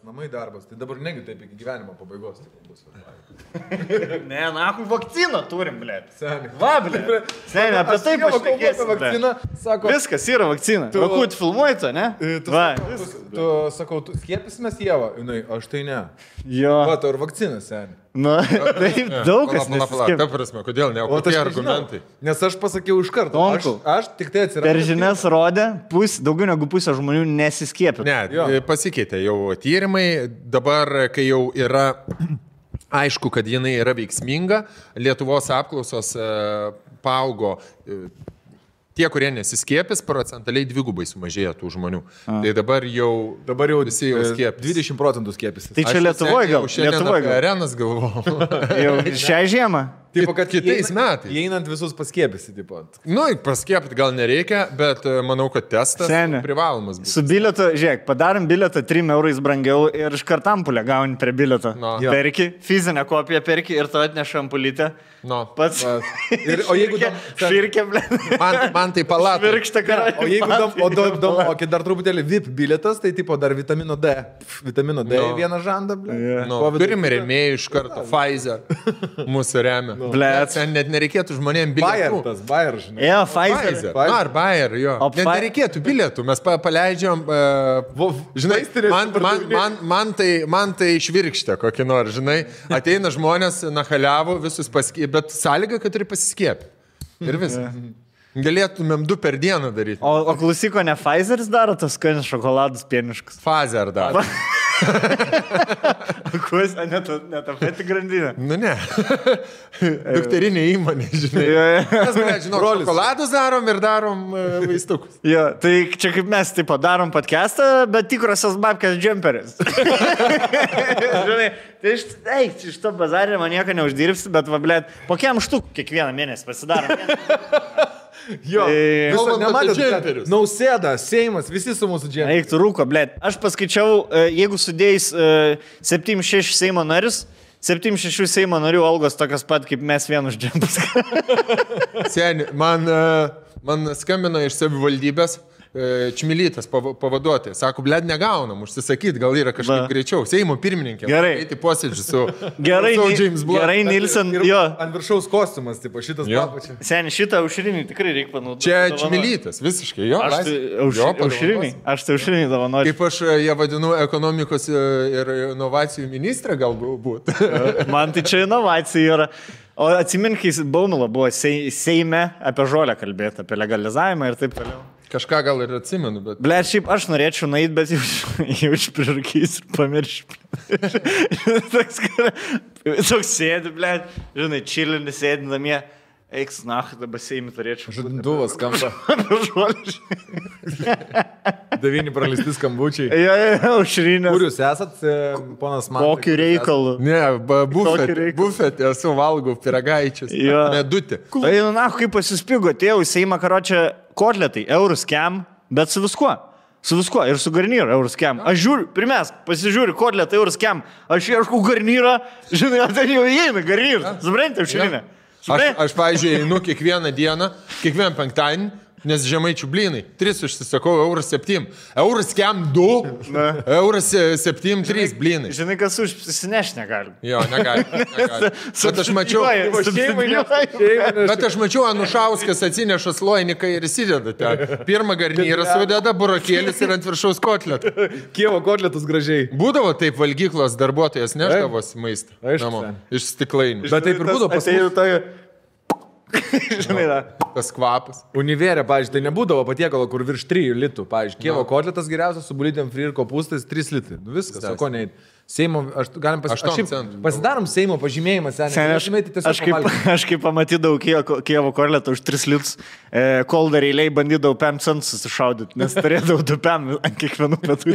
Namai darbas, tai dabar negi taip iki gyvenimo pabaigos bus. Ne, nakui vakciną turim, blėt. Seniai. Va, blėt. Seniai, apie tai pašnekėsim. Vakciną, sako, Viskas yra vakcina. Tu vakut filmuoji to, ne? Va, tu sakau, tu skiepysimės Ievą, jinai, aš tai ne. jo. Va, tau ir vakcina, seniai. Nu, taip daug kas Ta nesiskiepia. prasme, kodėl ne? O O kokie aš argumentai? nežinau, nes aš pasakiau iš karto. Tomku, Aš tik tai atsiradau. Per žinias rodė, daugiau negu pusė žmonių nesiskiepia. Ne, Jo. pasikeitė jau tyrimai, dabar, kai jau yra aišku, kad jinai yra veiksminga, Lietuvos apklausos paaugo. Tie, kurie nesiskiepis, procentaliai dvigubai sumažėjo tų žmonių. Tai dabar jau visi jau skiepis. 20% skiepys. Tai čia Lietuvoje gal? Lietuvoje gal. Arenas galvojau. Jau šią žiemą. Tipo, kad Kitais metais. Įeinant visus paskiepysi, tipo. Nu, paskiepti gal nereikia, bet manau, kad testas Seni. privalomas bus. Su bilietu, žiūrėk, padarom bilietą 3 eurais brangiau ir iš kartampulę gauni prie bilieto. No. Jo. Perki, fizinę kopiją perki ir tu atneša ampulytę. No. Pats. O jeigu Švirkė, blė. Man tai palatai. Virkštą karą. O jeigu kai dar truputėlį VIP bilietas, tai tipo dar vitamino D. Vitamino D No. vieną žandą, ble. Yeah. Nu, turime rėmėjų iš karto, Pfizer mūsų remia. Blet. Ten net nereikėtų žmonėms bilietų. Bayer, žinai. Jo, Pfizer. Pfizer. Na, ar Bayer, jo. O Net nereikėtų bilietų, mes paleidžiam, žinai, man tai švirkštė kokį nors, žinai, ateina žmonės, nahaliavo, visus paskiepė, bet sąlyga, kad turi pasiskiepti. Ir viskas. Galėtumėm 2 per dieną daryti. O klausyko, ne Pfizeris daro tos skanius šokoladus pieniškus? Pfizer dar. Kuo, ne ta pati grandinė. Nu ne. Dukterinė įmonė, žinai. Mes, žinau, šokoladus darom ir darom vaistukus. Jo, tai čia kaip mes taip padarom podcastą, bet tikrosios babkės džemperis. Žinai, tai iš to bazarį man nieko neuždirbsi, bet va, blėt, po kiam štuk kiekvieną mėnesį pasidarom. Jo, Kalbant apie nematėt, džemperius. Nausėda, Seimas, visi su mūsų džemperiu. Eik tu rūko, blėt. Aš paskaičiau, jeigu sudėjus 7-6 Seimo narius, 7-6 Seimo narių algos tokios pat, kaip mes vienus džempus. Seni, man skambino iš savivaldybės Čmilytas pavaduotojas. Sako, blėd, negaunam, užsisakyti, gal yra kažkaip greičiau. Seimo pirmininkė. Gerai. Eiti posėdžių su James Blunt. Gerai, Nilsen, jo. Ant viršaus kostiumas, tipo, šitas papačia. Seni, šitą aušrinį tikrai reikia panaudoti. Čia Čmilytas, visiškai, jo. Aušrinį? Aš tai aušrinį dovanosiu. Kaip aš ją vadinu ekonomikos ir inovacijų ministrė galbūt. Man tai čia inovacija yra. O atsimink, kai Baumila buvo Seime apie žolę kalbėti, apie legalizavimą ir taip toliau. Kažką gal ir atsimenu, bet... Ble, šiaip aš norėčiau nueiti, bet jau išprirūkys ir pamiršti. Toks sėdi, ble, žinai, čilinis sėdi namie. Eiks, dabar Seimį turėčiau. Žadintuvas skamba. Žolė. 9 praleisti skambučiai. Aušrinės. Kur jūs esat, ponas man? Kokiu reikalu. Ne, reikalas. bufetė, esu valgau piragaičius. Jo. Medutė. Tai, kaip pasispigo, atėjau į Seimą, karočią, kotletai, eurus kem, bet su viskuo. Su viskuo ir su garnyru eurus kem. Aš žiūriu, pirmiausia, pasižiūriu, kotletą eurus kem. Aš ieškau garnyrą, žinai, ten jau įeina garnyras. Suprantate, aušrinė. Aš pavyzdžiui, einu kiekvieną dieną, kiekvieną penktadienį, nes žemaičių blynai. 3 užsisakau, €7. €kem 2, €7, 3 blynai. Žinai, kas užsineš negali. Jo, negali. Bet aš mačiau, Anušauskas atsineša sloiniką ir įsideda ten. Pirmą garnyrą sudeda, burokėlis ir ant viršaus kotletą. Kievo kotletus gražiai. Būdavo taip, valgyklos darbuotojas neždavos maistą. Aišku, namo, sen. iš stiklainių. Bet taip ir būdavo pas mus. Žinai, da. Tas kvapas. Univerė, pavyzdžiui, tai nebūdavo patiekalo, kur virš 3 litų. Pavyzdžiui, Kievo kotletas geriausias su bulytėm fri ir kopūstais 3 litai. Nu viskas, o ko neįt. Seimo, galim pasidarom Seimo pažymėjimą, seniai. Aš kaip pamatydavau Kievo kotletą už 3 litus, kol dar eiliai bandydavau 5 centų susišaudyti, nes turėdavau 2 PM ant kiekvienų pietų.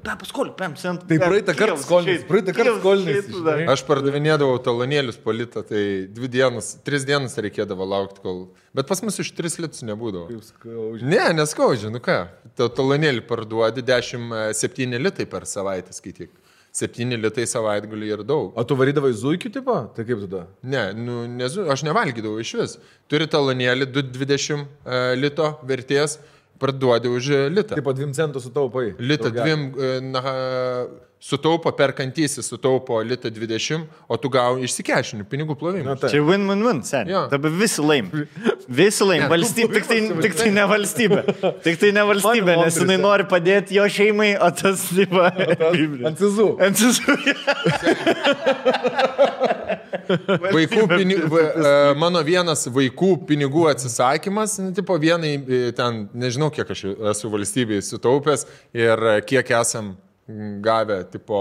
Dar paskoliu 5 centų. Tai praeitą kartą skolinais. Aš pardavinėdavau talonėlius po litą, tai 3 dienas reikėdavo laukti, kol... Bet pas mus iš 3 litus nebūdavo. Ne, neskaudžia, nu ką. Talonėlį parduodi 7 litai per savaitę skaityk. 7 litai savaitgalį ir daug. O tu varydavai zuikių tipo? Tai kaip tada? Ne, aš nevalgydavau iš vis. Turi talonėlį 2,20 lito vertės parduodi už litą. Taip, 2 centų sutaupai. Litą 2, sutaupo perkantysis, sutaupo litą 20, o tu gauni išsikešinių pinigų plovimą. Čia win-win-win, seniai. Dabar visi laim. Visi laim. Valstybė, tik tai ne valstybė. Tik tai ne valstybė, nes jinai nori padėti jo šeimai, o tas, tipo, ant cizų. Ant cizų. Vaikų pinigų, mano vienas vaikų pinigų atsisakymas, tipo vienai, ten, nežinau, kiek aš esu valstybėje sutaupęs ir kiek esam gavę, tipo,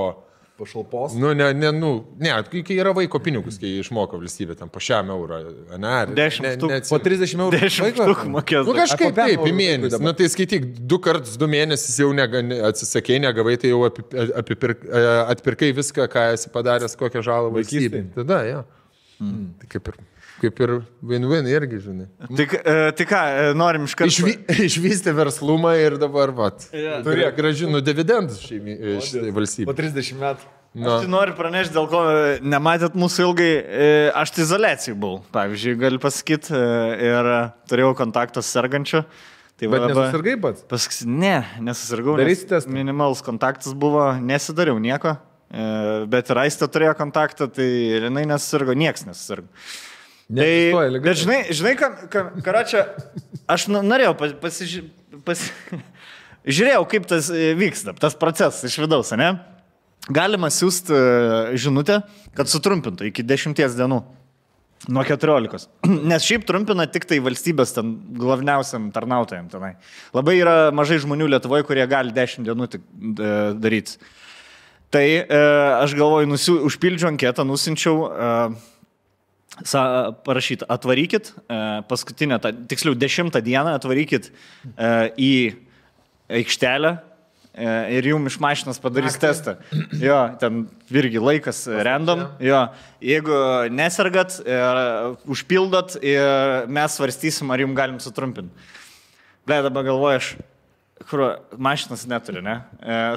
pašalpos. Kai yra vaiko pinigus, kai išmoka valstybė, ten po 100 eurą, ne? 10 štuk, po 30 eurų. 10 štuk mokės. Kažkaip taip, į mėnesį. Tai skaityk, 2 kartus 2 mėnesius jau atsisakei, negavai, tai jau atpirkai viską, ką esi padaręs, kokią žalą valstybė. Tada, jo. Tai kaip ir win-win irgi, žinai. Tai ką, norim iš karto. Išvystė verslumą ir dabar, gražinu dividendus šiai valstybė. Po 30 metų. Aš tai noriu pranešti, dėl ko nematėt mūsų ilgai. Aš tai izoliacijai buvau, pavyzdžiui, galiu pasakyti, ir turėjau kontaktą su sergančiu. Tai bet nesusirgai pats? Ne, nesusirgau. Minimalus kontaktas buvo, nesidariau nieko, bet ir Aistė turėjo kontaktą, tai jinai nesusirgo, nieks nesusirgo. Bet žinai, karočią, aš norėjau žiūrėjau, kaip tas vyksta, tas procesas iš vidaus, ne? Galima siūsti žinutę, kad sutrumpintų iki 10 dienų, nuo 14. Nes šiaip trumpina tik tai valstybės ten glavniausiam tarnautojam tenai. Labai yra mažai žmonių Lietuvoje, kurie gali 10 dienų tik daryti. Tai aš galvoju, užpildžiu anketą, nusinčiau parašyti, atvarykit paskutinę, tiksliau 10 dieną atvarykit į aikštelę ir jums iš mašinos padarys testą. Jo, ten irgi laikas random. Jo, jeigu nesergat, užpildot ir mes svarstysim, ar jums galim sutrumpinti. Ble, dabar galvoju aš, kur mašinas neturi, ne?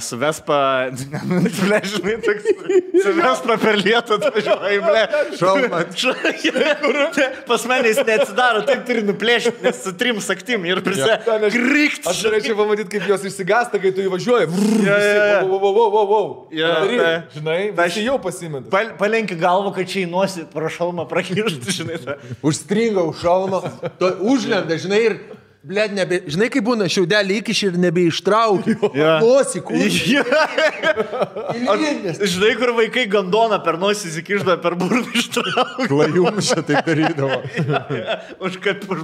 Su Vespa, ble, žinai, toks, su Vespa per lietų atvažiuoja, ble. Šalmat. Pas mane jis neatsidaro, taip turi nuplėšti, nes su 3 saktim ir krikt. Aš norėčiau pamatyti, kaip jos išsigasta, kai tu įvažiuoji. Žinai, visi jau pasimeta. Palenki galvą, kad čia įnosi pro šalmą prakišti, žinai. Užstringa už šalmą, užlenda, žinai, ir blėd, žinai, kaip būna, šiaudelį įkiši ir nebeištrauki. Nosį, kūrį. Žinai, kur vaikai gandoną per nosį įsikiždavo, per burną ištrauki. Klajums čia taip darydavo. Už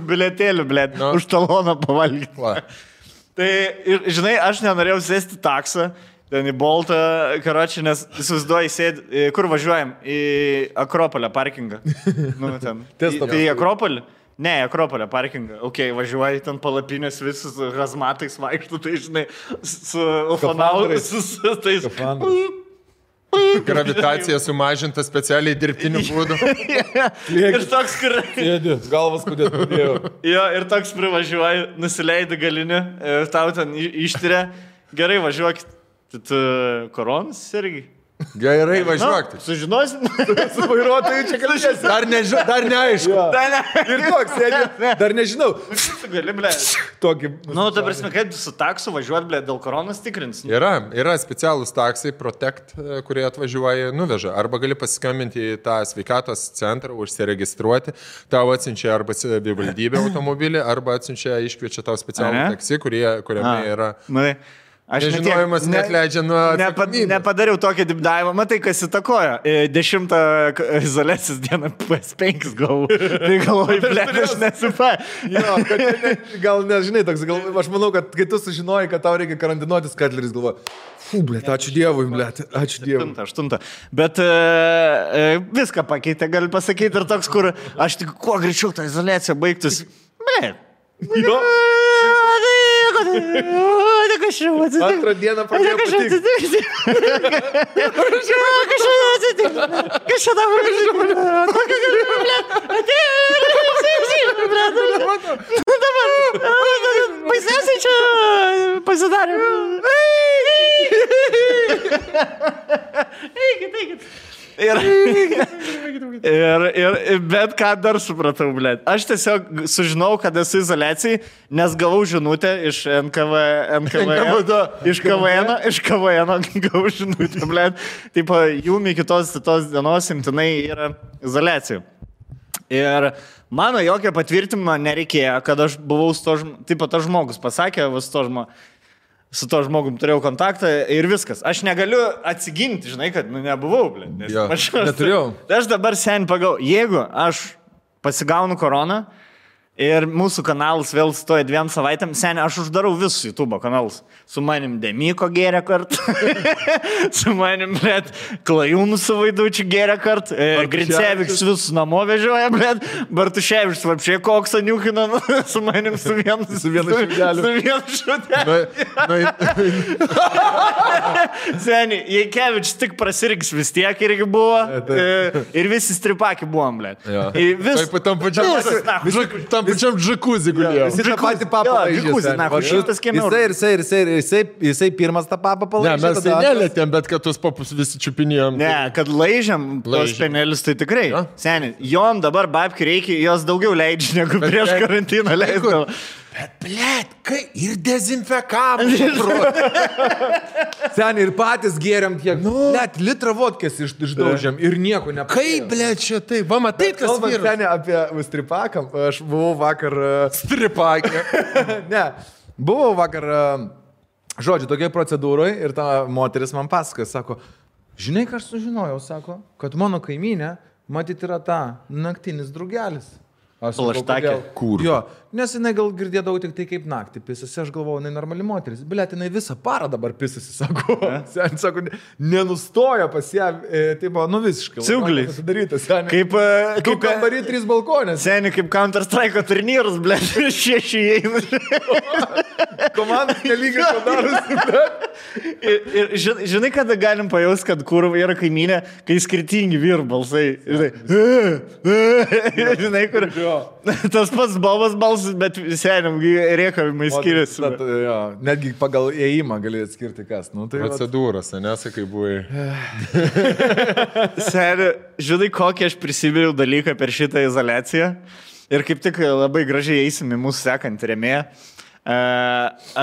bilietėlį, blėd, už taloną pavalgyti. Tai, žinai, aš nenorėjau sėsti taksą, ten į Boltą, karočią, nes įsivaizduoju, sėdi, kur važiuojam? Į Akropolę parkingą. Tai į Akropolį? Ne, Akropolė parkingą. Ok, važiuoji ten palapinės visus hazmatais vaikštų, tai žinai, su ufonautais, su tais... Gravitacija sumažinta specialiai dirbtiniu būdu. Ir toks, kur... Sėdi, galvas kodėl padėjau. Jo, ir toks privažiuoji, nusileidi galinį, tau ten ištiria. Gerai, važiuokit. Tu koronas irgi? Gerai, važiuok. Sužinosim. Su vairuotoju čia kalbėsi. Dar neaišku. Ir toks, sėdė, dar nežinau. Gali, ble. Tokį... Ta prasme, kaip su taksu važiuot, ble, dėl koronas tikrins? Yra specialūs taksai, Protect, kurie atvažiuoja, nuveža. Arba gali pasiskambinti į tą sveikatos centrą, užsiregistruoti. Tau atsiunčia arba savivaldybė automobilį, arba atsiunčia, iškviečia tau specialų taksi, kuriame yra... Aš nežinojimas neatleidžia nuo atsakomybės. Nepadariau tokį dipdavimą, matai, kas įtakoja. 10 izoliacijos dieną PS5 gavau. Tai galvoju, ble, aš nesupa. Gal nežinai, toks, aš manau, kad kai tu sužinoji, kad tau reikia karantinuotis, Katleris galvoja, ble, ačiū Dievui, ble, ačiū Dievui. 8. Bet viską pakeitė, gali pasakyti, ir toks, kur aš tik kuo greičiau tą izoliaciją baigtus. Ble. Jo. Antrą dieną pradėjo patikti. Kas čia dabar žinoma? Kokia galima, ble? Dabar, baisiausiai čia pasidarė. Eikit. Bet ką dar supratau, blėt. Aš tiesiog sužinau, kad esu izoliacijai, nes gavau žinutę iš NKVN, iš KVN gavau žinutę, blėt. Taip, jum iki tos dienos imtinai yra izoliacija. Ir mano jokio patvirtinimo nereikėjo, kad aš buvau su to žmogus, taip pat tas žmogus pasakė, su to žmogum turėjau kontaktą ir viskas. Aš negaliu atsiginti, žinai, kad nebuvau, blė. Aš neturėjau. Tai aš dabar sen pagau, jeigu aš pasigaunu koroną ir mūsų kanalas vėl stoja 2 savaitėm, sen aš uždarau visus YouTube kanalus. Su manim Demiko gėrė kart, su manim, blėt, Klajūnų su Vaidučiu gėrė kart, Grincevičius visus namo vežioja, blėt, Bartuševičius vapšiai koksą niukina, su manim su vienu šuteliu. Seni, Jaikevičius tik prasirgs vis tiek irgi buvo, ir visi stripaki buvom, blėt. Taip, tam pačiam džakuzį gulėjo. Jis tą patį papą Jisai pirmas tą papą palaižė. Ne, mes tai nelėtėm, bet kad tuos papus visi čiupinėjom. Ne, kad laižiam tos penelius, tai tikrai. Seni, jom dabar babki reikia, jos daugiau leidžia, negu prieš karantiną leisdavo. Bet, blėt, kai ir dezinfekavom. Seni, ir patys gėriam tiek. Blėt, litrą vodkės išdaužiam ir nieko nepasėjo. Kaip, blėt, čia tai? Va, matai, kas vyras. Seni, apie stripakam, aš buvau vakar... Stripakė. Ne, buvau vakar, žodžiu, tokiai procedūrai ir ta moteris man pasakoja, sako, žinai, ką aš sužinojau, sako, kad mano kaimynė, matyt, yra ta naktinis drugelis. Plaštakė. Kur? Jo, nes jinai gal girdėdavau tik tai kaip naktį pisasi, aš galvojau, jinai normali moteris. Blėt, jinai visą parą dabar pisasi, sako. Sen, sako, nenustoja pas ją, tai buvo, visiškai. Ciugliai. Kaip kambarį 3 balkonės. Seni, kaip Counter-Strike turnyrus, blėt, 6 įeina. Komandas nelygiai padarusi, blėt. Ir žinai, kada galim pajausti, kad kur yra kaimynė, kai skirtingi vyrų balsai. Žinai, kur... Tas pats Bobas balsas, bet seniam rėkavimai skiriasi. Netgi pagal ėjimą gali atskirti kas. Procedūros, nesakai buvai. Seniai, žinai, kokį aš prisiminiau dalyką per šitą izoliaciją. Ir kaip tik labai gražiai eisim į mūsų sekantį rėmėją.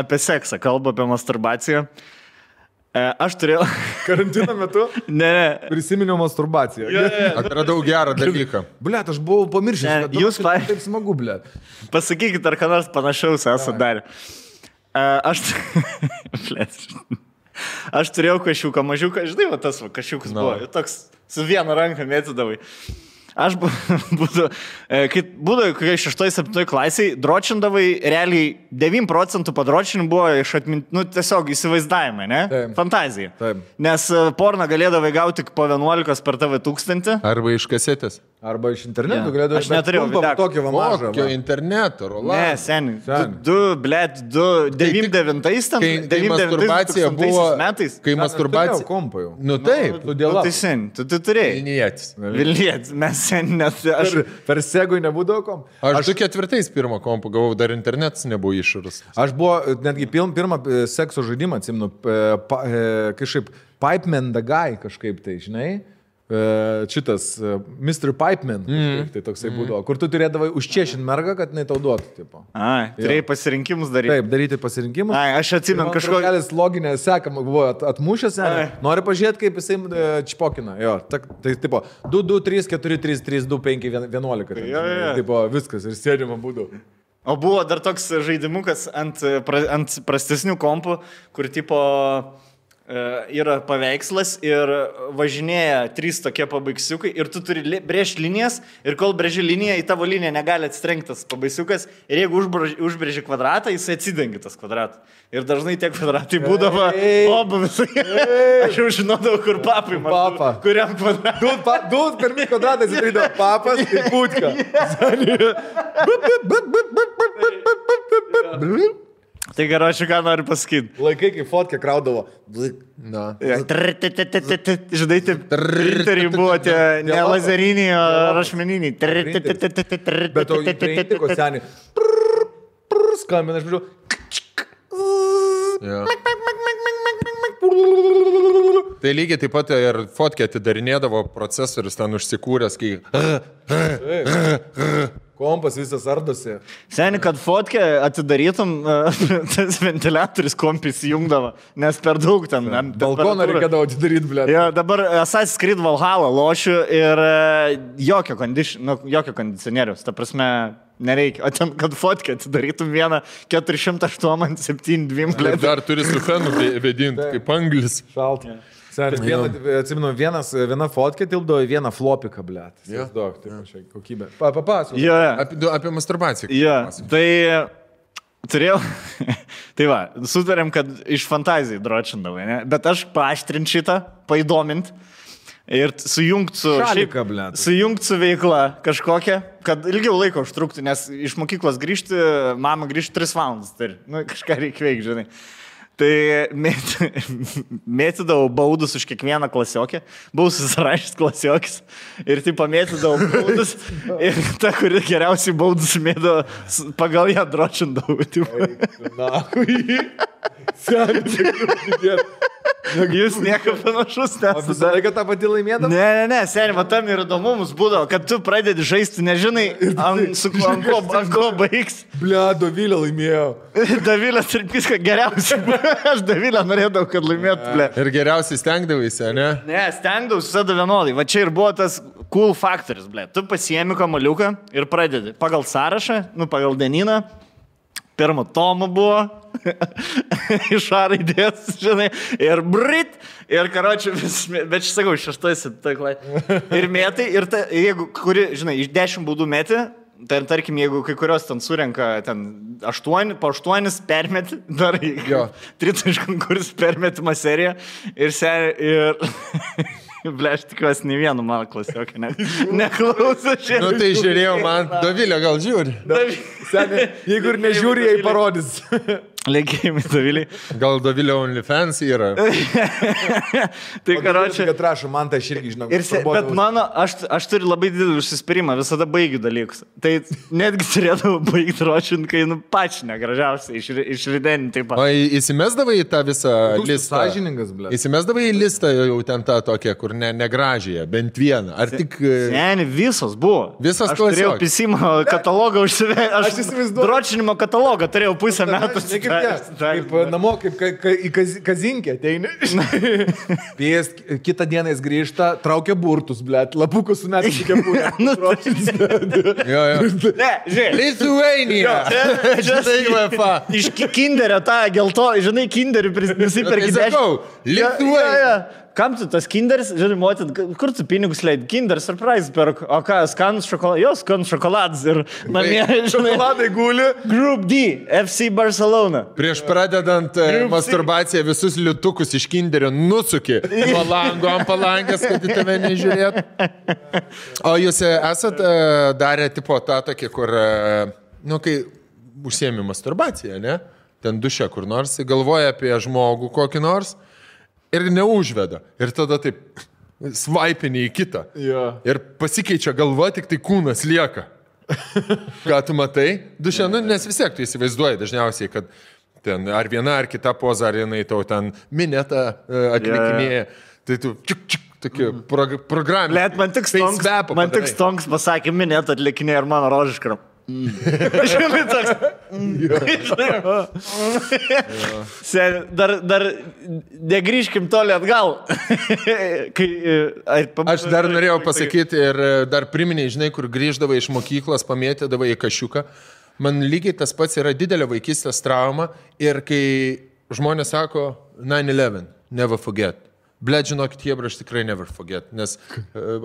Apie seksą, kalba apie masturbaciją. Aš turėjau... Karantino metu? Ne. Prisiminiau masturbaciją. Atradau gerą dalyką. Blet, aš buvau pamiršęs. Jūs taip smagu, blet. Pasakykit, ar ką nors panašaus esate darę. Aš turėjau kašiuką, mažiuką, žinai, va tas va, kašiukas buvo. Toks su viena ranka mėtydavai. Aš būdavau, kai 6-7 klasiai, dročindavai, realiai 9% padročinimų buvo iš tiesiog įsivaizdavimai, ne? Taip. Fantazija. Taip. Nes porną galėdavai gauti po 11 per tave 1000. Arba iš kasetės. Arba iš interneto galėdavai. Aš neturėjau tokio vamažą. Kokio interneto, Roland? Ne, seniai. 99 tam. Kai masturbacija buvo... Kai masturbacija... Kompą jau. Nu taip. Tai seniai, tu turėjai. Vilnietis. Vilnietis, mes seniai, nes aš... Per segui nebūdavo kompą. Aš 2004 pirmą kompą gavau, dar internetas nebuvo iššūrus. Aš buvo netgi pirmą sekso žaidimą, atsimenu, kažkaip Pipeman the Guy kažkaip tai, žinai. Šitas Mr. Pipeman, tai toksai būdavo, kur tu turėdavai užčiešinti mergą, kad jinai tau duotų. Tipo. Turėjai pasirinkimus daryti. Taip, daryti pasirinkimus. Aš atsimenu kažkokį... Kažkokia loginė seka buvo atmušęs, nori pažiūrėti, kaip jisai čpokina. Jo, tai tipo 2, 2, 3, 4, 3, 3, 2, 5, 11. Tipo viskas ir sėdima būdavo. O buvo dar toks žaidimukas ant prastesnių kompų, kur tipo... yra paveikslas ir važinėja 3 tokie pabaigsiukai ir tu turi brėžti linijas ir kol brėži liniją, į tavo liniją negali atsitrenktas pabaigsiukas ir jeigu užbrėži kvadratą, jis atsidengia tas kvadratą. Ir dažnai tie kvadratai būdavo obuvis. Aš jau žinodavau, kur papai man. Papa. Kuriam kvadratui. Du pirmi kvadratai atsidarydavo papas ir putka. Tai gerai, ką noriu pasakyti. Laikai, kai fotkę kraudavo. Na. Žinai, taip, printeriai buvo tie ne lazeriniai, o rašmeniniai. Bet to įprintiko seniai. Skambina, aš žiūrėjau. Tai lygiai taip pat ir fotkę atidarinėdavo procesorius ten užsikūręs, kai... Kompas visas ardosi. Seni, kad fotkę atidarytum, tas ventiliatorius kompis įjungdavo, nes per daug ten. Balkoną reikėdavo atidaryti, blė. Jo, dabar Assassin's Creed Valhalla lošiu ir jokio kondicionieriaus, ta prasme, nereikia. O ten, kad fotkę atidarytum vieną 408-72, blė. Dar turi su fenu vedinti, kaip anglis. Šalta. Atsimenu, viena fotkė tilpdavo į vieną flopiką, blėt. Daug, tai kokybė. Papasakok. Apie masturbaciją. Tai turėjau, tai va, sutarėm, kad iš fantazijų dročindavai, ne? Bet aš paaštrint šitą, paįdomint ir sujungt su veikla kažkokia, kad ilgiau laiko užtruktų, nes iš mokyklos grįžti, mama grįžti 3 valandas, tai kažką reikia veikti, žinai. Tai mėtydavau baudus už kiekvieną klasiokę, buvau susirašęs klasiokis ir tai pamėtydavau baudus ir ta, kuri geriausiai baudus mėdavo, pagal ją dročindavau. Na, kui. Jūs nieko panašus nesate. Visą laiką tą patį laimėdavau? Ne, seniai, va tam ir įdomumus būdavo, kad tu pradedi žaisti, nežinai, ant ko baigs. Ble, Dovilė laimėjo. Dovilė Sirpiska geriausiai buvo. Aš Dovilę norėdavau, kad laimėtų, ble. Ir geriausiai stengdavaisi, ne? Ne, stengdavausi visada vienodai. Va čia ir buvo tas cool faktorius, ble. Tu pasiemi kamaliuką ir pradedi. Pagal sąrašą, pagal dienyną. Pirmo tomo buvo, iš A raidės, žinai, ir brit, ir karočiui vis, bet aš sakau, 6-7, ir mėtai, ir ta, jeigu, kuri, žinai, iš 10 baudų mėti, tai tarkim, jeigu kai kurios ten surenka ten 8, po 8 permeti, dar 3 konkursų permetimo seriją, ir ble, aš tikiuosi, nei vienu mano klasiokį neklauso šiandien. Nu tai žiūrėjau, man Dovilė gal žiūri. Seniai, jeigu ir nežiūri, jai parodys. Linkėjimai Dovilį. Gal Dovilė OnlyFans yra. Tai karočiui. Kad rašo, man tai aš irgi žinau. Bet mano, aš turiu labai didelį užsispyrimą, visada baigiu dalykus. Tai netgi turėdavau baigti ročint, kai pačiu negražiausiai išrideninti taip pat. O įsimesdavai į tą visą listą? Sąžiningas, ble. Įsimesdavai į listą jau ten tą tokią, kur negražiąją, bent vieną. Ar tik... Seni, visos buvo. Visas klasiok. Aš turėjau pisimo katalogą užsivežti. Aš įsivaizduoju. Dročinimo katalogą turėjau pusę metų. Kaip namo, kaip į kazinkę ateini. Kitą dieną jis grįžta, traukia burtus, blėt, lapukus su metais kepurė. Ne, žiūrėk. Lithuania. Iš kinderio tą gelto, žinai, kinderį nusipirki 10. Lithuania. Kam tu tas kinderis, žinai, motin, kur tu pinigus leid? Kinder surprise perk, o ką, skanus šokoladas? Jo, skanus šokoladas ir namie, žinai. Šokoladai guli. Group D, FC Barcelona. Prieš pradedant masturbaciją visus liutukus iš kinderio nusuki nuo lango ant palangės, kad į tave nežiūrėt. O jūs esat darę tipo tą tokį, kur, kai užsiemi masturbaciją, ne? Ten duše kur nors, galvoja apie žmogų kokį nors. Ir neužveda. Ir tada taip svaipini į kitą. Ir pasikeičia galva, tik tai kūnas lieka. Ką tu matai? Duše, nes vis tiek tu įsivaizduoji dažniausiai, kad ten ar viena ar kita poza, ar jinai tau ten minetą atlikinėja. Tai tu tokia programė. Let, man tik stonks pasakė minetą atlikinėja ir mano rožiškara. Žinai, toks. Dar negrįžkim toli atgal. Aš dar norėjau pasakyti ir dar priminiai, žinai, kur grįždavai iš mokyklos, pamėtėdavai į kašiuką. Man lygiai tas pats yra didelė vaikystės trauma ir kai žmonės sako 9/11, never forget. Blet, žinokit, jie aš tikrai never forget, nes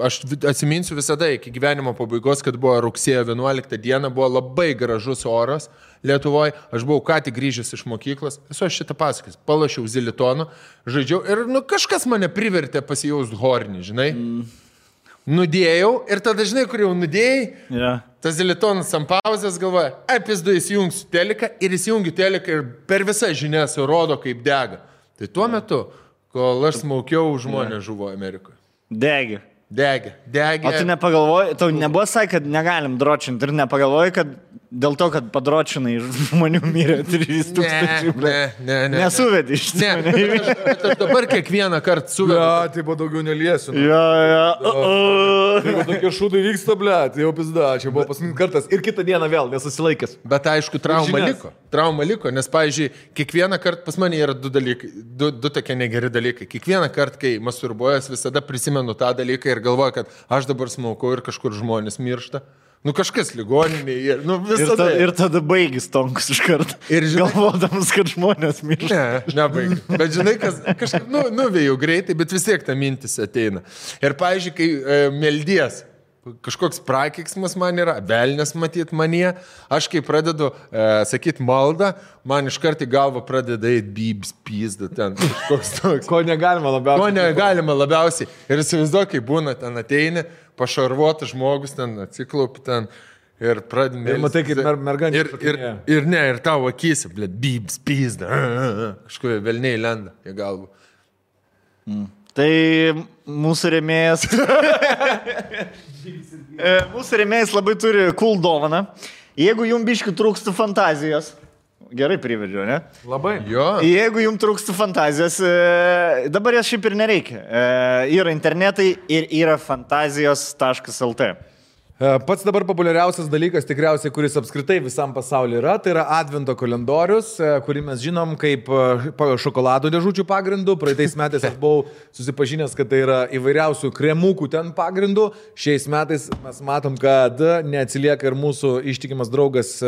aš atsiminsiu visada iki gyvenimo pabaigos, kad buvo rugsėjo 11 dieną, buvo labai gražus oras Lietuvoje, aš buvau ką tik grįžęs iš mokyklos, esu aš šitą pasakęs, palašiau zilitoną, žaidžiau ir kažkas mane privertė pasijausti hornį, žinai. Nudėjau ir tada, žinai, kur jau nudėjai, tas zilitonas ant pauzės galvoja, pizdu įsijungsiu teliką ir įsijungiu teliką ir per visą žinias rodo, kaip dega. Tai tuo metu, kol aš smaukiau, žmonės žuvo Amerikoje. Degė. Degė. O tu nepagalvoji, tau nebuvo sakai, kad negalim dročinti ir nepagalvoji, kad Dėl to, kad padročinai žmonių mirė 3000. Nesuvedi iš ne. Aš dabar kiekvieną kartą suvedu. Ja, tai buvo daugiau neliesiu. Tai tokie šūdai vyksta, blėt, jau pizda, čia buvo paskutinis kartas ir kitą dieną vėl nesusilaikęs. Bet aišku, trauma liko, nes, pavyzdžiui, kiekvieną kartą pas mane yra du dalykai, du tokie negeri dalykai. Kiekvieną kartą, kai masturbuojas, visada prisimenu tą dalyką ir galvoju, kad aš dabar smaukau ir kažkur žmonės miršta. Nu kažkas ligoninėje, nu visada. Ir tada baigis tonkus iš karto. Ir galvodamas, kad žmonės miršta. Nebaigis. Bet žinai, kažkaip nuvėjau greitai, bet vis tiek ta mintis ateina. Ir, pavyzdžiui, kai meldies, kažkoks prakeiksmas man yra, velnės matyt manie, aš kai pradedu sakyti maldą, man iš karto į galvą pradeda eiti bybs, pizda ten. Toks. Ko negalima labiausiai. Ir įsivaizduoju, kai būna ten ateini, pašarvuotas žmogus ten atsiklaupi ten ir pradėmė. Ir matai, kaip merganė. Ir tavo akysi, blėt, bybs, pizda. Kažkuo velniai lenda į galvą. Tai mūsų rėmėjas. Mūsų rėmėjas labai turi cool dovaną. Jeigu jums biškių trūksta fantazijos. Gerai privedžiu, ne? Labai. Jo. Jeigu jums trūksta fantazijos, dabar jas šiaip ir nereikia. Yra internetai ir yra fantazijos.lt. Pats dabar populiariausias dalykas tikriausiai, kuris apskritai visam pasaulyje yra, tai yra Advento kalendorius, kurį mes žinom kaip šokolado dėžučių pagrindų. Praeitais metais aš buvau susipažinęs, kad tai yra įvairiausių kremukų ten pagrindų. Šiais metais mes matom, kad neatsilieka ir mūsų ištikimas draugas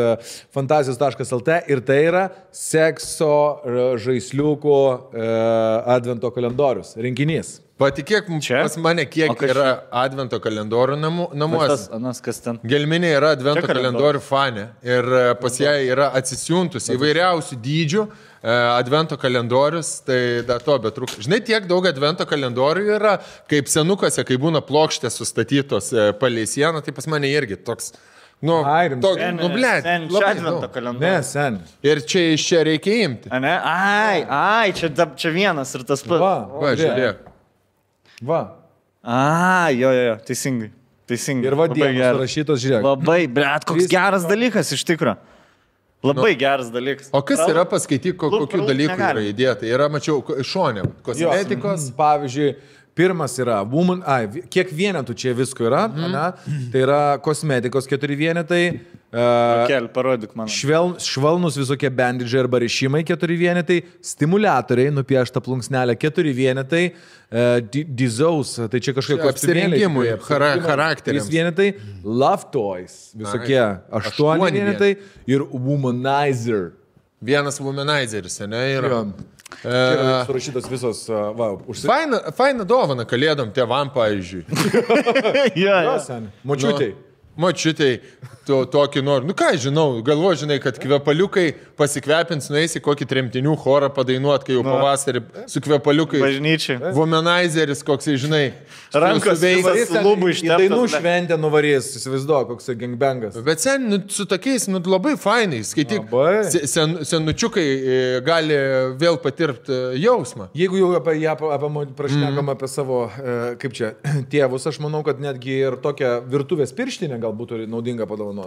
fantazijos.lt ir tai yra sekso žaisliukų Advento kalendorius rinkinys. Patikėk, pas mane kiek yra Advento kalendorių namuose. Kas ten? Gelminė yra Advento kalendorių fanė ir pas ją yra atsisiuntus įvairiausių dydžių Advento kalendorius, tai da to betrūksta. Žinai, tiek daug Advento kalendorių yra, kaip senukose, kai būna plokštės sustatytos palei sieną, tai pas mane irgi toks... blėt. Advento kalendorius. Sen. Ir čia iš čia reikia imti. Čia vienas ir tas pats. Va, žiūrėk. Va. Jo, teisingai. Ir vadienas rašytos, žiūrėk. Labai, blėt, koks geras dalykas iš tikro. Labai geras dalykas. O kas yra, paskaityk, kokių dalykų yra įdėta? Yra, mačiau, šonė, kosmetikos. Pavyzdžiui, pirmas yra kiek vienetų čia visko yra, tai yra kosmetikos 4 vienetai. Parodyk man. Švelnus visokie bandidžiai arba rišimai 4 vienetai, stimuliatoriai, nupiešta plunksnelė 4 vienetai, dizaus, tai čia kažkokie apsirengimui, charakteriams 3 vienetai, love toys, visokie 8 vienetai ir womanizer. Vienas womanizeris, ne, yra. Surašytos visos, Faina dovana kalėdom tėvam, pavyzdžiui. Močiutei tokį noriu. Nu ką, žinau, galvoju, žinai, kad kvepaliukai pasikvepins, nueisi kokį tremtinių chorą padainuot, kai jau pavasarį su kvepaliukai. Bažnyčiai. Womanizeris, koksai, žinai, rankos veisas, lubų išteptas. Dainų šventę nuvarys, įsivaizduoju, koksai gangbangas. Bet sen, su tokiais, labai fainai, skaityk, senučiukai gali vėl patirti jausmą. Jeigu jau prašnekam apie savo, kaip čia, tėvus, aš manau, kad netgi ir tokią virtuvės pirštinę gal būtų naudinga padovanoti.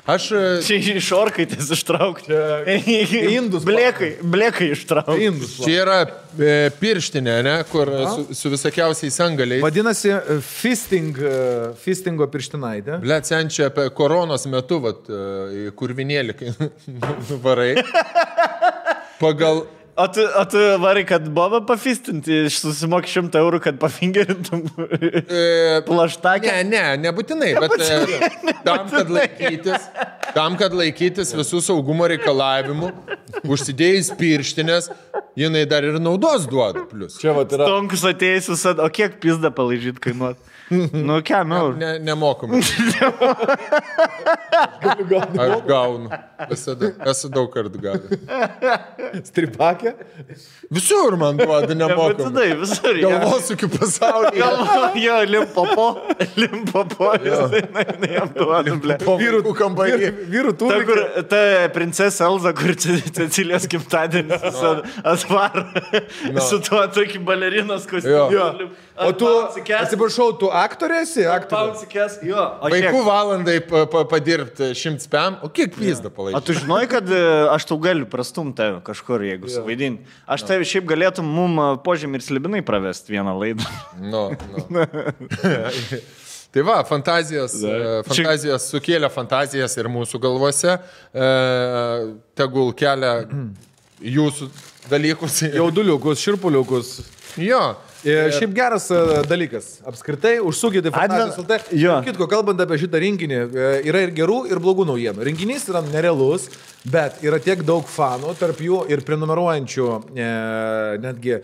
Aš... Čia iš orkaitės ištraukti. Indus. Blekai ištraukti. Čia yra pirštinė, ne, kur su visokiausiais angaliais. Vadinasi, fistingo pirštinaitė. Blet, sen čia apie koronos metu, kurvinėlį, kai nuvarai. Pagal... O tu varai, kad bobą pafistinti, susimoki 100 eurų, kad pafingerintum plaštakę? Nebūtinai, bet tam, kad laikytis visų saugumo reikalavimų, užsidėjus pirštinės, jinai dar ir naudos duoda plius. Čia vat yra. Stonkus atėjus visad, o kiek pizdą palaižyt kainuot? Nu, kiam eurų? Nemokamai. Aš gaunu. Visada. Esu daug kartų gavęs. Stripakę? Visur man duoda nemokamai. Visur. Galvosiu pasaulyje. Jo, limpopo. Jam duoda, ble. Vyrų kambarį. Vyrų turi. Ta, kur, ta princesė Elza, kur Cecilijos gimtadienis atvaro. Su tuo tokį balerinos kostiumu. O tu, atsiprašau, tu aktorėsi, Pausikės, jo. Vaikų valandai padirbti 100 pam, o kiek pizda palaikyti? O tu žinai, kad aš tau galiu prastumti kažkur, jeigu suvaidinti. Aš tai šiaip galėtum mum Požemį ir Slibinai pravesti vieną laidą. No. Tai va, fantazijos sukėlė fantazijas ir mūsų galvose, tegul kelia jūsų dalykus. Jauduliukus, širpuliukus. Jo. Šiaip geras dalykas. Apskritai, užsukite fantazijos LT. Kitko, kalbant apie šitą rinkinį, yra ir gerų, ir blogų naujienų. Rinkinys yra nerealus, bet yra tiek daug fanų, tarp jų ir prenumeruojančių netgi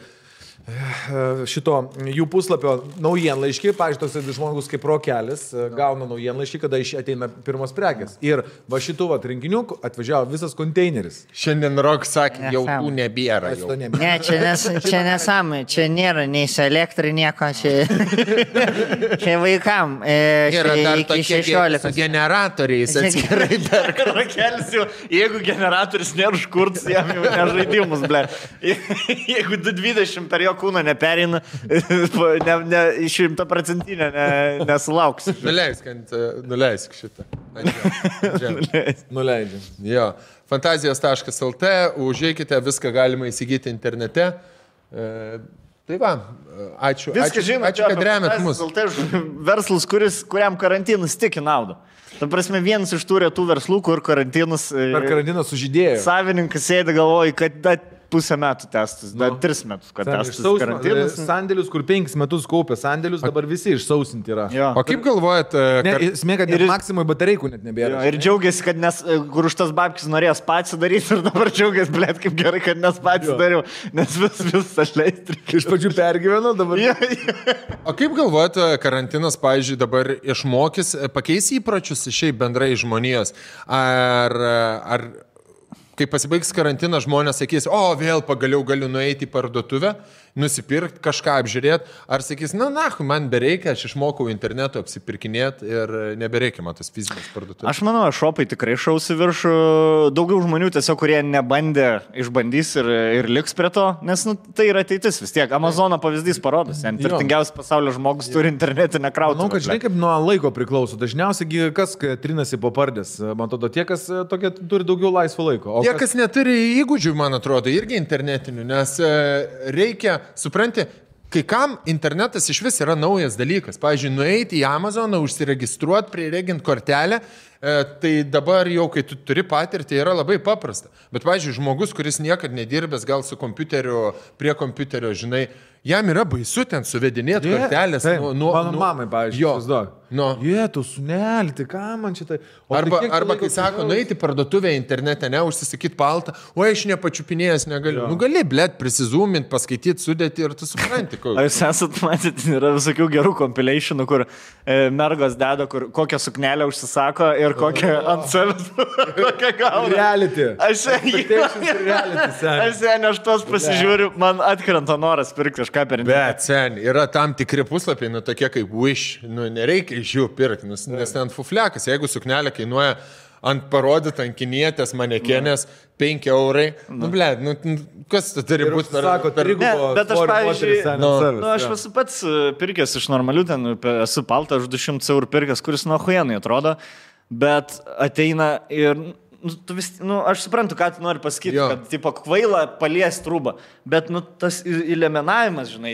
šito jų puslapio naujienlaiškį, pavyzdžiui, toks žmogus kaip Rokelis gauna naujienlaiškį, kada ateina pirmos prekės. Ir va šitų rinkinių atvažiavo visas konteineris. Šiandien Rok sakė, jau tų nebėra. Ne, čia nesąmonė, čia nėra nei su elektrai nieko, čia vaikam. Yra dar tokie 16 generatoriais atskirai perka. Rokelis jau, jeigu generatorius nėra užkurts, jam jau nežaidimus, ble. Jeigu 220 per jo kūną neperina, 100% nesulauks. Nuleisk šitą. Nuleidžiam. Jo. Fantazijos.lt, užeikite, viską galima įsigyti internete. Tai va, ačiū, kad remiat mus. Verslas, kuriam karantinas tik į naudą. Ta prasme, vienas iš tų retų verslų, kur karantinas... Per karantiną sužydėjo. Savininkas sėdi galvoja, kad pusę metų testas, dar 3 metus, kad testas karantinas. Sandėlius, kur 5 metus kaupė sandėlius, dabar visi išsausinti yra. Jo. O kaip galvojat... Smėga, kad Maksimui batareikų net nebėra. Ir džiaugiasi, kad kur už tas babkis norėjo spatį daryti ir dabar džiaugiasi, blėt, kaip gerai, kad nespatį dariau, nes vis aš leistrikiu. Iš pačių pergyvenu dabar. O kaip galvojat, karantinas, pavyzdžiui, dabar išmokys, pakeis įpročius šiaip bendrai žmonijos? Ar kai pasibaigs karantinas, žmonės sakys, vėl pagaliau galiu nueiti į parduotuvę, nusipirkti, kažką apžiūrėti, ar sakys, man bereikia, aš išmokau internetu apsipirkinėti ir nebereikia man tas fizinės parduotuvės. Aš manau, šopai tikrai šausi viršų, daugiau žmonių tiesiog, kurie nebandė, išbandys ir liks prie to, nes tai yra ateitis vis tiek. Amazono pavyzdys parodos, turtingiausias pasaulio žmogus turi internetinę krautuvę. Manau, kad žinai, kaip nuo laiko priklauso. Dažniausiai kas trinasi po pardės. Man atrodo, tie, kas turi daugiau laisvo laiko. Tie, kas neturi įgūdžių, man atrodo, irgi internetinių, nes reikia, supranti, kai kam internetas iš vis yra naujas dalykas. Pavyzdžiui, nueiti į Amazoną, užsiregistruoti, priregint kortelę, tai dabar jau, kai tu turi patirtį, yra labai paprasta. Bet, pavyzdžiui, žmogus, kuris niekad nedirbęs, gal su kompiuteriu, prie kompiuterio, žinai, jam yra baisu ten suvedinėti kortelės. Mano mamai, pavyzdžiui, tu sunelį, tai ką man šitai... Arba kai sako, nueiti parduotuvę internete, užsisakyti paltą, aš nepačiupinėjęs negaliu. Gali, blėt, prisizūminti, paskaityti, sudėti ir tu supranti. Jūs esat matyti, yra visokių gerų compilationų, kur mergos deda, kur kokią suknelę užsisako ir kokią ant savęs, kokią gauna. Reality. Aš tuos pasižiūriu, man atkrenta noras pirkti kažką per internetą. Bet, sen, yra tam tikri puslapiai, tokie kaip Wish, nereikia iš jų pirkti, nes ten fuflekas, jeigu suknelė kainuoja ant parodytą ant kinietės manekenės 5 eurai, kas tai turi būti per bet aš, pavyzdžiui, aš esu pats pirkęs iš normalių, ten esu paltą už 200 eurų pirkęs, kuris nuo huienai atrodo, bet ateina ir aš suprantu, ką tu nori pasakyti, kad tipo kvaila palies trūbą, bet tas įlemenavimas, žinai,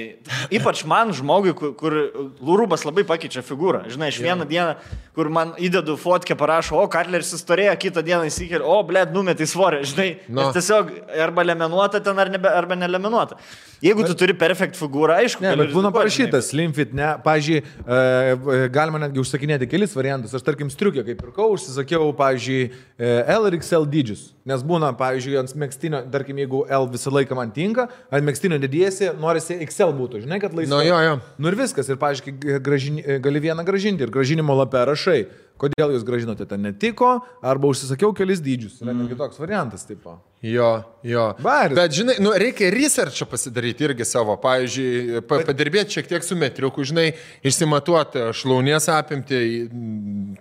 ypač man žmogui, kur rūbas labai pakeičia figūrą, žinai, aš vieną dieną, kur man įdedu fotkę, parašo, Katleris įstorėjo, kitą dieną įsikėlė, numetai svorį, žinai, nes tiesiog arba lemenuota ten arba neleminuota. Jeigu tu turi perfekt figūrą, aišku, bet būna parašyta slim fit, ne, pavyzdžiui, galima netgi užsakinėti kelis variantus, aš tarkim striukę, kaip pirkau, užsisakiau, pavyzdžiui, L ir XL dydžius, nes būna, pavyzdžiui, ant megztinio, tarkim, jeigu L visą laiką man tinka, ant megztinio didėsi, norisi XL būtų, žinai, kad laisvai. Ir viskas, ir, pavyzdžiui, gali vieną gražinti ir gražinimo lapę rašai, kodėl jūs gražinote, ten netiko, arba užsisakiau kelis dydžius. Yra netgi toks variantas, tipo. Jo. Baris. Bet, žinai, reikia researchą pasidaryti irgi savo. Pavyzdžiui, padirbėti šiek tiek su metriuku, žinai, išsimatuoti šlaunies apimti,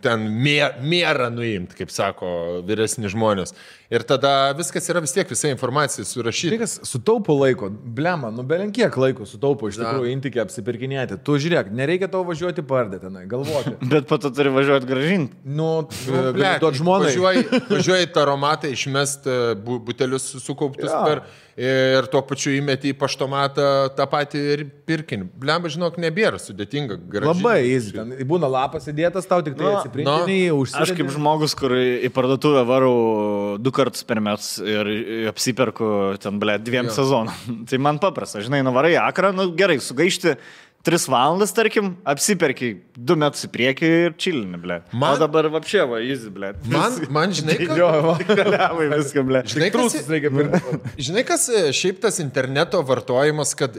ten mėrą nuimti, kaip sako vyresni žmonės. Ir tada viskas yra vis tiek, visa informacija surašyta. Tai kas sutaupo laiko, blema, belenkiek laiko sutaupo iš tikrųjų intikį apsipirkinėti. Tu žiūrėk, nereikia tau važiuoti pardė tenai, galvoti. Bet po to turi važiuoti gražinti. Duot žmonai. Važiuoji taromatą išmest butelius sukauptus ir tuo pačiu įmeti į paštomatą tą patį ir pirkinį. Blemba, žinok, nebėra sudėtinga. Gražinti. Labai easy. Ten būna lapas įdėtas, tau tik tai atsiprinkinį, užsidedi. Aš kaip žmogus, kur į parduotuvę varau 2 kartus per metus ir apsiperku ten, 2 sezonų. Tai man paprasta, žinai, nuvarai akrą, gerai, sugaišti 3 valandas, tarkim, apsiperki 2 metus į priekį ir čilini, ble. O dabar vapšė, easy, ble. Man žinai, žinai, kas šiaip tas interneto vartojimas, kad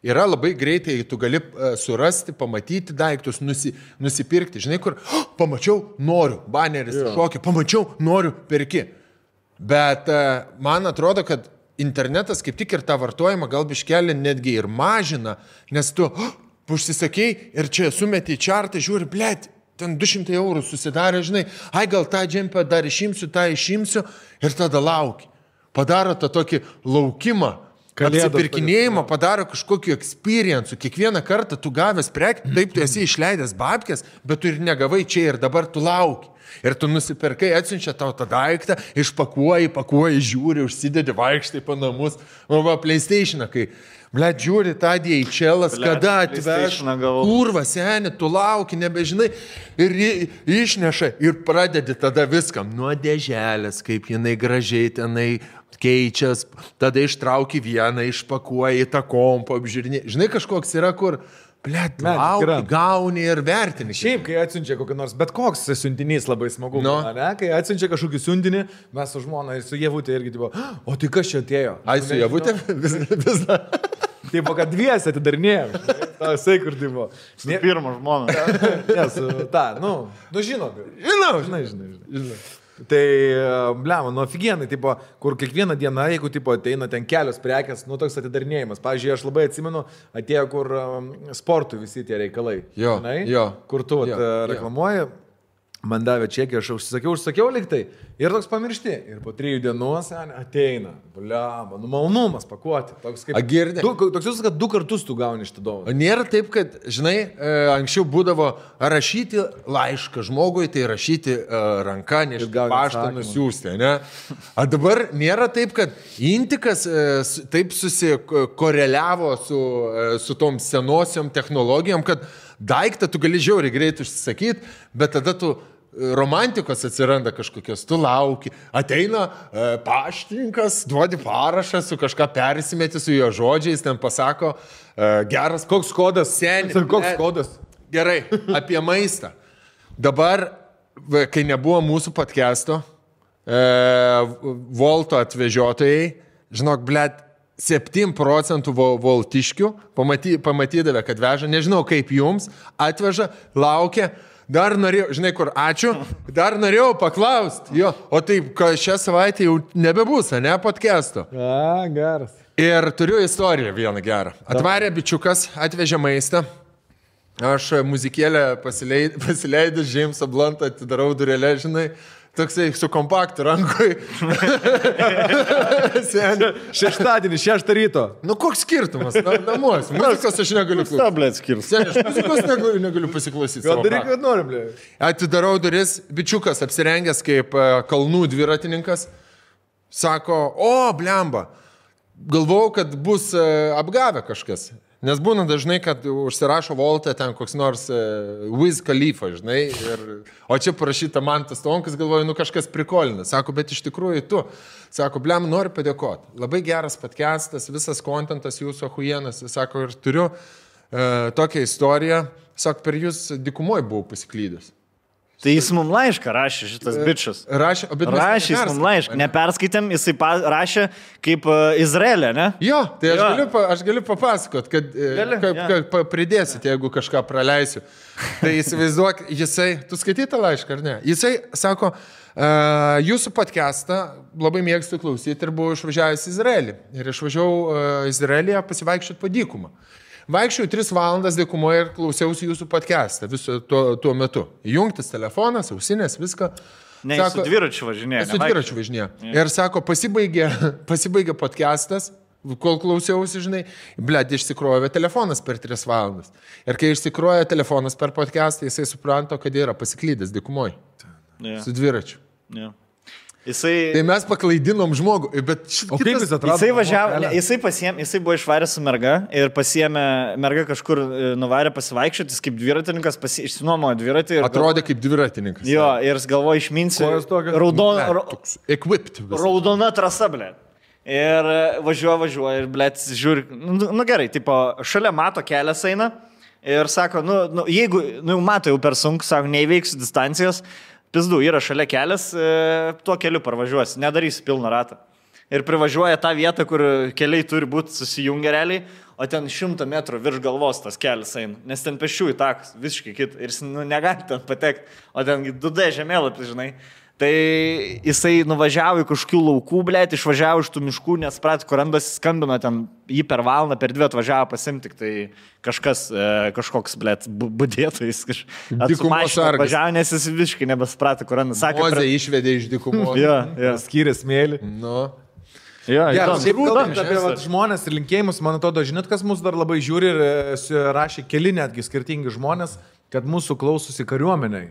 yra labai greitai, tu gali surasti, pamatyti daiktus, nusipirkti. Žinai, kur pamačiau, noriu, baneris šokį, pamačiau, noriu, perki. Bet man atrodo, kad internetas kaip tik ir tą vartojimą gal biškelį netgi ir mažina, nes tu užsisakei ir čia sumeti į čartą, žiūri, blėt, ten 200 eurų susidarė, žinai, gal tą džempę dar išimsiu, tą išimsiu ir tada lauki. Padaro tą tokį laukimą, apsipirkinėjimą, padaro kažkokiu experience'u. Kiekvieną kartą tu gavęs prekį, taip tu esi išleidęs babkės, bet tu ir negavai čia ir dabar tu lauki. Ir tu nusipirkai, atsiunčia tau tą daiktą, pakuoji, žiūri, užsidedi, vaikštai po namus. PlayStation'ą, kai, žiūri tą DHL'as, kada atveš, kurva, seni, tu lauki, nebežinai, ir išneša ir pradedi tada viską. Nuo dėželės, kaip jinai gražiai tenai keičias, tada ištrauki vieną, išpakuoji tą kompą, apžiūrinė. Žinai, kažkoks yra, kur... Blet, gauni ir vertini. Šiaip, kai atsiunčia kokį nors, bet koks siuntinys labai smagu, ne? Kai atsiunčia kažkokį siuntinį, mes su žmona ir su Jevutė irgi, tipo, o tai kas čia atėjo? Ai, su Jevutė? Vis dar. Taip, kad dviesi atidarinėjom. Tasai, kur tipo. Su pirmą žmoną. Nes, žinai. Tai, blema, ofigienai, tipo, kur kiekvieną dieną, jeigu tipo, ateina ten kelios prekės, toks atidarinėjimas. Pavyzdžiui, aš labai atsimenu, atėjo, kur sportui visi tie reikalai. Jo. Kur tu reklamuoji, man davė čekį, aš užsakiau liktai ir toks pamiršti. Ir po 3 dienų ateina, blema, malonumas pakuoti. Toks kaip... Toks jūs, kad 2 kartus tu gauni šitą dovaną. Nėra taip, kad, žinai, anksčiau būdavo rašyti laišką žmogui, tai rašyti ranką, nešti paštą, nusiųsti, ne? A dabar nėra taip, kad intikas taip susikoreliavo su tom senosiom technologijom, kad daiktą tu gali žiauriai greit užsisakyti, bet tada tu romantikos atsiranda kažkokios, tu lauki, ateina paštininkas, duodi parašą, su kažką persimeti su jo žodžiais, ten pasako, geras, koks kodas, koks kodas. Gerai, apie maistą. Dabar, kai nebuvo mūsų podcast'o, Volto atvežiotojai, žinok, blet, 7% voltiškių pamatydavę, kad veža, nežinau kaip jums, atveža, laukia, dar norėjau, žinai kur, ačiū, dar norėjau paklausti, jo, o taip, šią savaitę jau nebebus, ne, podcast'o. Geras. Ir turiu istoriją vieną gerą. Atvarė bičiukas, atvežė maistą, aš muzikėlę pasileidęs Jamesą Bluntą, atidarau durelę, žinai, toksai su kompaktu rankoj. Šeštadienį, 6 ryto. Koks skirtumas? Namuos. Muzikos aš negaliu klausyti. Stablėt skirtus. Aš muzikos negaliu pasiklausyti. Gal daryk, kad norim, blė. Atidarau duris, bičiukas apsirengęs kaip kalnų dviratininkas. Sako, o, blemba, galvojau, kad bus apgavę kažkas. Nes būna dažnai, kad užsirašo Voltą ten koks nors Wiz Khalifa, žinai, o čia parašyta Mantas Tonkas, galvoju, kažkas prikolina. Sako, bet iš tikrųjų tu. Sako, blem, noriu padėkoti. Labai geras podcastas, visas kontentas jūsų ahujienas. Sako, ir turiu tokią istoriją. Sako, per jūs dykumoje buvau pasiklydęs. Tai jis mums laišką rašė, šitas bičias. Rašė jis mums laišką. Neperskaitėm, jisai rašė kaip Izraelė, ne? Jo, tai aš galiu papasakot, kad pridėsit, jeigu kažką praleisiu. Tai įsivaizduok, tu skaitytą laišką, ar ne? Jisai sako, jūsų podcastą labai mėgstu klausyti ir buvau išvažiavęs į Izraelį. Ir išvažiavau Izraelyje pasivaikščioti po dykumą. Vaikščiau 3 valandas dykumoje ir klausiausi jūsų podcastą viso tuo metu. Įjungtas telefonas, ausinės, viską. Ne, sako, su dviračiu važinėja. Su dviračiu važinėja. Ir sako, pasibaigė podcastas, kol klausiausi, žinai, išsikrovė telefonas per 3 valandas. Ir kai išsikrovė telefonas per podcastą, jisai supranto, kad yra pasiklydęs dykumoje. Su dviračiu. Tai mes paklaidinom žmogų, bet o kaip jis atrado? Jisai važiavo, jisai buvo išvaręs su merga ir pasiėmė, merga kažkur nuvarė pasivaikščioti, jis kaip dviratininkas išsinuomojo dviratį. Atrodė kaip dviratininkas. Jo, ir jis galvoja išminsiu, raudona trasa, ble. Ir važiuoja ir, ble, žiūri, gerai, tipo, šalia mato kelias eina ir sako, jeigu, mato jau per sunku, sako, neįveiksiu distancijos, pizdu, yra šalia kelias, tuo keliu parvažiuosi, nedarysi pilną ratą. Ir privažiuoja tą vietą, kur keliai turi būti susijungę realiai, o ten 100 metrų virš galvos tas kelias eina, nes ten pešiųjų takas, visiškai kitą, ir jis negali ten patekti, o ten 2D žemėlapis, žinai. Tai jisai nuvažiavo į kažkokių laukų, blėt, išvažiavo iš tų miškų, nes prat, kur randas skambino ten, jį per valandą, per 2 atvažiavo pasimti, tai kažkoks, blėt, budėtojas atvažiavo, nes jis visiškai nebesprato, kur randas. Mozė išvedė iš dykumos. Skyrė smėlį. Šiaip kalbant apie žmonės ir linkėjimus, man atrodo, žinot, kas mus dar labai žiūri ir rašė keli netgi skirtingi žmonės, kad mūsų klausosi kariuomeniai.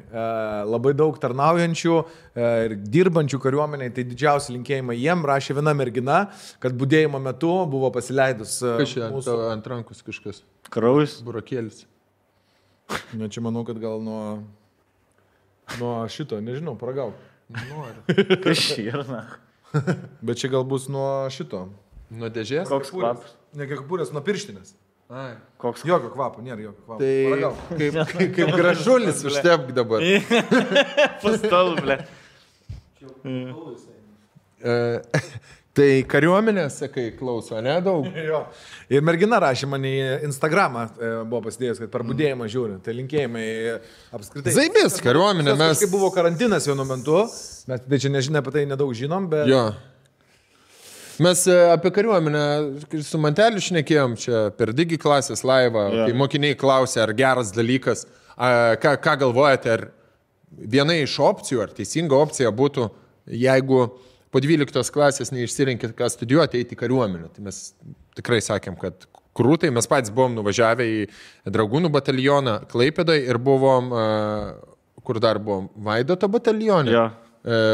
Labai daug tarnaujančių ir dirbančių kariuomeniai, tai didžiausi linkėjimai jiem. Rašė viena mergina, kad budėjimo metu buvo pasileidus mūsų ant rankos kažkas. Kraujas. Burokėlis. Na, čia manau, kad gal nuo šito, nežinau, paragauk. Noriu. Kas širna? Bet čia gal bus nuo šito. Nuo dėžės? Koks kvapas? Ne kepurės, nuo pirštinės. Ai. Koks? Jokio kvapo, nėra jokio kvapo. Tai kaip gražulis užtepk dabar. Pastal, ble. Tai kariuomenės, sakai, klauso, ne daug? Jo. Ir mergina rašė man į Instagramą, buvo pasidėjęs, kad per budėjimą žiūri. Tai linkėjimai apskritai. Zaibės, kariuomenė mes. Kai buvo karantinas vienu metu, mes tai čia nežinia apie tai nedaug žinom, bet... Jo. Mes apie kariuomenę su Manteliu šnekėjom čia per Digi klasės laivą, kai mokiniai klausė, ar geras dalykas, ką galvojate, ar viena iš opcijų, ar teisinga opcija būtų, jeigu po 12 klasės neišsirinkit, ką studijuoti, eiti į kariuomenę. Tai mes tikrai sakėm, kad krūtai, mes patys buvom nuvažiavę į Dragūnų batalioną Klaipėdoje ir buvom, kur dar buvom, Vaidoto batalione,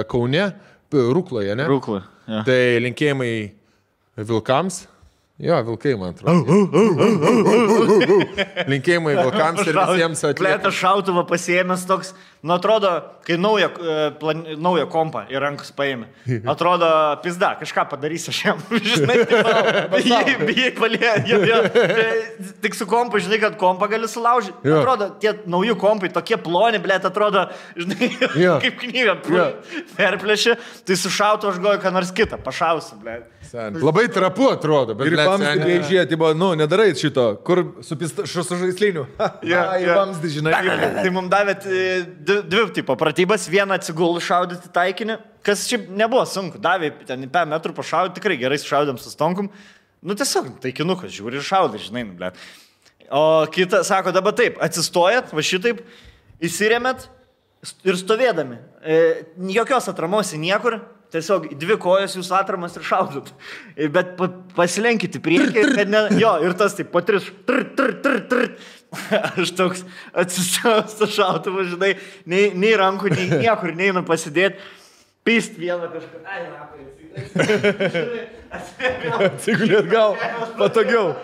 Kaune, Rukloje, ne? Rukloje. Ja. Tai linkėjimai vilkams. Jo, vilkai, man atrodo. Linkėjimai vilkams ir visiems atliekams. Plėtas šautuvą pasiėmęs toks, atrodo, kai naują kompą į rankus paėmė. Atrodo, pizda, kažką padarys aš jam. Žinai, bijai palėjo. Tik su kompu, žinai, kad kompą gali sulaužyti. Atrodo, tie nauji kompai tokie ploni, blėt, atrodo, žinai, kaip knyga perplėšė. Tai su šautu aš goju, ką nors kitą, pašausiu, blėt. Labai trapu atrodo, bet ir vamzdį žiūrėti, nedarai šito, kur su žaisliniu. Į vamzdį, žinai. Tai mums davėt 2 tipo pratybas, vieną atsigulų šaudyti taikinį, kas šiaip nebuvo sunku, davė ten 5 metrų pašaudyti, tikrai gerai šaudėm su stonkum, tiesiog taikinukas žiūri ir šaudai, žinai, ble. O kita sako, dabar taip, atsistojat, va šitaip, įsirėmėt ir stovėdami, jokios atramos į niekur, tiesiog 2 kojos jūsų atramas ir šaudot. Bet pasilenkite priekį, kad ne... Jo, ir tas taip, po 3... Aš toks atsistojęs tą šautuvą, žinai, nei rankų, nei niekur neinu pasidėti. Pist vieną kažką. Ai, rapai, atsigulėt gal patogiau.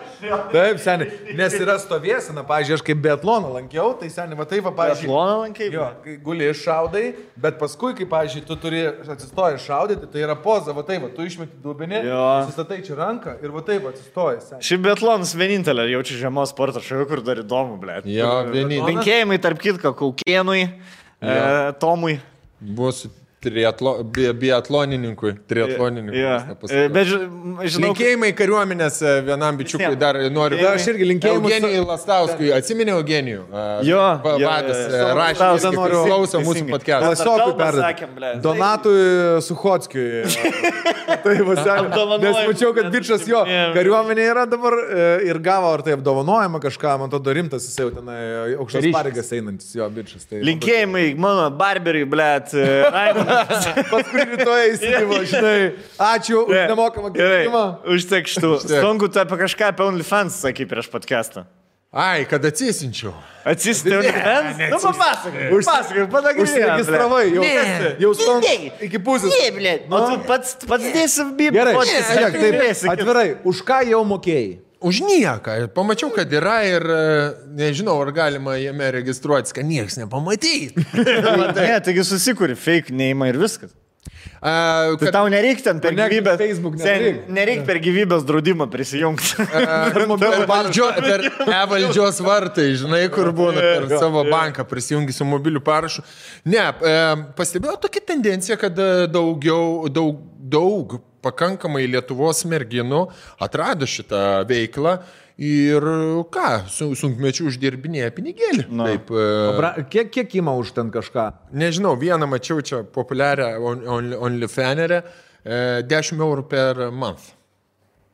Taip, seniai. Nes yra stovėsena, pavyzdžiui, aš kaip biatloną lankiau, tai seniai, va taip, pavyzdžiui. Biatloną lankiai? Jo, kai guli šaudai, bet paskui, kai, pavyzdžiui, tu turi atsistojęs šaudyti, tai yra poza, va taip, tu išmeti dubinį, sustatai čia ranką ir va taip atsistojęs. Šiaip biatlonas vienintelė, jaučiu žiemos sporto šalių, kur dar įdomu, blėt. Jo, vienintelė. Linkėjimai tarp kitko Kaukėnui. Tomui. Bus biatlonininkui. Bet žinau. Linkėjimai kariuomenės vienam bičiukui dar noriu. Aš irgi linkėjimai. Eugenijui Lastauskui. Atsiminė Eugenijų. Jo. Vadas rašė, klauso mūsų podcast'ą. Klasiokui perduoti. Donatui Suchockiui. Tai nes mačiau, kad bičias jo kariuomenė yra dabar ir gavo ar tai apdovanojimą kažką, man to rimtas, jis jau tenai aukštas pareigas einantis jo bičias. Linkėjimai mano barberiui, blėt. Paskui rytoj įsigyvo, žinai. Ačiū už nemokamą gyvenimą. Užtek šitų. Stongu, tu apie kažką apie OnlyFans sakai prieš podcast'ą. Ai, kad atsisinčiau. Atsisinti OnlyFans? Nu, papasakai, padagrinėjai. Užsiregistravai, jau stongu iki pusės. Ne, blėt. O tu pats dėsi bibą. Gerai, atvirai, už ką jau mokėjai? Už nieką. Pamačiau, kad yra ir nežinau, ar galima jame registruotis, kad niekas nepamatys. Ne, taigi susikuri fake name ir viskas. Tai tau nereikia ten per gyvybės, nereikia per gyvybės draudimą prisijungti. Per e-valdžios vartai, žinai, kur būna per savo banką prisijungi su mobiliu parašu. Ne, pastebėjau tokią tendenciją, kad daug pakankamai Lietuvos merginų atrado šitą veiklą ir ką, sunkmečių uždirbinėja pinigėlį. Taip, kiek ima už ten kažką? Nežinau, vieną mačiau čia populiarią OnlyFanerę, 10 eurų per month.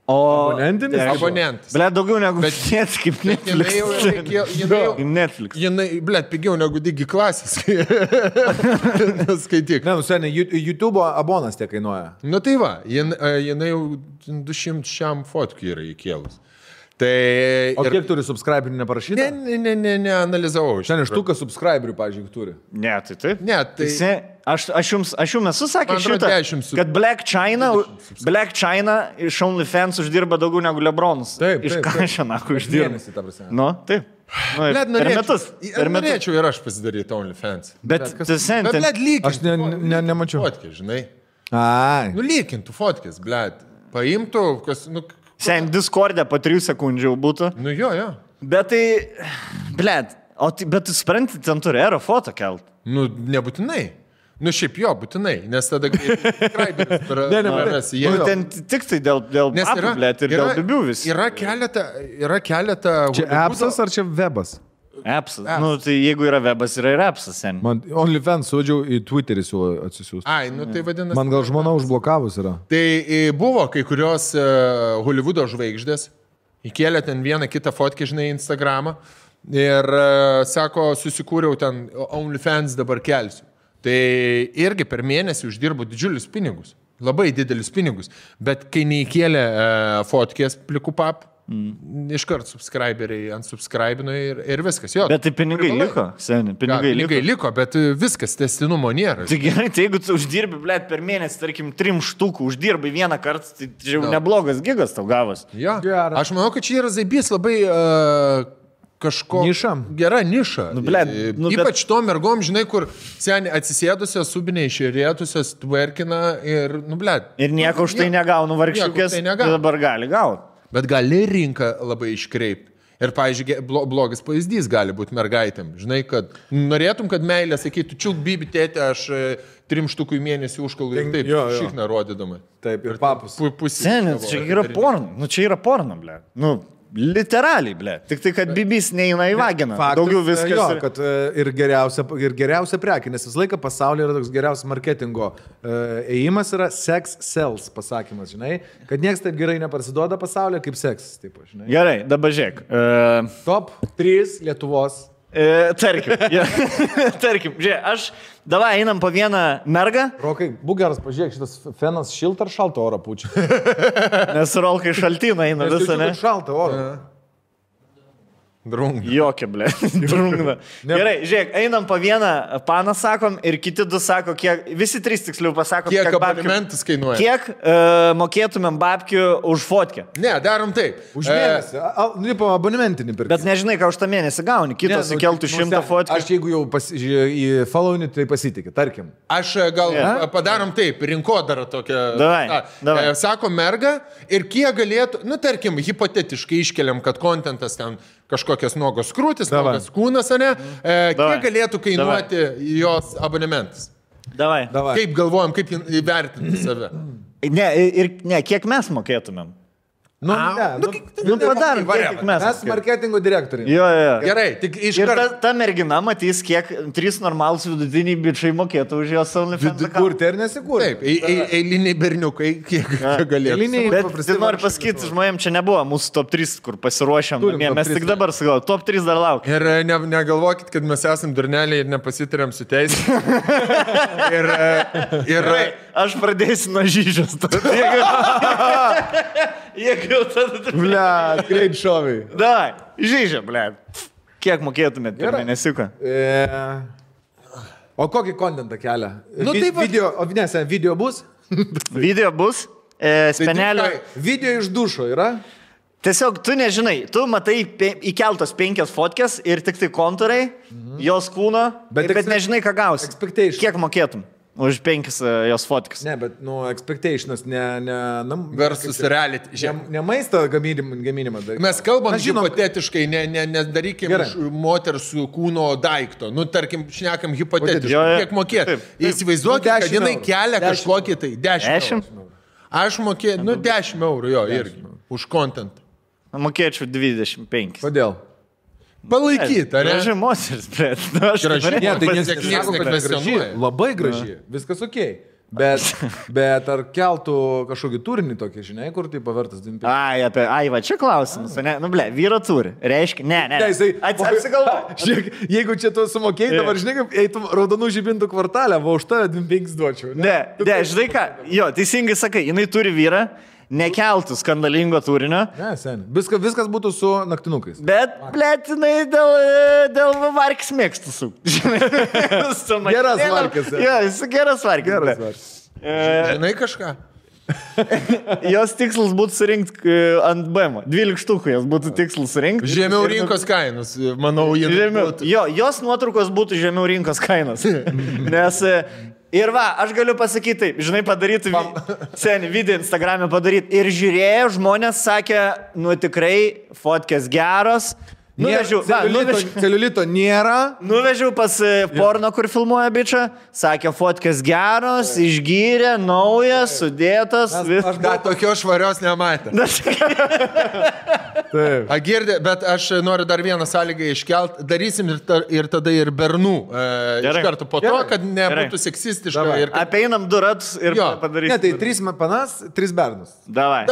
O abonentinis? Abonentas. Blet, daugiau negu Netflix, kaip Netflix. Jinai, blet, pigiau negu Digi klasės. Skaityk. Ne, seniai, YouTube abonas tiek kainuoja. Nu tai va, jinai jau 200 šiam fotkį yra įkėlus. Tai kiek turi subscriberių neparašyta? Ne, analizavau. Šiandien štuką subscriberių, pažiūrėk, turi. Ne, tai taip. Ne, tai... Aš jums esu sakęs šitą, kad Black China iš OnlyFans uždirba daugiau negu Lebronas. Taip. Iš ką šiandien uždirba? Nu, taip. Norėčiau ir aš pasidaryti OnlyFans. Bet lygiai. Aš nemačiau. Fotkės, žinai. Ai. Nu, lygintų fotkės, blet. Paimtų, kas... Sen Discord'e po 3 sekundžių būtų. Nu jo. Bet tai, blet, bet tu supranti, ten turi aerofoto kelt. Nu, nebūtinai. Nu, šiaip jo, būtinai, nes tada subscriberis prarasi. Ten tik tai dėl apų, blet, ir dėl bibių vis. Yra keletą... Čia appsas ar čia webas? Appsas. Nu, tai jeigu yra webas, yra ir appsas, sen. Man OnlyFans sudžiau į Twitterį siūlo atsisiųsti. Ai, nu tai vadinasi... Man gal žmona užblokavus yra. Tai buvo kai kurios Hollywoodo žvaigždės, įkėlė ten vieną kitą fotkę, žinai, Instagramą ir sako, susikūriau ten OnlyFans dabar kelsiu. Tai irgi per mėnesį uždirbu didžiulius pinigus, labai didelius pinigus, bet kai neįkėlė fotkės plikų pap, iškart subscriberiai unsubscribino ir viskas. Jo, bet tai pinigai liko, seniai, pinigai liko, bet viskas tęstinumo nėra. Tai gerai, tai jeigu tu uždirbi, blėt, per mėnesį, tarkim, 3 štukų uždirbai vieną kartą, tai jau neblogas gigas tau gavas. Jo, aš manau, kad čia yra zaibys labai kažko... Niša. Gera niša. Ypač to mergom, žinai, kur seniai atsisėdusios, subiniai išėrėtusios, twerkina ir, blėt. Ir nieko už tai negaunu vargšiukės, tai dabar gali gauti. Bet gali rinką labai iškreipti. Ir, pavyzdžiui, blogas pavyzdys gali būti mergaitėm. Žinai, kad norėtum, kad meilė sakytų, čiuk, bibi, tėtė, aš 3 štukų į mėnesį užkalu ir taip, šikną rodydama. Taip, ir papus. Seniai, čia yra porno. Nu, čia yra porno, ble. Nu, literaliai, ble. Tik tai, kad bibis neina į vaginą. Daugiau viskas. Jo, kad ir geriausia prekė, nes visą laiką pasaulyje yra toks geriausias marketingo ėjimas yra sex sells pasakymas, žinai, kad niekas taip gerai neparsiduoda pasaulyje kaip seksas, taip, žinai. Gerai, dabar žiūrėk. Top 3 Lietuvos. Tarkim, žiūrėk, davai einam po vieną mergą. Rokai, būk geras, pažiūrėk, šitas fenas šiltą ar šaltą orą pučia. Nes Rolkai šaltina eina visą, ne? Šaltą orą. Drungna. Jokia, ble. Drungna. Gerai, žiūrėk, einam po vieną paną, sakom, ir kiti 2 sako, kiek, visi 3 tiksliau pasakom, kiek abonementas kainuoja. Kiek mokėtumėm babkių už fotkę. Ne, darom taip. Už mėnesį. Po abonementinį pirkti. Bet nežinai, ką už tą mėnesį gauni. Kitos įkeltų 100 fotkų. Aš jeigu jau į followinį, tai pasitikė, tarkim. Aš gal padarom taip, rinkodarą tokią. Davai. Sako merga ir kiek galėtų, tarkim, hipotetiškai iškeliam, kad kontentas ten kažkokias nuogos krūtis, nuogos kūnas, ne? Kiek galėtų kainuoti jos abonementas? Davai. Kaip galvojam, kaip įvertinti save? Ne, kiek mes mokėtumėm? Padarom, kiek mes marketingo direktoriai. Jo. Gerai, tik iš karto. Ta mergina matys, kiek 3 normalūs vidutiniai bičiai mokėtų už jos OnlyFans. Kurti ir nesikurti. Taip, eiliniai berniukai, kiek galėtų. Bet noriu pasakyti, žmonėm, čia nebuvo mūsų top 3, kur pasiruošėm. Mes tik dabar sakau, top 3 dar laukia. Ir negalvokit, kad mes esam durneliai ir nepasitarėm su teisė. ir aš pradėsiu nuo Žyžios. Jeigu tada... Blet, greit šoviai. Davai, Žyžia, blet. Kiek mokėtumėt per mėnesiuką? O kokį kontentą kelia? Video bus? Video bus. Spenelio. Video iš dušo yra? Tiesiog tu nežinai, tu matai įkeltos 5 fotkės ir tik tai kontūrai, jos kūno, bet nežinai, ką gausi. Kiek mokėtum? Už 5 jos fotkės. Ne, bet, expectations, versus reality. Ne maisto gaminimą. Mes kalbam hipotetiškai, nedarykim moters kūno daikto. Tarkim, šnekam hipotetiškai. Kiek mokėt? Įsivaizduokit, kad jinai kelia kažkokį tai 10 eurų. Aš mokėčiau, 10 eurų jo irgi. Už content. Mokėčiau 25. Kodėl? Palaikyti, ar ne? Graži moteris, bet aš graži. Labai graži, viskas ok. Bet ar keltų kažkokį turinį tokį, žinai, kur tai pavertas 25? Ai, va, čia klausimas, ne? Vyro turi. Reiškia, ne. Atsigalvo. Jeigu čia tu sumokėjai, dabar žinai, kaip eitum raudonų žibintų kvartalę, va už tave 25 duočiau. Ne, žinai ką, jo, teisingai sakai, jinai turi vyrą. Nekeltų skandalingo turinio. Ne, sen. Viskas būtų su naktinukais. Bet, blėtinai, dėl varkis mėgstų su. Geras varkis. Jo, jis geras varkis. Žinai kažką? Jos tikslas būtų surinkti ant BM. 12 štukų jos būtų tikslas surinkti. Žemiau rinkos kainos, manau, jos nuotraukos būtų žemiau rinkos kainos. Nes... Ir va, aš galiu pasakyti, žinai, padaryti senį video Instagram'e padaryti. Ir žiūrėjo, žmonės sakė, tikrai, fotkės geros. Celiulito nėra. Nuvežiau pas porno, kur filmuoja bičą. Sakė, fotkės geros, išgyrė, naujas, sudėtas. Aš dar tokios švarios nematė. Girdė, bet aš noriu dar vieną sąlygą iškelt. Darysim ir tada ir bernų. Iš karto po to, kad nebūtų seksistiška. Apeinam 2 ratus ir padarysim. Ne, tai 3 panas, 3 bernus. Davai.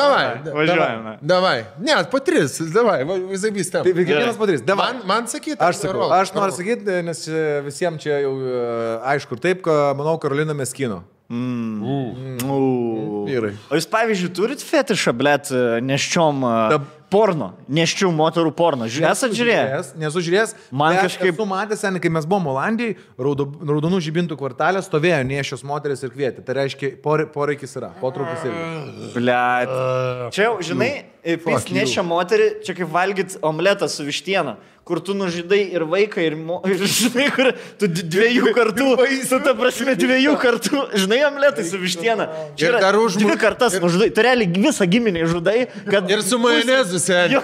Važiuojame. Davai. Ne, po 3. Davai, visai vystėm. Padarys. Man sakyti. Aš noriu sakyti, nes visiems čia jau aišku ir taip, manau, Karolina Meskino. Vyrai. O jūs, pavyzdžiui, turit fetišą, blet, neščiom porno, neščių moterų porno. Esat žiūrėjęs? Nesu žiūrėjęs. Man kažkaip... Esu matęs, kai mes buvom Olandijai, raudonų žibintų kvartalė stovėjo nešios moteris ir kvietė. Tai reiškia, poreikis yra, potraukis irgi. Blet. Čia jau, žinai, nešia moterį, čia kaip valgyt omletą su vištiena, kur tu nužydai ir vaiką, ir žinai, kur tu 2 kartų, su ta prasme 2 kartų, žinai, omletai su vištiena. Čia yra 2 kartas nužudai. Tu realiai visą giminį žudai, kad... Ir su majonezu, seniai. Jo.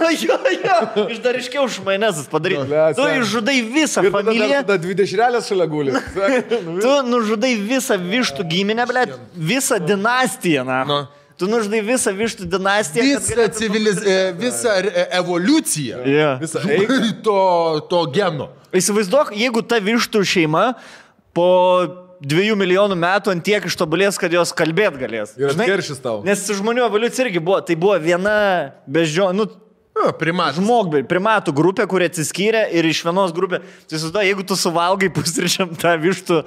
Iš dar iškiau už majonezas padaryti. Tu išžudai visą familiją. Tada 2 dešrelės šalia guli. Tu nužudai visą vištų giminę, blet, visą dinastiją, na. Tu nužudai visą vištų dinastiją. Visą evoliuciją. Visą to geno. Įsivaizduok, jeigu ta vištų šeima po 2 milijonų metų ant tiek ištobulės, kad jos kalbėt galės. Ir atkeršys tau. Nes žmonių evoliucija irgi buvo. Tai buvo viena primatų grupė, kuri atsiskyrė ir iš vienos grupė. Tai sudo, jeigu tu suvalgai pusryčiam tą vištų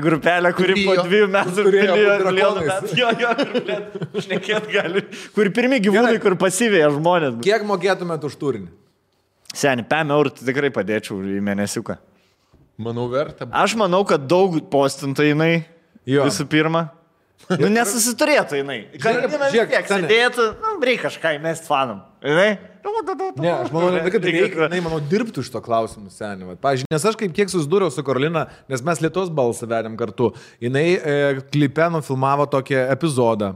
grupelę, kuri po 2 metų milijonų metų šnekėt gali. Kur pirmi gyvūnai, kur pasivėja žmonės. Kiek mokėtumėt už turinį? Seni, 5 eurų tikrai padėčiau į mėnesiuką. Manau, verta. Aš manau, kad daug postintų jinai visų pirma. Nesusiturėtų jinai. Karolina vis tiek sėdėtų, reikia kažką įmest fanam. Ne, aš manau, kad reikia, manau, dirbtų iš to klausimų, seniai. Pavyzdžiui, nes aš kiek susidūriau su Karolina, nes mes Lietuvos balsą vedėm kartu, jinai klipe nufilmavo tokį epizodą.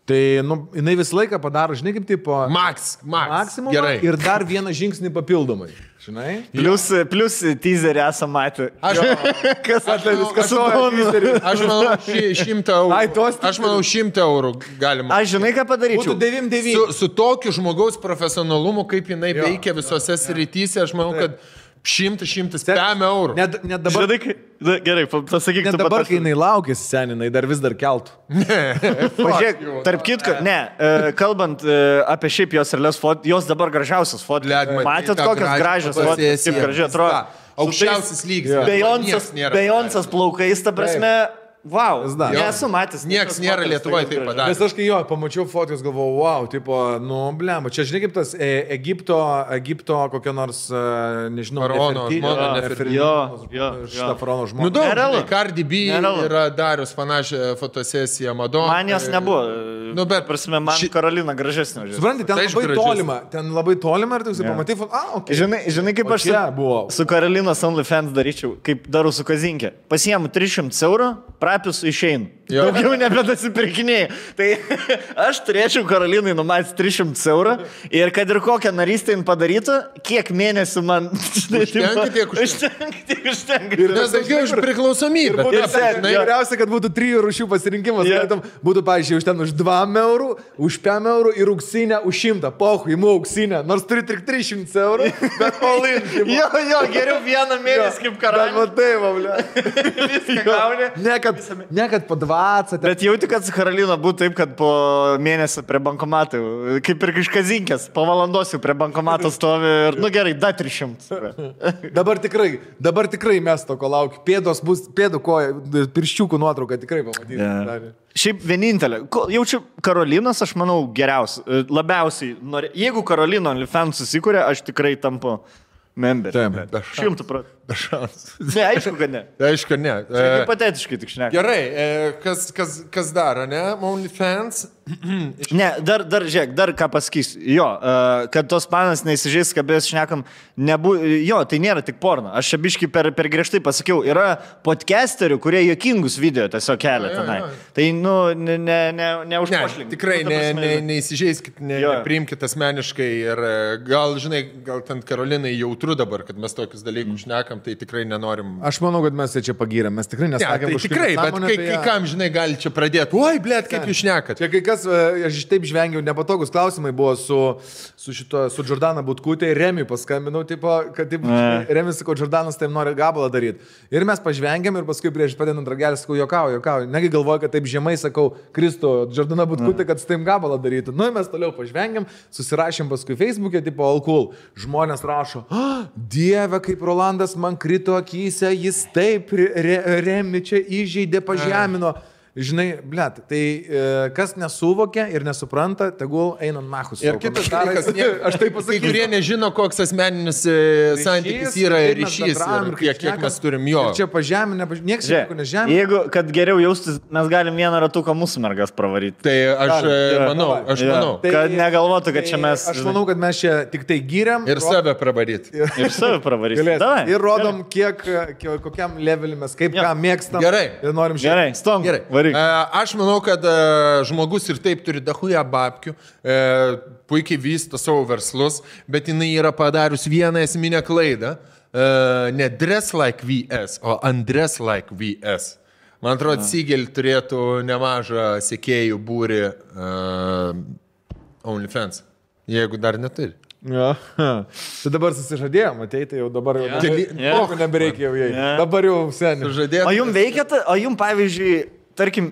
Tai, jinai visą laiką padaro, žinai, kaip tipo... Maksimum. Gerai. Ir dar vieną žingsnį papildomai. Žinai? Plius teaserį esam matę. Aš manau, 100 eurų. Aš manau, 100 eurų galima. Aš žinai, ką padaryčiau? Būtų 99. Su tokiu žmogaus profesionalumu, kaip jinai veikia visose srityse, aš manau, kad 100 eurų. Net dabar... Gerai, pasakyk, net dabar, kai jinai laukėsi seninai, dar vis dar keltų. Pažiūrėk, tarp kitko, kalbant apie šiaip jos realias fotos, jos dabar gražiausias fotos. Matėt, kokios gražios fotos, kaip gražiai atrodo. Aukščiausias lygis. Bejoncas plaukais, ta prasme... Wow, nesu matęs. Niekas nėra Lietuvoje taip padarė. Nes aš kai pamačiau fotos, galvojau, wow, tipo, blemba, čia žinai kaip tas Egipto kokia nors, nežinau, šitą faraono žmogų. Daug, Cardi B yra darius panašią fotosesiją Madonna. Man jos nebuvo, bet prasme, man Karolina gražesnė. Supranti, ten labai tolima ir tu pamatai, okay. Žinai, kaip aš su Karolinos OnlyFans daryčiau, kaip darau su Kazinkė. Pasiemu 300 eurų, prapius išeinu. Daugiau nebedasipirkinėjai. Tai aš turėčiau Karolinai numatęs 300 eurų ir kad ir kokią narystę jin padarytų, kiek mėnesių man... Užtenka. Ir nes daugiau iš priklausomybę. Geriausia, kad būtų 3 rūšių pasirinkimas. Būtų, pavyzdžiui, už ten už 2 eurų, už 5 eurų ir auksinę už 100. Pohu, imu auksinę. Nors turi tik 300 eurų, bet all in. Jo, geriau vieną mėnesį kaip karalius. Viską gauni. Ne, kad po 20. Bet jauti, kad su Karolina būtų taip, kad po mėnesio prie bankomatų, kaip ir iš Kazinkės, po valandos jau prie bankomato stovi ir, gerai, da 300. Dabar tikrai mes to, ko laukiu. Pėdų pirščiukų nuotrauką tikrai pamatysime. Yeah. Šiaip vienintelė. Jaučiu Karolinos, aš manau, geriausia. Labiausiai. Jeigu Karolina OnlyFans susikūrė, aš tikrai tampu member. 100%. Be šansų. Ne, aišku, kad ne. Aišku, ne. Hipotetiškai tik šneka. Gerai, kas daro, ne? OnlyFans. Ne, dar, žiūrėk, dar ką pasakysiu. Jo, kad tos panas neįsižeis, kabės šnekam, jo, tai nėra tik porno. Aš čia biškai per griežtai pasakiau, yra podcasterių, kurie juokingus video tiesiog kelia tenai. Tai, neužpošlink. Tikrai neįsižeiskit, nepriimkit asmeniškai ir gal ten Karolinai jautru dabar, kad mes tokius dalykus šnekam. Tai tikrai nenorim. Aš manau, kad mes čia pagyrėm. Mes tikrai nesakėm. Tai tikrai, bet kai kam, gali čia pradėti. Oi, blėt, kaip jūs šnekat. Čia kai kas, aš taip žvengiau, nepatogus klausimai buvo su Jordana Butkutė ir Remiui paskambinau, kad Remis sako, Jordanas taip nori gabalą daryti. Ir mes pažvengiam ir paskui prieš padedant ragelį sakau, juokauju. Negi galvoju, kad taip žemai sakau, Kristo, Jordana Butkutė, kad su taip gabalą darytų. Mes toliau pažvengiam, susirašėm paskui Facebook'e, all cool. Žmonės rašo, Dieve, kaip Rolandas man krito akyse, jis taip Remi čia įžeidė, pažemino. Žinai, blėt, tai kas nesuvokia ir nesupranta, tegul eina nachus. Ir kitas dalykas, aš taip pasakysiu, kai kurie nežino, koks asmeninis santykis yra ryšys ir kiek mes turim jo. Ir čia pažeminė, niekas čia nežemina. Jeigu, kad geriau jaustis, mes galim vieną ratuką mūsų mergas pravaryti. Tai aš manau. Kad negalvotų, kad čia mes... Aš manau, kad mes čia tik tai gyriam. Ir save pravaryti. Ir rodom, kokiam levelį mes, kaip ką mėgstam. Gerai. Ir norim žiūrėti. Gerai, stom. Gerai. Aš manau, kad žmogus ir taip turi dahuja babkių, puikiai vysto savo verslus, bet jinai yra padarius vieną esminę klaidą. Ne dress like VS, o undress like VS. Man atrodo, Sigel turėtų nemažą sekėjų būrį OnlyFans, jeigu dar neturi. Ja. Tai dabar susižadėjom, ateiti jau dabar jau nebereikia jau jai. Dabar jau seniai. O jums veikia, o jums pavyzdžiui, tarkim,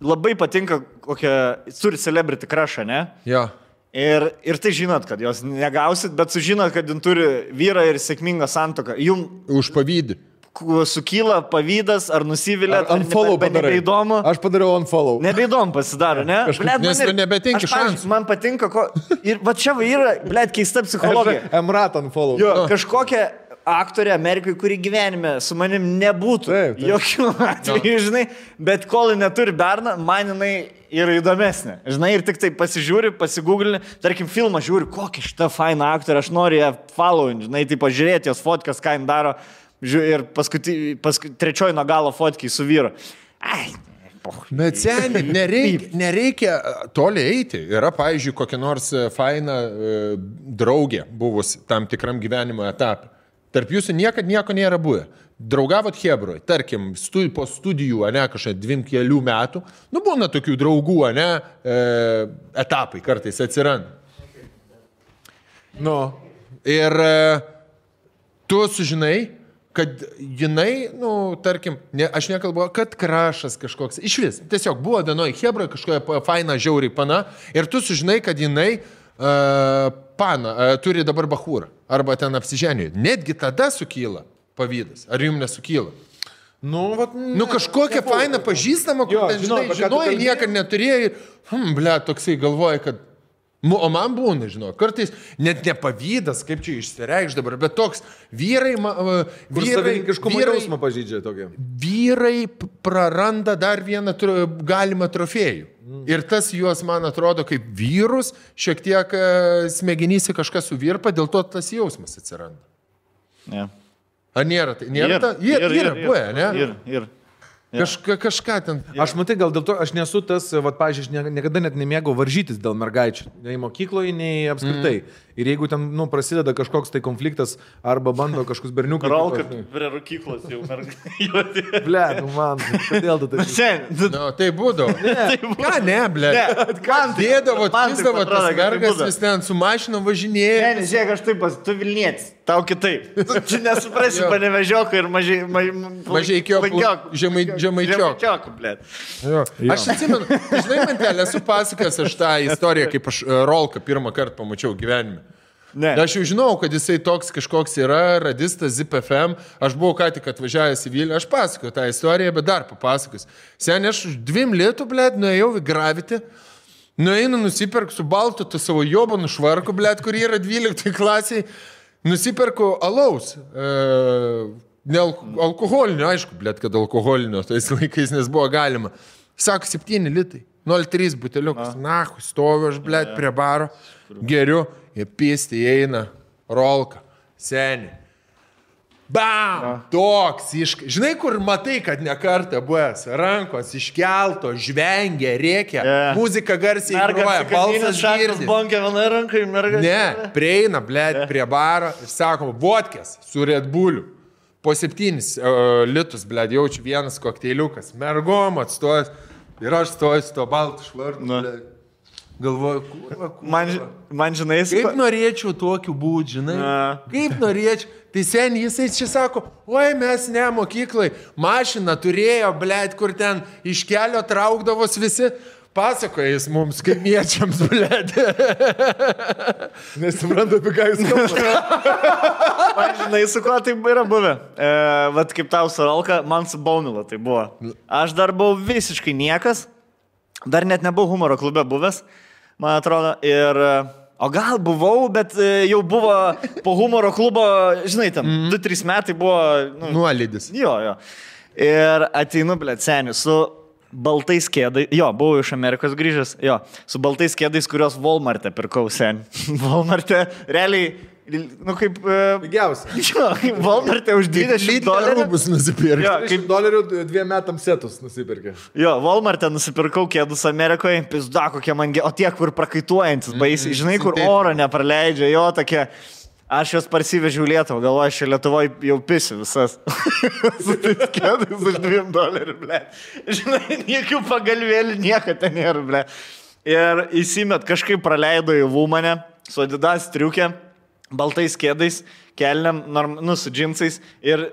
labai patinka kokią, turi celebrity crushą, ne? Jo. Ir tai žinot, kad jos negausit, bet sužinot, kad jin turi vyrą ir sėkmingą santuoką. Jums užpavydį. Sukyla pavydas, ar nusivilėt, ar nebeįdomu. Aš padariau unfollow. Nebeįdomu pasidaro, ne? Nes nebetinki šansų. Man patinka, ir va čia yra, blėt, keista psichologija. Emrat unfollow. Jo, kažkokia aktorė Amerikai, kuri gyvenime su manim nebūtų. Taip. Jokių atvejų, žinai, bet kol neturi berną, man jinai yra įdomesnė. Žinai, ir tik tai pasižiūri, pasigūglini, tarkim, filmą žiūri, kokia šita faina aktorė, aš noriu ją following, žinai, tai pažiūrėti jos fotkas, ką jin daro. Ir paskui trečioji nuo galo fotkiai su vyru. Ai, Bet seniai, nereikia toli eiti. Yra, pavyzdžiui, kokia nors faina draugė buvus tam tikram gyvenimo etapui. Tarp jūsų niekad nieko nėra buvę. Draugavot Hebroj, tarkim, po studijų, ne, kažkaip 2-3 metų, nu būna tokių draugų, ne, etapai kartais atsiranda. Nu. Ir tu sužinai, kad jinai, nu, tarkim, aš nekalbu, kad krašas kažkoks, iš vis, tiesiog buvo vienoj Hebroj kažkokia faina žiauriai pana, ir tu sužinai, kad jinai turi dabar bachūrą, arba ten apsiženė. Netgi tada sukyla pavydas. Ar jums nesukyla? Nu kažkokia faina pažįstama, kur ten, žinojai, niekad neturėjai, toksai galvoja, kad, o man būna, žinau, kartais net nepavydas, kaip čia išsireikš dabar, bet toks vyrai jausmą pažydžia tokia. Vyrai praranda dar vieną galimą trofėjų. Ir tas juos, man atrodo, kaip vyrus, šiek tiek smegenyse kažkas suvirpa, dėl to tas jausmas atsiranda. Ne. Ar nėra tai? Yra, buvę, ne? Ir. Kažką ten. Aš matai, gal dėl to, aš nesu tas, pavyzdžiui, aš niekada net nemėgau varžytis dėl mergaičių. Nei mokykloje, nei apskritai. Ir jeigu ten, prasideda kažkoks tai konfliktas, arba bando kažkoks berniukas. Ralka prie rūkyklos jau mergaitė. Ble, man, kodėl tu tai? Tai būdavo. Ką ne, ble? Dėdavo, tizdavo tas mergas, vis ten su mašinom važinėja. Ne, žiūrėk, aš taip, tu Vilnietis, tau kitaip. Čia nesuprasi, panevežioko ir žemaičioko, ble. Aš atsimenu, žinai, mantelė, esu pasakęs aš tą istoriją, kaip aš Rolką pirmą kartą pamačiau gyvenime. Ne. Aš jau žinau, kad jisai toks kažkoks yra, radistas Zip FM, aš buvau ką tik atvažiavęs į Vilnių, aš pasakoju tą istoriją, bet dar papasakos. Seniai, aš 2 litų, blėt, nuėjau į Gravity, nueinu nusipirku su baltu tą savo jobonų švarku, blėt, kur yra 12 klasiai, nusipirku alaus, ne alkoholinio, aišku, blėt, kad alkoholinio, tais laikais, nes buvo galima. Sako, 7 litai, 0,3 buteliukas, nahu, stoviu aš, blėt, prie baro, geriu. Jie pisti įeina, Rolka, seni. Bam! Toks žinai, kur matai, kad ne kartą buvęs, rankos iškelto, žvengia, rėkia, muzika garsiai groja, balsas girdi. Ne, prieina, blėt, prie baro ir sakoma, vodkės su Red Bulliu. Po 7 litus, blėt, jaučiu vienas kokteiliukas, mergom atstojęs ir aš stoju su to baltu švarku, blėt. Galvoju, man žinai, kaip norėčiau tokiu būti, žinai, kaip norėčiau. Tai seniai jisai čia sako, oi mes ne mokyklai, mašiną turėjo, blėt, kur ten iš kelio traukdavos visi. Pasakoja jis mums, kaimiečiams, blėt. Nesuprantu, apie ką jis kalba. Man žinai, su kuo tai yra buvę. Vat kaip tau su Rolka, man su Baunila tai buvo. Aš dar buvau visiškai niekas, dar net nebuvau humoro klube buvęs. Man atrodo, o gal buvau, bet jau buvo po humoro klubo, žinai, ten 2-3 metai buvo... Nuolydis. Jo. Ir ateinu, blėt, seniu, su baltais kėdais, buvau iš Amerikos grįžęs, su baltais kėdais, kurios Walmart'e pirkau, seniu. Walmart'e, realiai, kaip... Pigiausia. Walmart'e už $20. Rūbus nusipirkė. Kaip $2 2 metams setus nusipirkė. Walmart'e nusipirkau kėdus Amerikoje, pizda kokie man, o tie, kur prakaituojantis baisiai, žinai, kur oro nepraleidžia, tokie... Aš juos parsivežiau Lietuvą, galvoju, aš Lietuvoje jau pisiu visas. Su tais kėdais už $2, ble. Žinai, niekių pagalvėlių, nieko ten nėra, ble. Ir įsimet kažkaip praleido į Vūmanę, su Adidas striukė, baltais kėdais, kelniam, su džinsais ir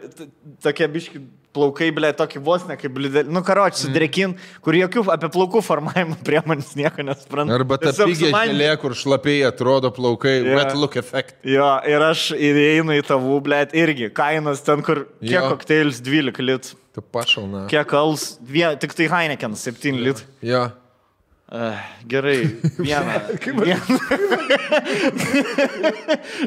tokie biški plaukai, ble, tokį vos ne kaip blidėlį. Karoči, sudrekin, kur jokių apie plaukų formavimo priemonės nieko nespranta. Arba ta pigė želė, kur šlapiai atrodo plaukai, wet look effect. Ir aš įeinu į tavų, ble, irgi kainos ten, kur kiek kokteilis 12 litų. Tu pašalna. Kiek alus, tik tai Heineken 7 litų. Jo. Gerai,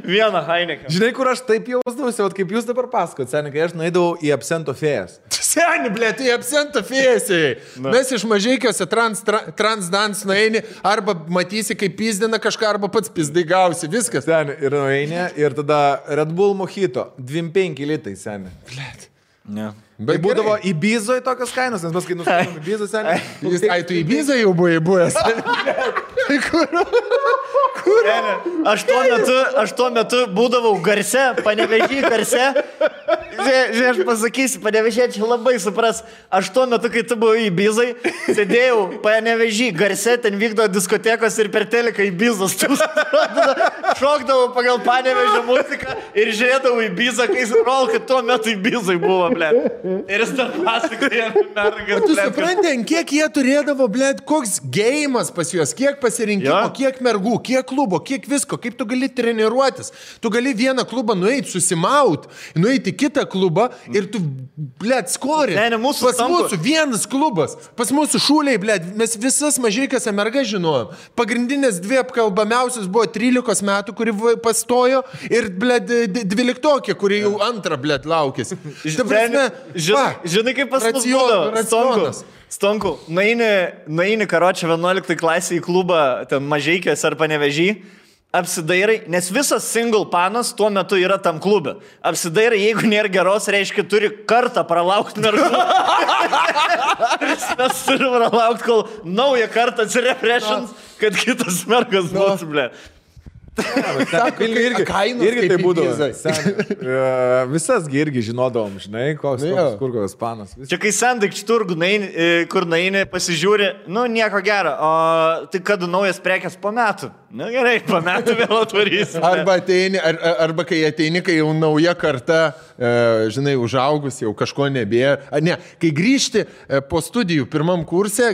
vieną Heineken. Žinai, kur aš taip jausdavausi, kaip jūs dabar pasakot, seniai, kai aš nueidavau į absento fėjas. Seniai, blė, tu į absento fėjasiai. Mes iš Mažeikiuose transdans nueini, arba matysi, kaip pizdina kažką, arba pats pizdai gausi, viskas. Seniai, ir nueini, ir tada Red Bull Mojito, 25 litai, seniai. Blėt. Ne. Bet būdavo į Bizoje tokios kainos, nes mes kai nuskaitom į Bizą seniai. Ai, tu į Bizą jau buvai buvęs. Aš tuo metu būdavau Garse, Panevėžy Garse. Žiūrėk, aš pasakysiu, Panevėžiečiai labai supras. Aš tuo metu, kai tu buvai į Bizai, sėdėjau Panevėžy Garse, ten vykdo diskotekos ir per teleką į Bizos. Šokdavau pagal Panevėžio muziką ir žiūrėdavau į Bizą, kai suprol, kad tuo metu į Bizai buvo, ble. Ir jis dar pasakoja, mergas. Tu supranti, kiek jie turėdavo, ble, koks gėjimas pas juos, kiek pasirinkimo, kiek mergų, kiek klubo, kiek visko, kaip tu gali treniruotis. Tu gali vieną klubą nueiti, susimaut, nueiti į kitą klubą ir tu, ble, skori. Ne, mūsų pas mūsų vienas klubas, pas mūsų šūliai, ble, mes visas mažaikas mergas žinojom. Pagrindinės dvi apkalbamiausios buvo 13 metų, kuri pastojo ir, ble, 12, kuri jau antrą, ble, laukės. Žinai, kaip pas mus būdavo, Stonku, naini karočią 11 klasį į klubą, ten Mažeikės ar Panevėžy, apsidairai, nes visas single panas tuo metu yra tam klube. Apsidairai, jeigu nėra geros, reiškia, turi kartą pralaukti mergų. Mes turim pralaukti, kol naują kartą atsireprešins, kad kitas mergas būtų, ble. Irgi tai būdavo. Visasgi irgi žinodavom, žinai, kur kokios panas. Čia kai sandikčių turgų, kur naini, pasižiūri, nu nieko gero, o tai kad naujas prekės po metų. Nu gerai, po metų vėl atvarysim. Arba kai ateini, kai jau nauja karta, žinai, užaugus, jau kažko nebėra. Ne, kai grįžti po studijų pirmam kurse,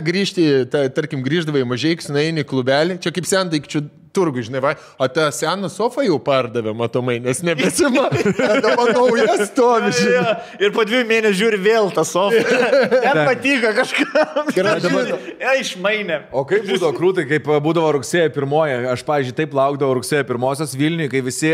tarkim, grįždavai Mažeikius, naini klubelį, čia kaip sandikčių turgų, žinai, o tą seną sofą jau pardavė, matomai, nes nebesima, tada naujas stovi, žinai. Ir po 2 mėnesių žiūri vėl tą sofą. Net patiko kažkam. Išmainė. O kaip būdavo krūtai, kaip būdavo rugsėjo 1, aš, pavyzdžiui, taip laukdavau rugsėjo 1 Vilniui, kai visi,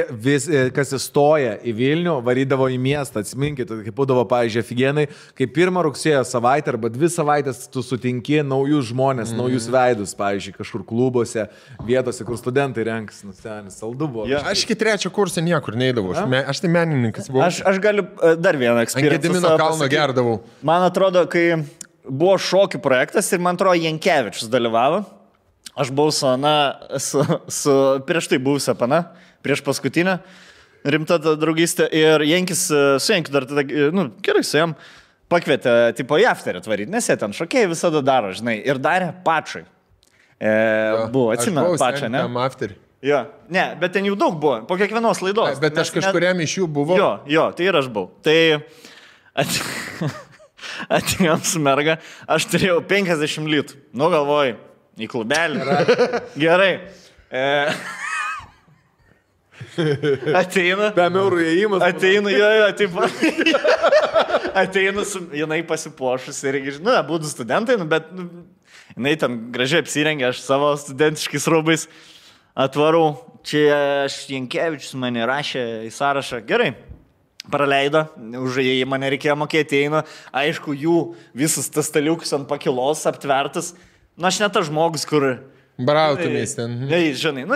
kas įstoja į Vilnių, varydavo į miestą, atsiminkit, kaip būdavo, pavyzdžiui, aфиgenai, kai 1 rugsėjo savaitę arba 2 savaitės tu sutinki naujus žmonės, naujus veidus, pavyzdžiui, kažkur klubuose, vietose, kur studentai renkas, nusenis, saldu buvo. Ja. Aš iki 3 kurso niekur neidavau, aš tai menininkas buvau. Aš galiu dar vieną eksperimentą. Ant Gedimino kalno gerdavau. Man atrodo, kai buvo šokių projektas ir man atrodo Jankevičius dalyvavo, aš buvau su prieš tai buvusią pana, prieš paskutinę, rimta draugystė ir Jankis su Jankiu dar tada, gerai su jam, pakvietė tipo į afterį atvaryti, nes jie ten šokėjai visada daro, žinai, ir darė pačai. Buvo, atsimenu pačią, ne? Jo, ne, bet ten jų daug buvo, po kiekvienos laidos. Bet aš kažkuriam iš jų buvau. Jo, tai ir aš buvau. Tai atėjom su merga, aš turėjau 50 litų. Nu, galvoju, į klubelį. Gerai. Ateina. 5 eurų įėjimas. Ateina, jinai pasipuošus ir, būtų studentai, bet jinai ten gražiai apsirengė, aš savo studentiškais rūbais atvarau. Čia Jankevičius mane rašė į sąrašą. Gerai, praleido, už jį mane reikėjo mokėti, eina. Aišku, jų visas tas staliukus ant pakilos aptvertas. Aš ne tas žmogus, kur... Brautumės ten. Žinai,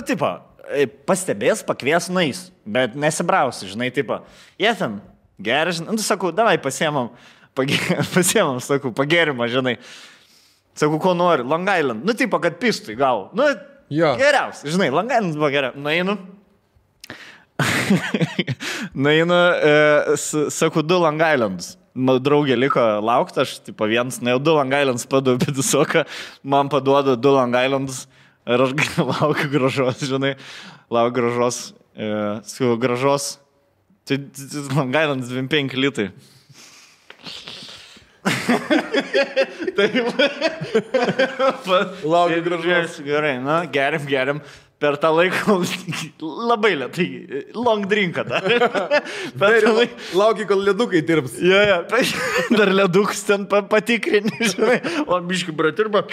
pastebės, pakvies, nais, bet nesibrausi, žinai, jie ten gerai, žinai, sakau, davai pasiemam, sakau, pagerimą, žinai. Sakau, ko nori, Long Island. Kad pistų į galvą. Geriausia, žinai, Long Island buvo geriausia. Nueinu, sakau, 2 Long Islands. Draugė liko laukti, aš, vienas, 2 Long Islands paduodu visoką, man paduoda 2 Long Islands ir aš laukiu gražos, žinai, laukiu gražos, su gražos, tai Long Islands 25 litai. Laukiu gražos. Gerai, geriam. Per tą laiką labai lėtai, long drinką dar. Lauki, kol ledukai dirbs. Jo, dar ledukus ten patikrini, žinai, o biški bratirba.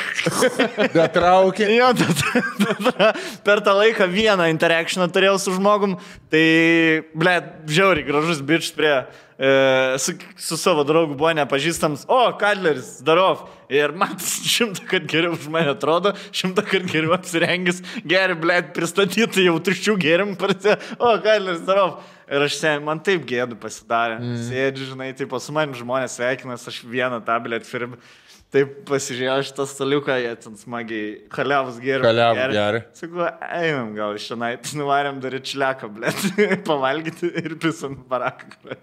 Datraukė. Jo, per tą laiką vieną interakcioną turėjau su žmogum, tai, žiauriai gražus bičs prie su savo draugu buvo nepažįstams, Kadleris, darov. Ir man 100 kart geriau už mane atrodo, 100 kart geriau apsirengęs, geri, blėt, pristatyti jau tuščių gėrimų, Kadleris, darov. Ir man taip gėdu pasidarė. Sėdžiu, žinai, taip su manim žmonės sveikinas, aš vieną tą, blėt, firmą. Taip pasižiūrėjau šitą staliuką, jie ten smagiai kaliavus gėrė. Sakau, einam gal iš šiandien, nuvarėm dar į čiliaką, blėt, pavalgyti ir pisam baraką.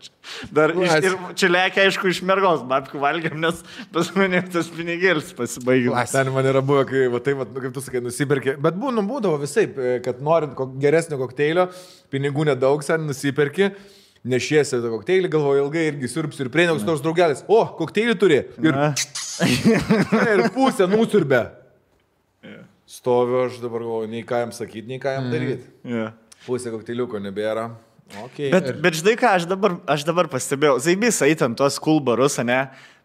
Dar ir čiliakę, aišku, iš mergos babkių valgiam, nes pas mane tas pinigėlis pasibaigė. Ten man yra buvę, kai, kaip tu sakai, nusipirkė. Bet būdavo visaip, kad norint geresnio kokteilio, pinigų nedaug, sen nusipirkė. Nešiesi tą kokteilį, galvoju ilgai irgi siurbsiu ir prieinaus nors draugelis. Kokteilį turi. Ir pusę nusiurbė. Stoviu, aš dabar galvoju, nei ką jam sakyti, nei ką jam daryti. Pusę kokteiliuko nebėra. Okay. Bet žinai ką, aš dabar pastebėjau. Zaibys eitam tuos cool barus, ne?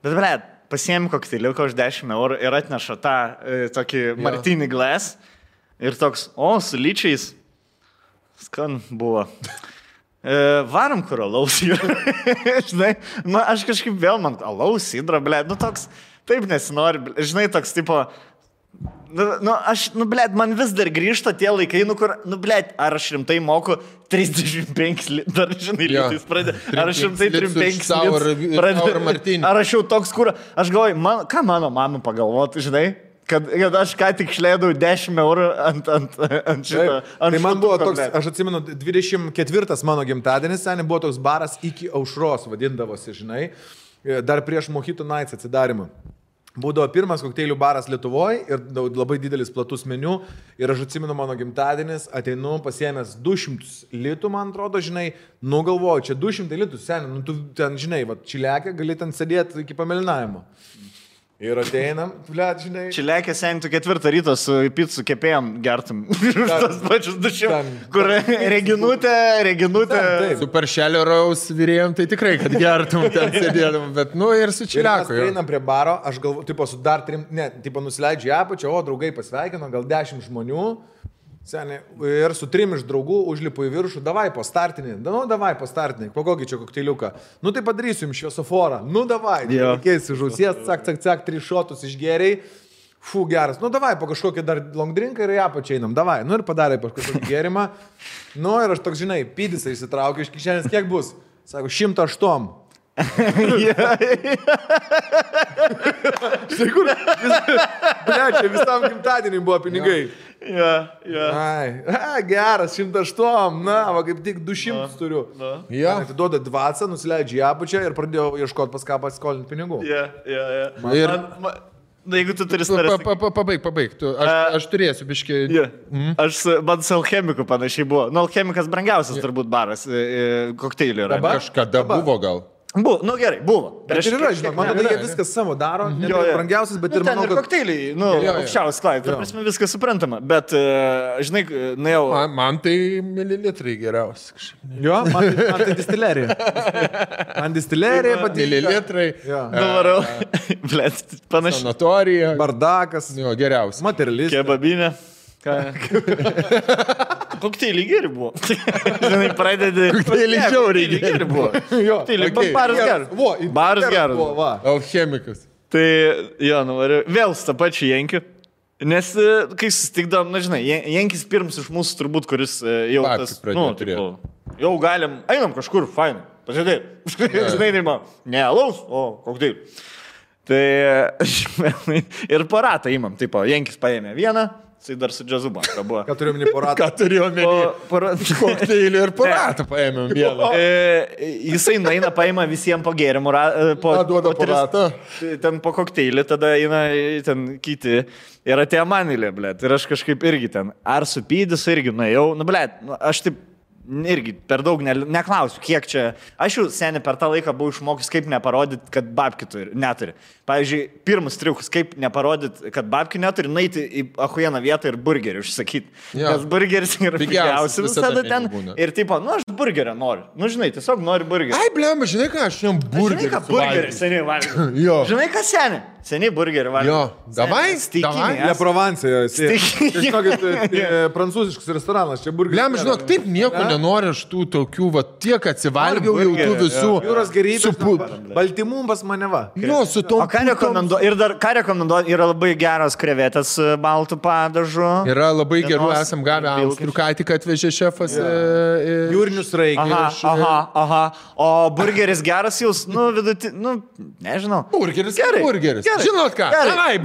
Bet, blėt, pasiėmė kokteiliuką už 10 eurų ir atneša tą tokį martini glass. Ir toks, su lyčiais. Skan buvo. Varom kur alaus yra. Žinai, aš kažkaip vėl man alaus, sidra, blėt, toks, taip nesinori, žinai, toks tipo, blėt, man vis dar grįžta tie laikai, kur, blėt, ar aš rimtai moku 35 dar, žinai, litais pradė, ar aš rimtai 35 pradė, ar aš jau toks, kur, aš galvoju, ką mano mama pagalvoti, žinai? Kad aš ką tik išleidau 10 eurų ant šito. Tai man buvo toks, aš atsimenu, 24 mano gimtadienis, seniai buvo toks baras iki aušros, vadindavosi, žinai, dar prieš Mojito Nights atsidarimą. Būdavo pirmas kokteilių baras Lietuvoje ir labai didelis platus meniu. Ir aš atsimenu mano gimtadienis, ateinu pasiėmęs 200 litų, man atrodo, žinai, galvoju, čia 200 litų, seniai, tu ten, žinai, čiliakę gali ten sėdėti iki pamelinavimo. Ir ateinam, blėt, žinai. Čiliakė sentų 4 ryto su picų kepėjom gertum. Tas pačius 200, kur reginutė. Su paršelio raus vyrėjom, tai tikrai, kad gertum ten sėdėdam, bet ir su čiliaku. Ir mes einam prie baro, aš galvoju, su dar 3, nusileidžiu į apačią, draugai pasveikino, gal 10 žmonių. Seniai, ir su 3 iš draugų užlipu į viršų, davai po startinį, po kokį čia kokteiliuką. Tai padarysiu jums šviesoforą, davai, keisi žausies, cak, 3 šotus išgeriai, geras, davai po kažkokį dar long drinką ir ją pačiai einam, davai, ir padarė po kažkokį gerimą, ir aš toks, žinai, pydis įsitraukiu iš kišenės, kiek bus, sako, 108. Štai kur, čia visam gimtadieniui buvo pinigai. Geras, 108, kaip tik 200 turiu. Atiduoda 20, nusileidžia į apačią ir pradėjau ieškoti pas ką pasiskolinti pinigų. Jeigu tu turi staręs... Pabaig, aš turėsiu biškį... Man su alchemiku panašiai buvo. Alchemikas brangiausias turbūt baras kokteilių yra. Kažkada buvo gal. Buvo, gerai, buvo. Bet ir yra, žinok, man atrodo, jie viskas savo daro, ne brangiausias, bet ir manau, kad... kokteiliai, aukščiausias klaidai, ta prasme viskas suprantama, bet, žinai, jau... Man tai mililitrai geriausi. Jo, man tai distilerija. Man distilerija patinka. Mililitrai. Nuvarau, blėt, panašiai. Sanatorija. Bardakas. Jo, geriausias. Materialistas. Kebabinė. Kokteilį geri buvo. Žinai, pradedi... Kokteilį žiauriai geri buvo. Baras geras. Baras geras. Alchemikas. Tai, nuvariu. Vėl su tą pačiu Jenkiu. Nes, kai susitikdavom, žinai, Jenkis pirms iš mūsų turbūt, kuris jau tas... Jau galim, einam kažkur, fainai. Pažiūrėk. Žinai, ne alaus, o kokteilį. Tai, ir paratą įmam. Taip, Jenkis paėmė vieną. Jisai dar su džiazu banka buvo. Ką turiu omeny poratą? Ką turiu omeny? Kokteilį ir poratą paėmėm vieną. Jisai naina paima visiems po gėrimų. Duoda poratą. Ten po kokteilį, tada eina ten kiti. Ir atėjo manilė, blėt. Ir aš kažkaip irgi ten. Ar supydys irgi nuėjau. Blėt, aš taip irgi per daug neklausiu, kiek čia. Aš jau seniai per tą laiką buvau išmokęs, kaip neparodyti, kad babkių neturi. Pavyzdžiui, pirmas triukas, kaip neparodyti, kad babkių neturi, naiti į ahujieną vietą ir burgerį užsakyti. Nes burgeris yra pigiausias visada ten. Ir tipo, aš burgerio noriu. Žinai, tiesiog noriu burgerį. Ai, blema, žinai ką, aš jam burgerį. Žinai ką, burgerį seniai valgiau. Žinai ką, seniai? Seniai burgerį valgė. Jo, davai, davai. Ne Provansė, žinokit, prancūziškas restoranas, čia burgeris. Lem, žinok, taip nieko nenori aš tų tokių, va, tiek atsivalgiau jau tų visų. Jūros gerybės, baltymų pas mane va. Jo, su to. O ką rekomenduoju? Ir dar ką rekomenduoju? Yra labai geros krevetės baltų padažu. Yra labai gerų, esam gavę austrių, ką tik atvežė šefas. Jūrinius raikius. Aha. O burgeris geras jūs, nežinau. Burgeris. Žinot ką? Gerai.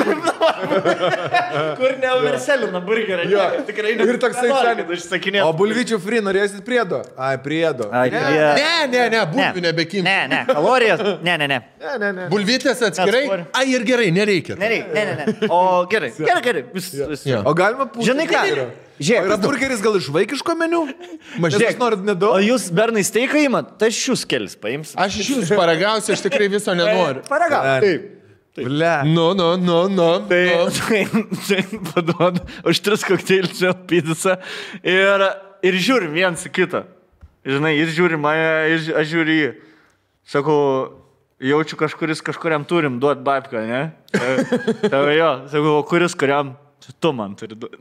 Kur neuverselina burgerį. Tikrai Ir toksai užsakinėti. O bulvyčių free norėsit priedo? Ai, priedo. Ne, bulvių nebekim. Ne, kalorijas. Ne. Bulvytės atskirai? Ai, ir gerai, nereikia. Ne. O gerai. O galima pusę. Žinai ką? Žiūrėk, yra burgeris gal iš vaikiško meniu? Mažiek norit nedaug. O jūs bernai steiką įmat, tai aš jūs kelis paims. Aš iš jūsų paragausiu, aš tikrai viso nenoriu. Paragausiu. Taip. Ble. Tai paduodu už 3 kokteilius pizzą ir žiūrim viens į kitą. Žinai, jis žiūri mane, aš žiūri jį. Sakau, jaučiu kažkuriam turim duot babką, ne? Tai jo, sakau, kuris kuriam? Tu man turi duoti.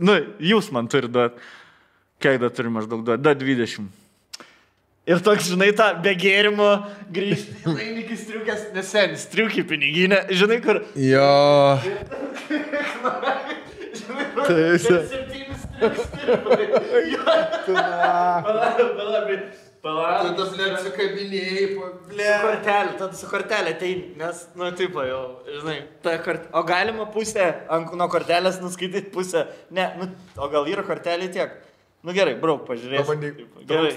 Jūs man turi duoti. Kiek da turi maždaug duoti? Da 20. Ir toks, žinai, tą be gėrimo grįžti. Laimikis striukės, nesenis, striukį piniginę. Žinai, kur... Jo. Žinai, kur... 7 striukės. Tada, blėt, su kabinėjai, Su kortelė ateini, nes, tipo jau, žinai, o galima pusę, nuo kortelės nuskaityti pusę, ne, o gal yra kortelė tiek? Gerai, brauk, pažiūrėsiu. Pabandyk. Gerai.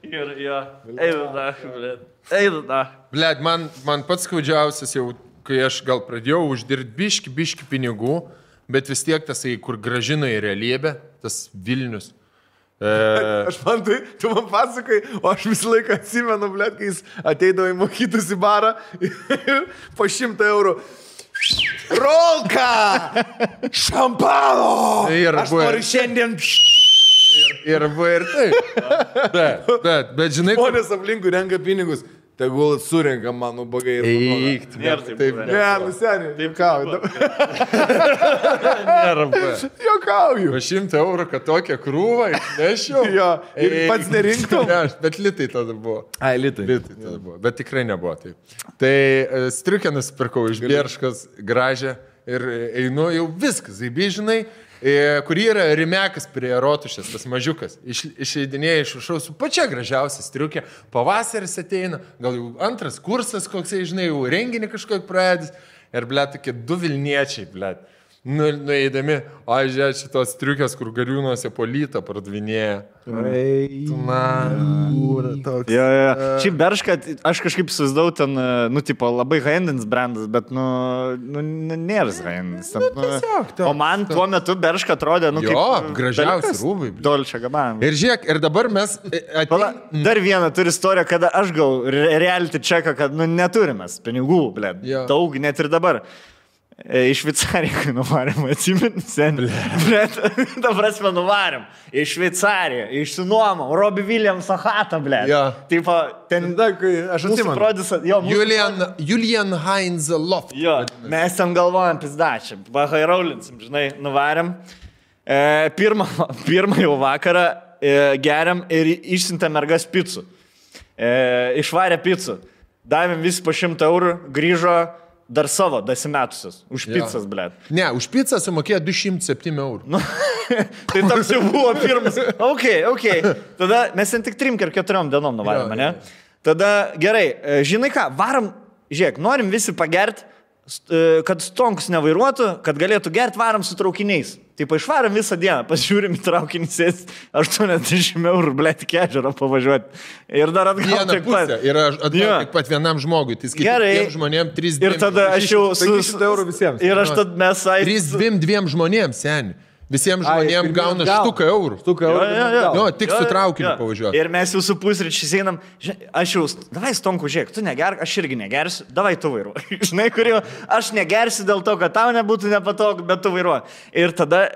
Gerai. Eidu da. Blėt, man pats skaudžiausias jau, kai aš gal pradėjau uždirbti biški pinigų, bet vis tiek tasai, kur grąžino į realybę, tas Vilnius. Aš man tai, tu man pasakai, o aš visą laiką atsimenu, blėt, kai jis ateidavo į mokytus į barą ir po 100 eurų. Rolka! Šampano! Aš noriu šiandien... Ir buvo ir taip. Bet žinai... Žmonės aplinkui renka pinigus. Tegul surenka mano bagai ir Eik, taip. Ne, nuseniai. Taip kau. Nėra. Jokauju. 100 eurų, kad tokią krūvą išnešiau. Jo, ir pats nerinktum. Ne, bet litai tada buvo. Ai, litai. Litai tada buvo, bet tikrai nebuvo taip. Tai striukę nusipirkau iš Bierškos, gražią, ir einu jau viskas, žinai. Kur yra rimekas prie rotušės, tas mažiukas. Išeidinėja iš viršaus su pačia gražiausia striukė. Pavasaris ateina, gal jau antras kursas koksai, žinai, jau renginį kažkokį pradės. Ir, blėt, tokie 2 Vilniečiai, blėt. Nueidami, žiūrėk, šitos striukės, kur gariūnuose polytą pardavinėja. Šiaip Berška, aš kažkaip įsivaizdavau ten, tipo, labai high-endins brandas, bet, nėra high-endins. O man tuo metu Berška atrodė, kaip gražiausi rūbai. Dolce Gabbana. Ir žiūrėk, ir dabar mes... Dar vieną turi istoriją, kada aš gal reality čeką, kad, neturim mes pinigų, blėt. Daug, net ir dabar. Iš Šveicariją, kai nuvarėm, atsimenu, seniai. Bet, ta prasme, nuvarėm. Iš Šveicariją, išsinuomom, Robbie Williams Achatą, blėt. Taip, ten, aš atsimenu. Julian Heinz Loft. Jo, mes ten galvojam pizdačią, bahairolinsim, žinai, nuvarėm. Pirmą jau vakarą geriam ir išsintė mergas picų. Išvarė picų. Davėm visi po 100 eurų, grįžo dar savo, dasimetusius. Už pizzas, blėt. Ne, už pizzą sumokėjo 207 eurų. Tai toks jau buvo pirmas. Ok. Tada mes ten tik 3 ar 4 dienom nuvarėm, ne? Tada gerai, žinai ką, varom, žiūrėk, norim visi pagerti, kad stonkus nevairuotų, kad galėtų gerti, varom su traukiniais. Taip, išvarom visą dieną, pasižiūrim į traukinį, sės 80 eurų, blėt, iki ežero pavažiuoti. Ir dar atgal tiek pat. Ir atgal tiek pat vienam žmogui. Tai skaitai žmonėm 3-2. Ir tada aš jau... 500 eurų visiems. Ir aš tada mes... 3-2 žmonėms, seniai. Visiems žmonėms gauna štuką eurų. Jo, tik su traukiniu pavažiuoti. Ir mes jau su pusryčiais einam, aš jau, davai stonku, žiūrėk, tu negerk, aš irgi negersiu, davai tu vairuoji. Žinai, kur jau, aš negersiu dėl to, kad tau nebūtų nepatogu, bet tu vairuoji. Ir tada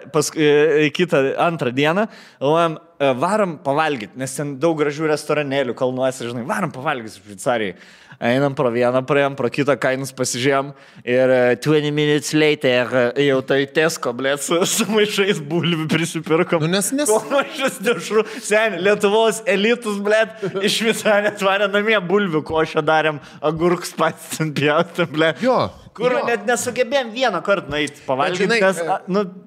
antrą dieną, galvojam, varom pavalgyti, nes ten daug gražių restoranėlių kalnuose, žinai, varom pavalgyti Šveicarijai. Einam pro vieną, praėjom, pro kitą kainus pasižiūrėjom ir 20 minutes later jau tai Tesco, blėt, su maišais bulvių prisipirkom. Nu, nes... Maišas dešrų. Sen, Lietuvos elitus, blėt, iš Šveicarijos atvarė namie bulvių košę darėm, agurks pats ten pjaustėm, blėt. Jo. Kur net nesugebėjom vieną kartą nueiti pavalgyti, nes,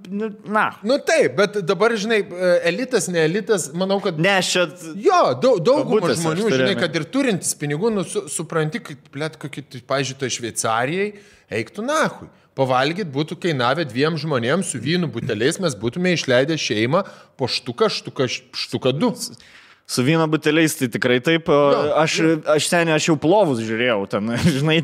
Nu taip, bet dabar, žinai, elitas, ne elitas, manau, kad... Ne, čia... Jo, daugumą žmonių, žinai, kad ir turintis pinigų, supranti, kad, blėt, kokį, pavyzdžiui, to Šveicarijai, eiktų nahui. Pavalgyt būtų kainavę 2 žmonėms su vynų buteliais, mes būtume išleidę šeimą po štuką 2. Su vyno buteliais tai tikrai taip. Aš jau plovus žiūrėjau, ten, žinai,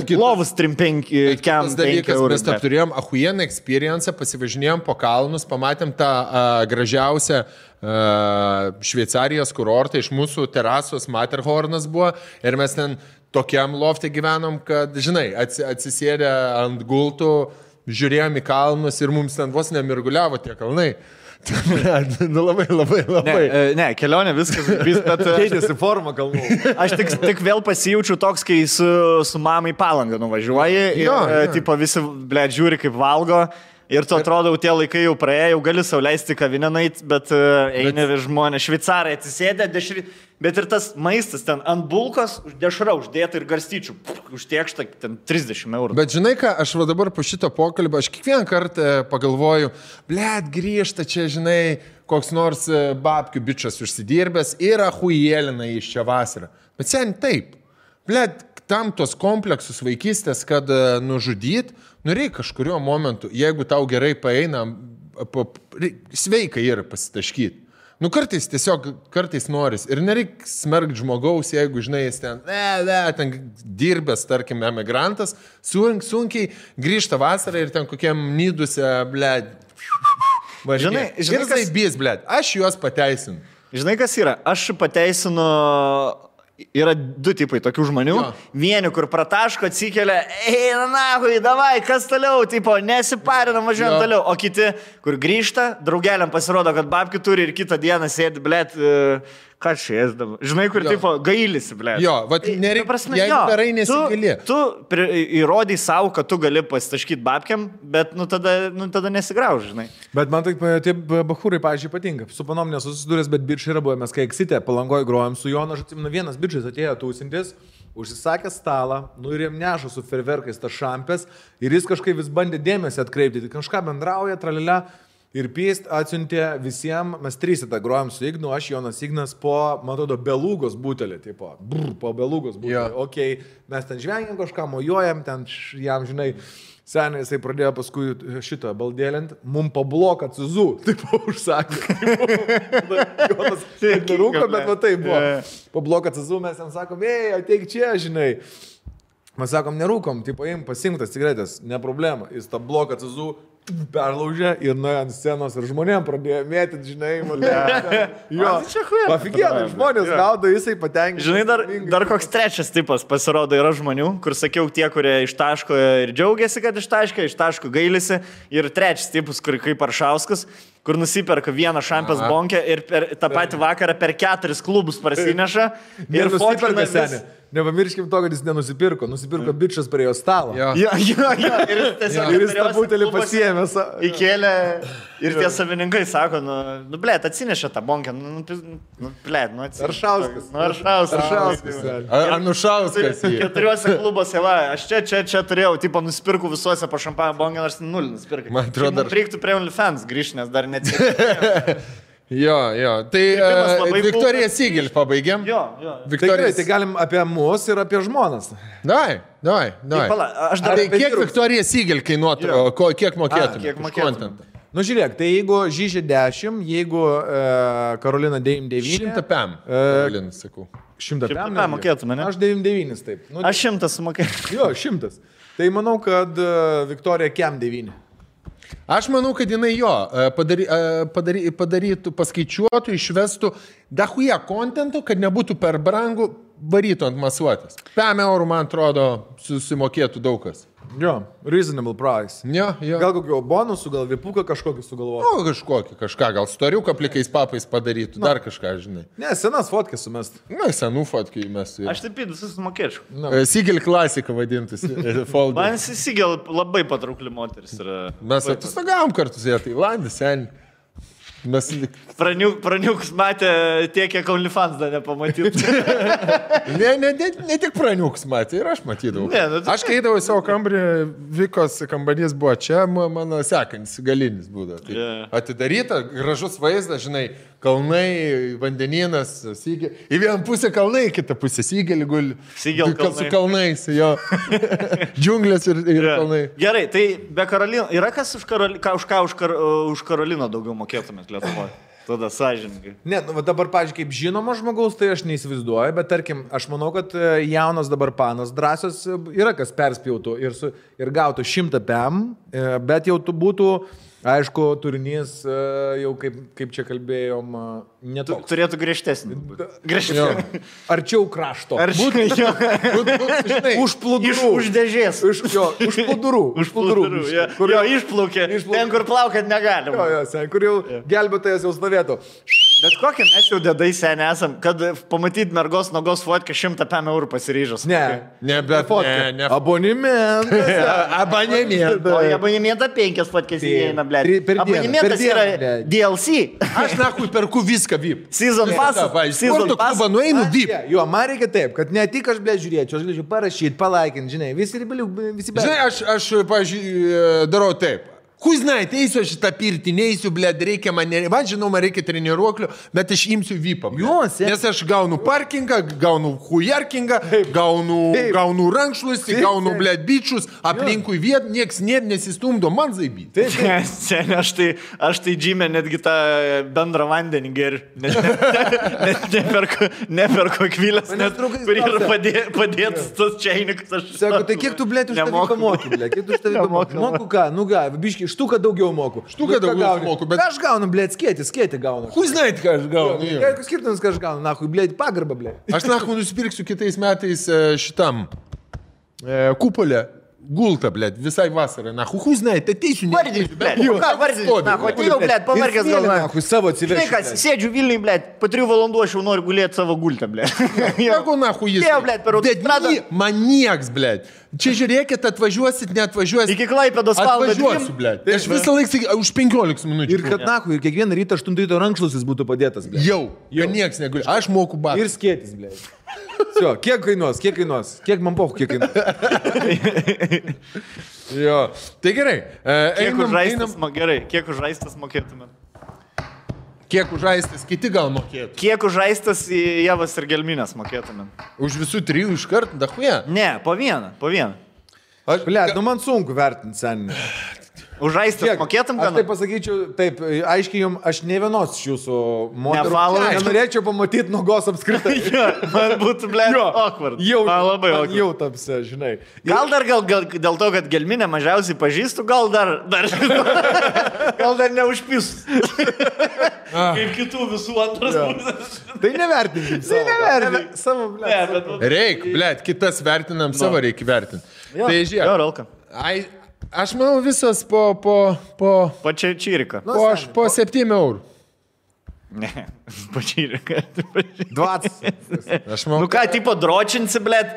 plovus 3-5 dalykas, mes turėjom ahujieną experience, pasivažinėjom po kalnus, pamatėm tą gražiausią Šveicarijos kurortą, iš mūsų terasos Matterhornas buvo ir mes ten tokiam lofte gyvenom, kad, žinai, atsisėdę ant gultų, žiūrėjom į kalnus ir mums ten vos nemirguliavo tie kalnai. Nu labai. Ne, kelionė viskas, bet... Keitėsi forma kalnų. Aš tik vėl pasijaučiu toks, kai su mamai Palangą nuvažiuoji ir tipo visi, blėt, žiūri kaip valgo. Ir tu atrodo, tie laikai jau praėjo, jau gali sau leisti kavinę nueiti, bet eini žmonės, šveicarai atsisėdė, bet ir tas maistas ten ant bulkos, dešra uždėta ir garstyčių, užtiekšta ten 30 eurų. Bet žinai ką, aš va dabar po šito pokalbio, aš kiekvieną kartą pagalvoju, blėt, grįžta čia, žinai, koks nors babkių bičas užsidirbęs ir ahujėlina iš čia vasarą. Bet sen taip, blėt, tam tos kompleksus vaikystės, kad nužudyt, reikia kažkurio momentu, jeigu tau gerai paeina, sveikai yra pasitaškyti. Kartais noris. Ir nereikia smerkti žmogaus, jeigu, žinai, jis ten dirbęs, tarkim, emigrantas, sunkiai grįžta vasarą ir ten kokiam nyduse, blėd. Žinai, kas bės, blėd. Aš juos pateisinu. Žinai, kas yra? Aš pateisinu... Yra 2 tipai tokių žmonių. Vieni, kur prataško, atsikelia, eina nahui, davai, kas toliau, tipo, nesiparinam, važiuojam toliau. O kiti, kur grįžta, draugeliam pasirodo, kad babkių turi ir kitą dieną sėdi, blėt, ką čia ėsdavo. Žinai, kur, tipo, gailisi, blėt. Jo, vat nereikia, jeigu darai nesigali. Tu įrodai savo, kad tu gali pasitaškyti babkiam, bet, tada nesigrauž, žinai. Bet man taip, tie bachūrai, pavyzdžiui, patinka. Su panom nesusidūręs, bet bičiai yra buvę, mes kai Eksite Palangoj grojom su Jonu, aš atsimenu, vienas bičias atėjo tūsintis, užsisakė stalą, ir jam neša su ferverkais tas šampės ir jis kažkaip vis bandė dėmesį atkreipti, kažką bendrauja, tralilę. Ir pėst atsiuntė visiems, mes 3 tą grojom su Ignu, aš Jonas Ignas po, man atrodo, belugos butelį, tipo, po belugos butelį. Okay, mes ten žvengiam kažką, mojuojam, ten jam, žinai, seniai jisai pradėjo paskui šitą baldėlint, mum po bloką cizų, tipo, užsakė. Jonas nerūko, bet va tai buvo. Po bloką cizų mes jam sakom, ateik čia, žinai. Mes sakom, nerūkom, tipo, pasimtas cigaretės, ne problema. Jis tą bloką cizų perlaužė ir nuėjo ant scenos ir žmonėm pradėjo mėtyti, žinai, jo, pafikėdai, žmonės gaudo, jisai patenkinti. Žinai, dar koks trečias tipas pasirodo yra žmonių, kur sakiau, tie, kurie ištaško ir džiaugiasi, kad ištaško gailisi, ir trečias tipas, kur kaip Aršauskas, kur nusiperka vieną šampės bonkę ir tą patį vakarą per 4 klubus parsineša ir fotkina vis... Nepamirškim to, kad jis nenusipirko. Nusipirko bičas prie jo stalo. Jo. Ir jis tą butelį pasiėmė. Įkėlė ir tie savininkai sako, blėt, atsinešė tą bonkę. Blėt, Aršauskas. Anušauskas. 4 klubuose, va, aš čia turėjau, tipo, nusipirku visuose po šampaną bonkę, nors 0 nusipirkai. Man atrodo, reiktų prie OnlyFans grįžti, nes dar neatsitikėjo. Jo, tai Viktorija Sigel pabaigėm. Jo. Tai galim apie mus ir apie žmonas. Davai. Tai kiek Viktorija Sigel kainuotų, kiek mokėtum? Kiek mokėtum? Nu žiūrėk, tai jeigu Žyžė 10, jeigu Karolina 99... 100 PM, Karolina, sakau. 100 PM mokėtume, ne? Aš 99 taip. Aš 100 sumokėtum. Jo, 100. Tai manau, kad Viktorija Kem 9. Aš manau, kad jinai padarytų, paskaičiuotų, išvestų dahuja kontentų, kad nebūtų per brangu, varytų ant masuotės. 5 eurų, man atrodo, susimokėtų daug kas. Jo, reasonable price. Jo. Gal kokio bonusų, gal vipuką kažkokį sugalvoti. Kažką, gal storiuką plikais papais padarytų, dar kažką, žinai. Ne, senas fotkės sumest. Na, senų fotkį mes. Aš taip visus mokėčiau. Sigel klasika vadintus. Man Sigel labai patraukli moteris yra. Mes atostagavom kartu su ją, tai Landis, sen. Mes... Praniukus matė tiek, kiek OnlyFans dar nepamatytų. ne tik praniukus matė, ir aš matydavau. Aš keidavau savo kambarį, Vikos kambarys buvo čia, mano sekantis galinis būdavo. Tai atidaryta, gražus vaizdas, žinai, kalnai, vandenynas, Sigel. Į vieną pusę kalnai, į kitą pusę Sigelį guli. Sigel kalnai. Su kalnais, jo. Džiunglės ir kalnai. Gerai, tai be Karolino, yra kas už Karoliną daugiau mokėtumėt Lietuvoje? Tada sąžininkai. Ne, nu, dabar, pavyzdžiui, kaip žinoma žmogaus, tai aš neįsivaizduoju, bet tarkim, aš manau, kad jaunas dabar panas drąsios yra kas perspjautų ir gautų 100 PM, bet jau būtų, aišku, turinys jau kaip čia kalbėjom, netoks. Turėtų griežtesnį. Arčiau krašto. Už plūdurų. Už dėžės. Už plūdurų. Jo, išplaukė. Ten, kur plaukiat negalima. Jo, kur jau gelbėtojas jau stovėtų. Bet kokią mes jau dedai seniai esam, kad pamatyti mergos nogos fotkę 100 PM eurų pasiryžus. Ne, bet ne. Abonementas. O į abonementą 5 fotkės įeina, blėt. Abonementas yra DLC. Aš nakui perku viską VIP. Season pass. Sporto klubą nueinu VIP. Jo, man reikia taip, kad ne tik aš, blėt, žiūrėčiau, aš galėčiau parašyti, palaikinti, žinai, visi bet. Žinai, aš pavyzdžiui, darau taip. Kui znait, eisiu aš šitą pirtį, neįsiu, blėd, reikia man reikia treniruoklių, bet aš imsiu VIPą. Nes aš gaunu parkingą, gaunu hujarkingą, gaunu rankšluostį, gaunu, blėd, bičius, aplinkui viet, nieks nesistumdo, man zaibyti. Aš tai džymę netgi tą bendrą vandenį geriu. Neperko kvilės, kur yra padėtas tas čiainikas. Sako, tai kiek tu, blėd, už tavį moki, blėd, kiek tu už tavį moki? Moku ką, nu ką, biški. Štuką daugiau moku. Štuką daugiau moku, bet... Aš gaunu, blėt, skėti gaunu. Kui znait, ką aš gaunu. Kokius skirtumus, ką aš gaunu, nahui, blėt, pagarbą, blėt. Aš nahui nusipirksiu kitais metais šitam kupolę. Gulta, blėt, visai vasarą. Nahui, kui znait, ateisiu. Vardys, blėt. Ką vardys? Nahui, atėjau, blėt, pamarkės galvoje. Nahui, savo atsivežti. Žinai, kas, sėdžiu Vilniui, blėt, po 3 valandų aš jau noriu gulėti savo gultą, blėt. Jeigu nahui jis. Jau, blėt, per autostradą. Man nieks, blėt. Čia žiūrėkit, atvažiuosit, neatvažiuosit. Iki Klaipėdos valandą. Atvažiuosiu, blėt. Aš visą laiką už 15 minučių. Ir kad nahui, ir kiekvieną rytą 8 ryto rankšluostis būtų padėtas, blėt. Jau, nieks neguli. Aš moku batą. Ir skėtis, blėt. Kiek kainuos? Kiek man pohu, kiek kainuos? Jo, tai gerai. Kiek už žaistas mokėtumėt? Kiek už žaistas kiti gal mokėtų? Kiek už žaistas Javas ir Gelminės mokėtumėt? Už visų 3 iš karto, dahuja? Ne, po vieną. Blėt, nu man sunku vertinti, seniai. Už žaistas mokėtum, ką? Aš taip pasakyčiau, taip, aiškiai jums, aš ne vienos iš jūsų moterų. Nenorėčiau pamatyti nogos apskritai. Man būtų, blėt, awkward. Labai awkward. Jau tapsi, žinai. Gal dėl to, kad Gelminę mažiausiai pažįstu, gal dar neužpis. Kaip kitų visų antras pusės. Tai nevertinkim. Savo, blėt. Reik, blėt, kitas vertinam, savo reikia vertinti. Tai žiūrėk. Aš manau visas po Čirika. Po 7 eurų. Ne, po Čirika. 20. Aš manau, nu ką, tipo dročinsi, blėt,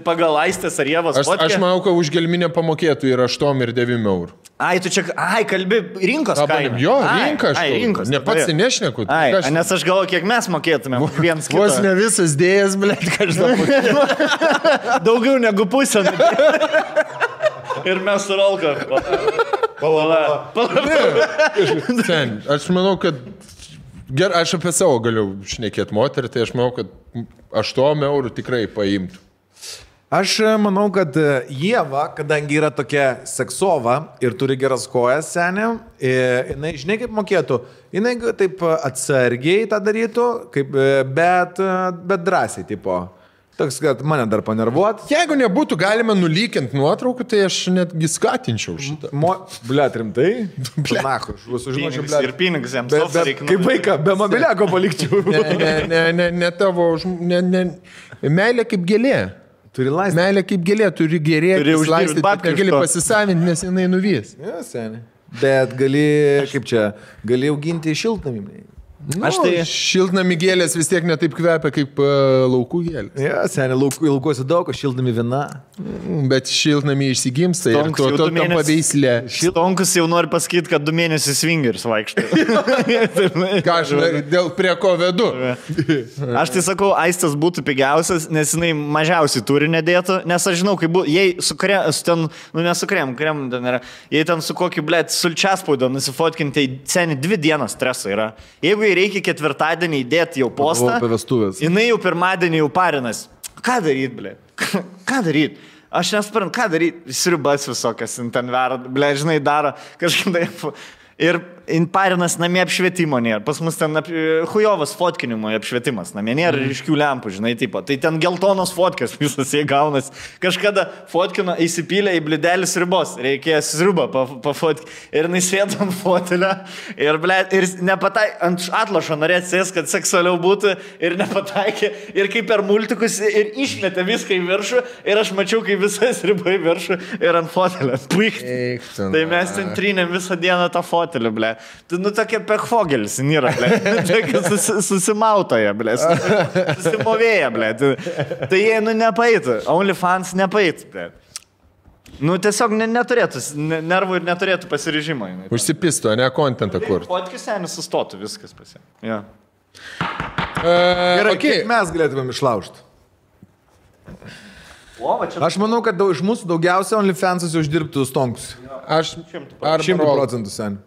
pagal Aistės ar Jėvos fotkę? Aš manau, kad už Gelminę pamokėtų ir 8 ir 9 eurų. Tu čia, kalbi rinkos kainą. Jo, rinkos. Ne pats nešneku. Nes aš galvoju, kiek mes mokėtumėm viens kitą. Vos ne visas dėjas, blėt, kažką mokėtų. Daugiau negu pusę. Ir mes su Rolka. Aš manau, kad aš apie savo galiu šnekėti moterį, tai aš manau, kad 8 eurų tikrai paimtų. Aš manau, kad Ieva, kadangi yra tokia seksova ir turi geras kojas, seniai, jinai, žinai, kaip mokėtų, jinai taip atsargiai tą darytų, bet drąsiai, tipo. Toks, kad mane dar panervuot. Jeigu nebūtų galima nulykinti nuotraukų, tai aš netgi skatinčiau šitą. Bliat, rimtai? Nachu, aš sužinočiau, bliat. Ir pinigus jiems. Kaip vaiką, be mobiliako palikčiau. Ne tavo, meilė kaip gėlė. Turi laisvę. Meilė kaip gėlė, turi gerėti, laistyti, bet negali pasisavinti, nes jinai nuvys. Ja, seniai. Bet gali auginti šiltnamį. Aš tai šiltnami gėlės vis tiek netaip kvepia kaip laukų gėlės. Ja, seniai, laukuose daug, šiltnami viena. Bet šiltnami išsigimsta ir to tampa veislė. Šiltonkus jau nori pasakyti, kad 2 mėnesius swingers vaikšto. Ką aš dėl prie ko vedu? Aš tai sakau, aistas būtų pigiausias, nes jinai mažiausiai turi nedėtų, nes aš žinau, kaip būtų, jei su krem, krem ten yra, jei ten su kokiu, blėt, sulčiaspaudo nusifotkinti, tai seniai 2 dienas streso yra. Jeigu reikia 4-dienį įdėti jau postą, jinai jau 1-dienį jau parinas. Ką daryt, blė? Ką daryt? Aš nesuprantu, ką daryt? Sriubas visokias ten verda, blė, žinai, daro kažkaip taip. Ir parinas namie apšvietimo nėra. Pas mus ten hujovas fotkinimo apšvietimas namie nėra ryškių lempų, žinai, tipo. Tai ten geltonos fotkės visas jie gaunas. Kažkada fotkino įsipylė į blidelį sriubos. Reikėjo sriubą pafotkinti. Ir jis sėdo ant fotelio. Ir, ble, ir nepataikė, ant atlošo norėt sės, kad seksualiau būtų. Ir nepataikė. Ir kaip per multikus. Ir išmetė viską į viršų. Ir aš mačiau, kaip visas sriuba į viršų. Ir ant fotelio. Tai mes ten trynėm visą dieną tą fotelį, ble. Tu, tokia pekfogelis nėra, ble. Susimautoja, ble. Susimovėja, ble. Tai jie, nepaitų. OnlyFans nepaitų, ble. Tiesiog neturėtų, nervų ir neturėtų pasiryžimo. Užsipisto, ne kontentą kur. Fotkis senis sustotų, viskas pasie. Ja. Gerai, kaip mes galėtumėm išlaužti? Aš manau, kad iš mūsų daugiausia OnlyFans'as uždirbtų stonkus. Aš 100% sen.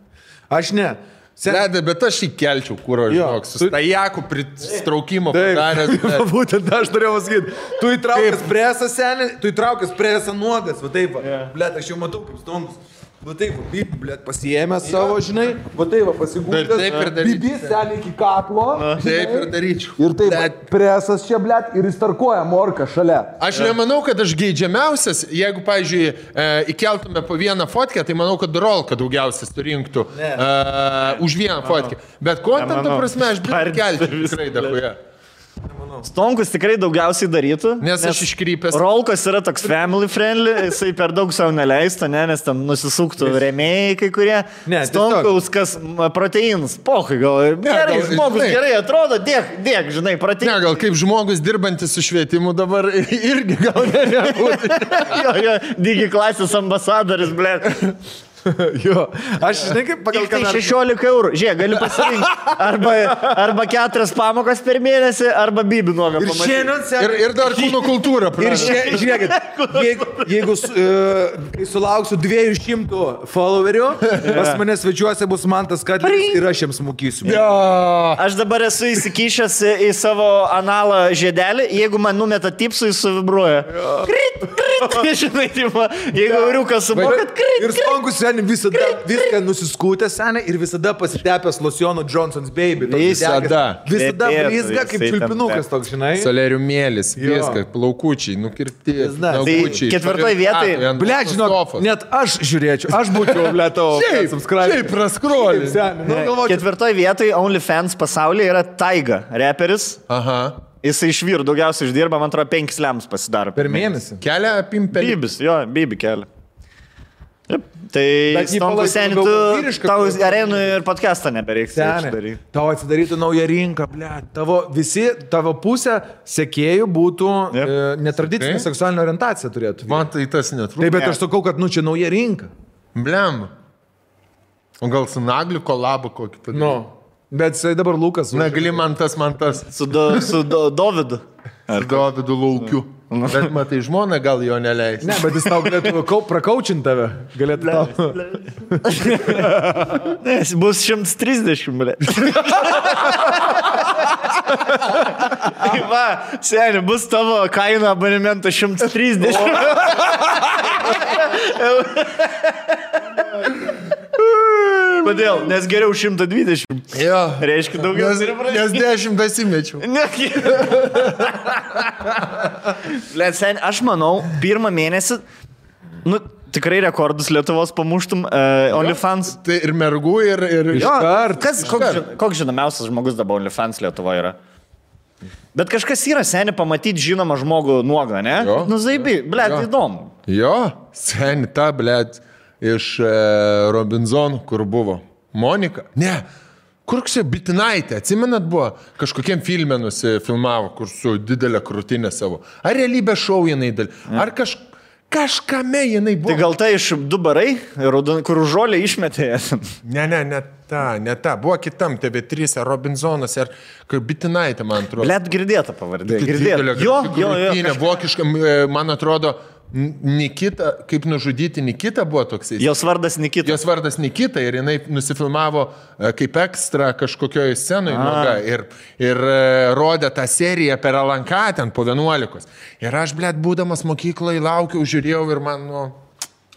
Aš ne. Ledai, bet aš įkelčiau, kur aš žinok, su stajaku pristraukimo padaręs. Būtent aš turėjau pasakyti. Tu įtraukęs presą, senį, tu įtraukęs presą nuogas, va taip, blet, aš jau matau kaip stonkus. Va taip, blet, pasiėmęs savo, žinai, va taip, pasigūdęs, bibis senį iki kaklo. Taip ir daryčiau. Ir taip, presas čia, blet, ir įstarkuoja morką šalia. Aš nemanau, kad aš geidžiamiausias, jeigu, pavyzdžiui, įkeltume po vieną fotkę, tai manau, kad rolka daugiausias surinktų už vieną fotkę. Bet kontento prasme aš blet kelti tikrai dahuja. Stonkus tikrai daugiausiai darytų. Nes aš iškrypęs. Rolkos yra toks family friendly, jisai per daug savo neleista, nes ten nusisuktų rėmėjai kai kurie. Stonkaus, kas proteinus, pohai, gal gerai, žmogus gerai atrodo, dėk, žinai, proteinus. Ne, gal kaip žmogus dirbantis su švietimu dabar irgi gal nebūtų. Jo, digi klasės ambasadoris, ble. Jo, aš žinai kaip pagal kanalą. 16 eurų. Žiūrėk, gali pasirinkti. Arba 4 pamokas per mėnesį, arba bibį nuogą pamatyti. Ir dar kūno kultūrą. Ir žiūrėkit, jeigu sulauksiu 200 followerių, pas mane svečiuose bus Mantas Kadlis ir aš jiems mokysiu. Aš dabar esu įsikišęs į savo analą žiedelį, jeigu man numeta tipsų, jis suvibruoja. Krit. Žinai, jeigu euriukas sumokat, krit. Ir stonkus seniai visada viską nusiskūtė seniai ir visada pasitepęs lociono Johnson's Baby. Visada blizga kaip čiulpinukas toks, žinai. Soleriumėlis, viskas, plaukučiai, nukirpti, nagučiai. 4 vietoj. Blet, žinok, net aš žiūrėčiau, aš būčiau, blet, tavo subscribe. Šiaip praskrolį. 4 vietoj OnlyFans pasaulyje yra Taiga, reperis. Aha. Jisai iš vyrų daugiausiai uždirba, man atrodo, 5 lems pasidaro. Per mėnesį. Kelia pimpelį. Bibis, jo, bibi kelia. Tai stonkus seniai, tu tau arenų ir podcastą nebereiks. Tau atsidarytų naują rinką, ble. Tavo pusė sekėjų būtų netradicinė seksualinė orientacija turėtų. Man tai tas netrūksta. Taip, bet aš sakau, kad čia nauja rinka. Blem. O gal su Nagliu kolabo kokį padaryti? Nu, bet dabar Lukas. Nagli man tas. Su Dovydu. Ar Dovydu Laukiu. Bet matai, žmona gal jo neleis. Ne, bet jis tau galėtų prakaučinti tave. Galėtų tau. Nes bus 130, ble. Va, seniai, bus tavo kaina abonemento 130. Kodėl? Nes geriau 120. Jo. Reiškia daugiau. Nes 10 įmečiau. Blet, sen, aš manau, pirmą mėnesį, tikrai rekordus Lietuvos pamuštum OnlyFans. Tai ir mergų, ir iškart. Koks žinomiausias žmogus dabar OnlyFans Lietuvoje yra? Bet kažkas yra, seni, pamatyti žinomą žmogų nuogą, ne? Zaibi, blet, įdomu. Jo, seni, ta, blet, iš Robinzonų, kur buvo. Monika? Ne. Kur čia Bitinaitė, atsimenat buvo, kažkokiem filme nusifilmavo, kur su didelė krūtinė savo. Ar realybės šou jinai ar kažkame jinai buvo. Tai gal tai iš du barai, kur žolė išmetė. Ne ta. Buvo kitam TV3, Robinzonas, ar Bitinaitė, man atrodo. Blet, girdėta pavardė. Jo. Vokiška, man atrodo, Nikita, kaip nužudyti Nikita buvo toksai. Jos vardas Nikita ir jinai nusifilmavo kaip ekstra kažkokioje scenoje ir rodė tą seriją per LNK ten po 11. Ir aš, blet, būdamas mokykloje laukiau, žiūrėjau ir man,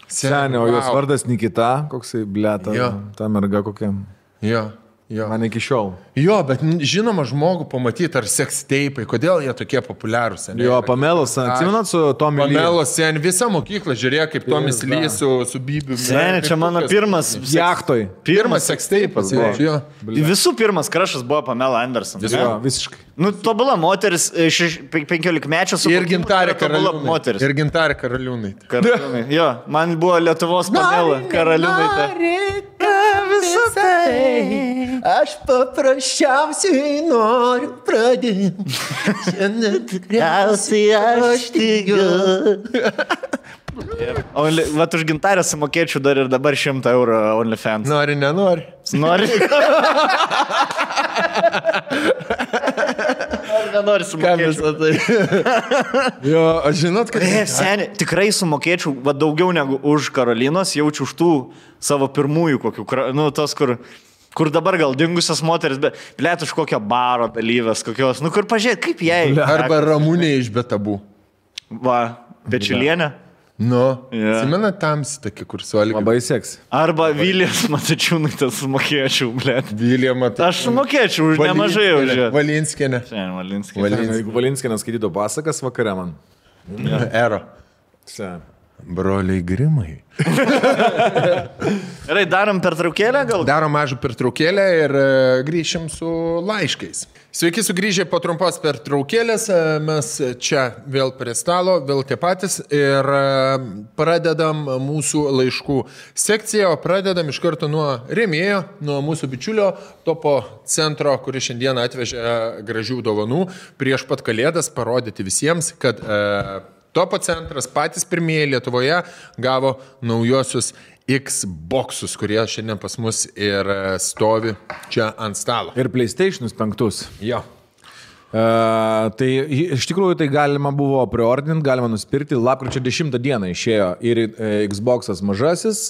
Senė, o jos vardas Nikita, koksai, blet, ta merga kokia. Jo. Man iki šiol. Jo, bet žinoma žmogų pamatyti, ar seksteipai, kodėl jie tokie populiarūs. Jo, Pamelos, atsimenat su Tomi Lee? Pamelos, sen, visa mokykla žiūrėjo, kaip Tomis Lee su Bibiu. Sen, čia mano pirmas jachtoj. Pirmas seksteipas buvo. Visų pirmas krašas buvo Pamela Anderson. Jo, visiškai. Tobula moteris, 15-mečio su... Ir Gintarė Karaliūnai. Jo, man buvo Lietuvos Pamela Karaliūnaitė. Visą tai aš paprasčiausiai noriu pradėti. Šiandien tikriausiai aš tikiu. O vat už Gintarę sumokėčiau dar ir dabar 100 eurų OnlyFans. Nori, nenori? Nori. Nenori sumokėčiau. Jo, aš žinot, kad... Seni, tikrai sumokėčiau daugiau negu už Karolinos, jaučiu už tų savo pirmųjų kokių, tos, kur dabar gal dingusios moteris, bet plėt už kokio baro dalyvės, kokios, kur pažiūrėt, kaip jai. Arba Ramūnė iš Betabų. Va, Pečiulienė. Atsimena tamsi tokia, kur su Algiu. Labai seks. Arba Vilijos Matačiūnaitės sumokėčiau, blėt. Vilija Matačiūnaitė. Aš sumokėčiau už nemažai už ją. Valinskienė. Jeigu Valinskienė skaitytų pasakas vakare man. Ero. Broliai Grimai. Gerai, darom pertraukėlę gal? Darom mažą pertraukėlę ir grįšim su laiškais. Sveiki sugrįžę po trumpos pertraukėlės, mes čia vėl prie stalo, vėl tie patys ir pradedam mūsų laiškų sekciją, o pradedam iš karto nuo rėmėjo, nuo mūsų bičiulio Topo centro, kuris šiandien atvežė gražių dovanų prieš pat Kalėdas parodyti visiems, kad Topo centras patys pirmieji Lietuvoje gavo naujosius Xboxus, kurie šiandien pas mus ir stovi čia ant stalo. Ir PlayStation'us 5. Jo. Tai iš tikrųjų tai galima buvo preordinti, galima nusipirkti. Lapkričio 10 dieną išėjo ir Xbox'as mažasis,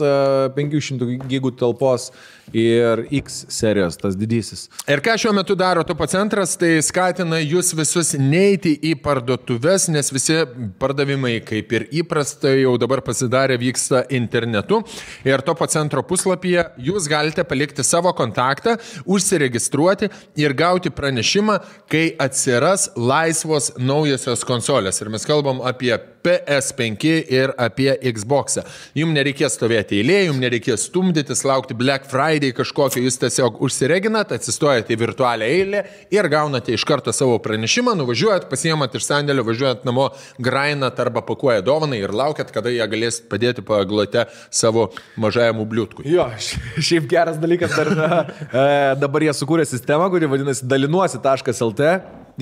500 gigų talpos ir X serijos, tas didysis. Ir ką šiuo metu daro Topo centras, tai skatina jūs visus neiti į parduotuves, nes visi pardavimai, kaip ir įprasta, jau dabar pasidarė, vyksta internetu. Ir Topo centro puslapyje jūs galite palikti savo kontaktą, užsiregistruoti ir gauti pranešimą, kai atsiras laisvos naujosios konsolės. Ir mes kalbam apie PS5 ir apie Xbox'ą. Jums nereikės stovėti eilėje, jums nereikės stumdytis, laukti Black Friday kažkokio, jūs tiesiog užsireginat, atsistojate į virtualią eilę ir gaunate iš karto savo pranešimą, nuvažiuojat, pasiemat iš sandėlio, važiuojat namo, grainat arba pakuojat dovanai ir laukiat, kada jie galės padėti paglote savo mažajam bliūtkui. Jo, šiaip geras dalykas, dabar jie sukūrė sistemą, kuri vadinasi dalinuosi.lt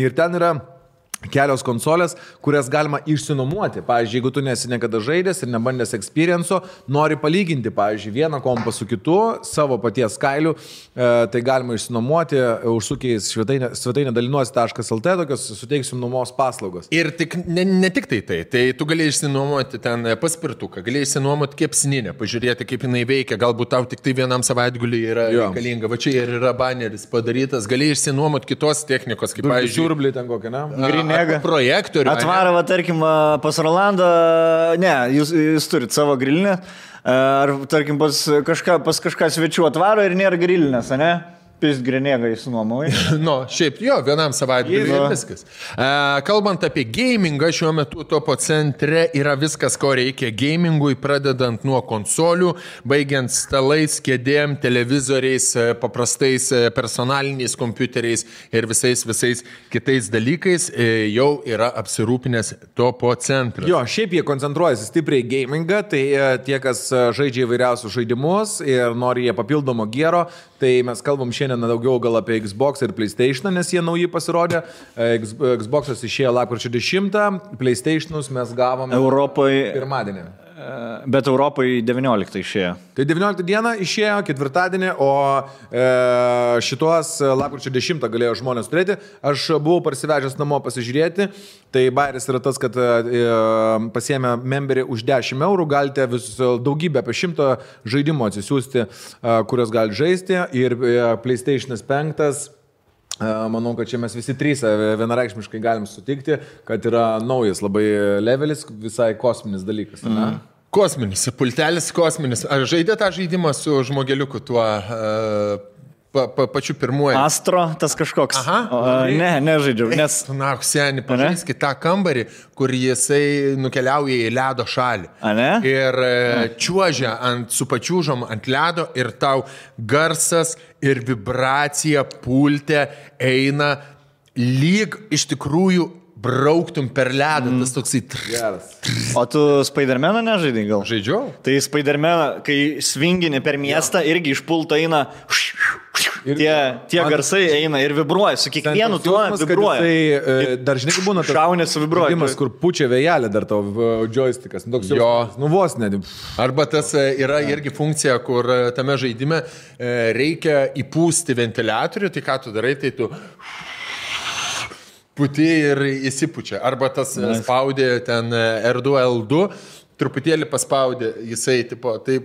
ir ten yra kelios konsolės, kurias galima išsinuomoti. Pavyzdžiui, jeigu tu nesi niekada žaidęs ir nebandęs experienco, nori palyginti, pavyzdžiui, vieną kompą su kitu, savo paties kailiu, tai galima išsinuomoti, užsukiais svetainę dalinuosi.lt, tokios suteiksim nuomos paslaugos. Ir ne tik tai tu gali išsinuomoti ten paspirtuką, gali išsinuomoti kepsninę, pažiūrėti, kaip jinai veikia, galbūt tau tik tai vienam savaitguliui yra reikalinga, va čia ir yra baneris padarytas, gali išsinuomoti kitos technikos, kaip pavyzdžiui, siurblį ten kokią, ne? Projektorių. Atvaro, tarkim, pas Rolandą, ne, jūs turit savo grilinę, ar, tarkim, pas kažką svečių atvaro ir nėra grilinės, ne? Pisgrinėgai sunuomoji. Nu, šiaip jo, vienam savaitgaliui ir viskas. Kalbant apie gamingą, šiuo metu Topo centre yra viskas, ko reikia gamingui, pradedant nuo konsolių, baigiant stalais, kėdėm, televizoriais, paprastais personaliniais kompiuteriais ir visais kitais dalykais jau yra apsirūpinęs Topo centras. Jo, šiaip jie koncentruojasi stipriai gamingą, tai tie, kas žaidžia įvairiausius žaidimus ir nori jie papildomo gero, tai mes kalbam šiandien daugiau gal apie Xbox ir PlayStation, nes jie nauji pasirodė. Xbox'as išėjo lapkričio 10, PlayStation'us mes gavom Europoje pirmadienį. Bet Europoje 19 išėjo. Tai 19 dieną išėjo, ketvirtadienį, o šitos lapkričio 10 galėjo žmonės turėti. Aš buvau parsivežęs namo pasižiūrėti. Tai bairis yra tas, kad pasiėmė memberį už 10 eurų, galite daugybę apie 100 žaidimų atsisiųsti, kurios gali žaisti. Ir PlayStation 5. Manau, kad čia mes visi trys vienareikšmiškai galim sutikti, kad yra naujas labai levelis, visai kosminis dalykas. Kosminis, pultelis kosminis. Ar žaidė tą žaidimą su žmogeliuku tuo pačiu pirmuoju? Astro, tas kažkoks. Nežaidžiau. Nes... Na, seniai, pažaiskit tą kambarį, kur jisai nukeliauja į ledo šalį. Ir čiuožia su pačiūžom ant ledo ir tau garsas ir vibracija pulte eina lyg iš tikrųjų brauktum per ledą, tas toksai... O tu Spider-Maną nežaidai gal? Žaidžiau. Tai Spider-Maną, kai svingini per miestą, irgi iš pulto eina... Tie garsai eina ir vibruoja, su kiekvienu tuo vibruoja. Tai dar žinai, būna tas šaunės su vibruoja. Žaidimas, kur pučia vėjelė dar tavo joystickas. Vos net. Arba tas yra irgi funkcija, kur tame žaidime reikia įpūsti ventiliatorių, tai ką tu darai, tai tu puti ir įsipučia. Arba tas spaudė ten R2, L2, truputėlį paspaudė, jisai tipo, taip,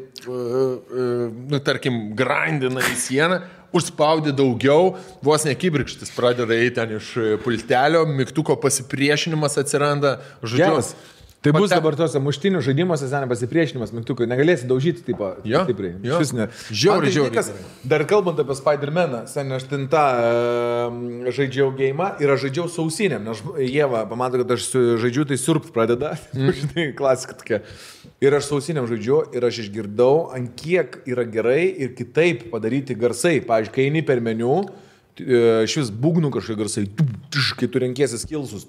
tarkim, grindina į sieną, užspaudė daugiau, vos nekibirkštis pradeda eiti ten iš pultelio, mygtuko pasipriešinimas atsiranda, žodžiu. Tai bus dabar tose muštinių žaidimuose seniai pasipriešinimas mygtukai, negalėsi daužyti taip stipriai. Žiauriai. Dar kalbant apie Spider-Maną, seniai aš ten tą žaidžiau geimą ir aš žaidžiau su ausinėm, nes Ieva pamato, kad aš žaidžiu, tai surpt pradeda, žinai, klasika tokia. Ir aš su ausinėm žaidžiu ir aš išgirdau, ant kiek yra gerai ir kitaip padaryti garsai. Pavyzdžiui, kai eini per meniu, iš vis būgnų kažkokie garsai, kai tu renkiesi skilsus.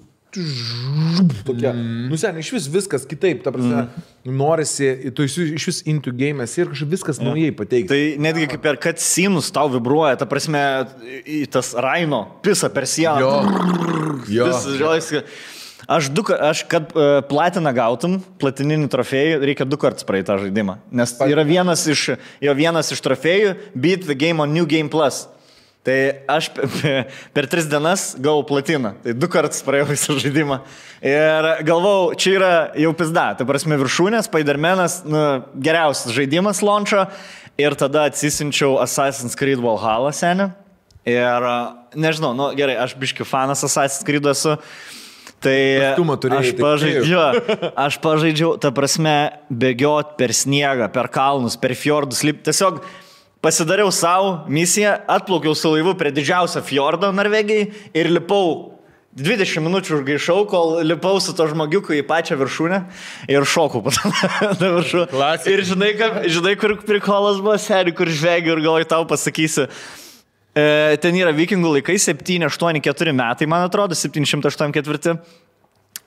Tokia. Seniai, iš vis viskas kitaip, ta prasme, norisi, tu iš vis into game'as ir kažkaip viskas naujai pateikti. Tai netgi kaip per cutscenes tau vibruoja, ta prasme, tas Raino pisa per sieną. Aš kad platiną gautum, platininį trofėjų, reikia 2 kartus praeiti tą žaidimą. Nes yra vienas iš trofėjų Beat the Game on New Game Plus. Tai aš per 3 dienas gavau platiną. Tai 2 kartus praėjau visą žaidimą. Ir galvau, čia yra jau pizda. Tai prasme viršūnė, Spider-Manas, geriausias žaidimas launcho. Ir tada atsisinčiau Assassin's Creed Valhalla senį. Ir nežinau, gerai, aš biškių fanas Assassin's Creed esu. Tai aš pažaidžiau, ta prasme, bėgiot per sniegą, per kalnus, per fjordus, tiesiog pasidariau savo misiją, atplaukiau su laivu prie didžiausią fjordą Norvegijai ir lipau 20 minučių užgaišau, kol lipau su to žmogiuku į pačią viršūnę ir šokau patą viršų. Ir žinai, kur prikolas buvo, seri, kur žvegiu ir galvoju, tau pasakysiu. Ten yra vikingų laikai, 784 metai, man atrodo, 784.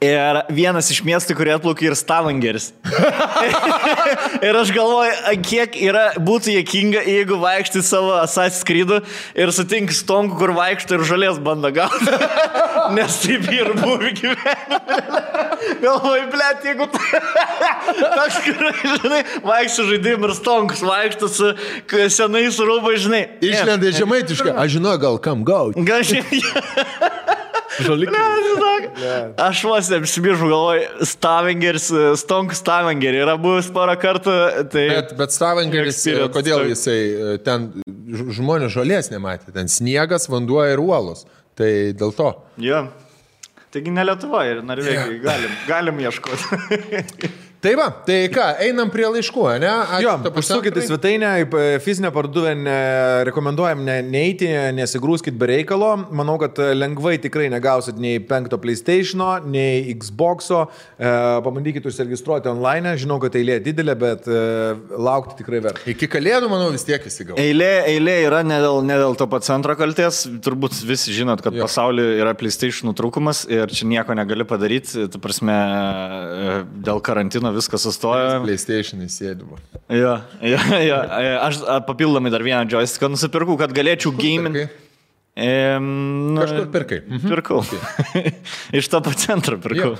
Ir vienas iš miestų, kurie atplaukė, ir Stavangeris. Ir aš galvoju, kiek būtų juokinga, jeigu vaikštai savo Assassin's Creed'u ir sutinki stonku, kur vaikštai ir žolės bando gauti. Nes taip ir buvo gyvenime. Galvoju, blėt, jeigu toks, žinai, vaikštai žaidim ir stonkus, vaikštai su senais rūbai, žinai. Išlenda žemaitiškai, aš žinau, gal kam gauti. Gal šiandien. Aš vos apsibiržu, galvoju, Stavangeris, Stonk Stavangerį yra buvęs porą kartų. Tai bet Stavangeris, kodėl jisai ten žmonės žolės nematė, ten sniegas, vanduo ir uolos. Tai dėl to. Jo. Taigi ne Lietuva ir Norvegijai, galim ieškoti. Tai va, tai ką, einam prie laiškų, ne? Jo, užsukite svetainę, fizinę parduotuvę rekomenduojam neiti, nesigrūskit be reikalo. Manau, kad lengvai tikrai negausit nei 5 PlayStation'o, nei Xbox'o. Pabandykit užsiregistruoti online, žinau, kad eilė didelė, bet laukti tikrai verta. Iki kalėdų, manau, vis tiek įsigau. Eilė yra ne dėl to pat centro kalties. Turbūt visi žinot, kad pasaulyje yra PlayStation'ų trūkumas ir čia nieko negali padaryti. Ta prasme, dėl karantino viskas sustoja. PlayStation įsėdimo. Jo. Aš papildomai dar vieną joysticką nusipirkau, kad galėčiau gaming. Kažkur pirkai. Pirkau. Iš to pat centro pirkau.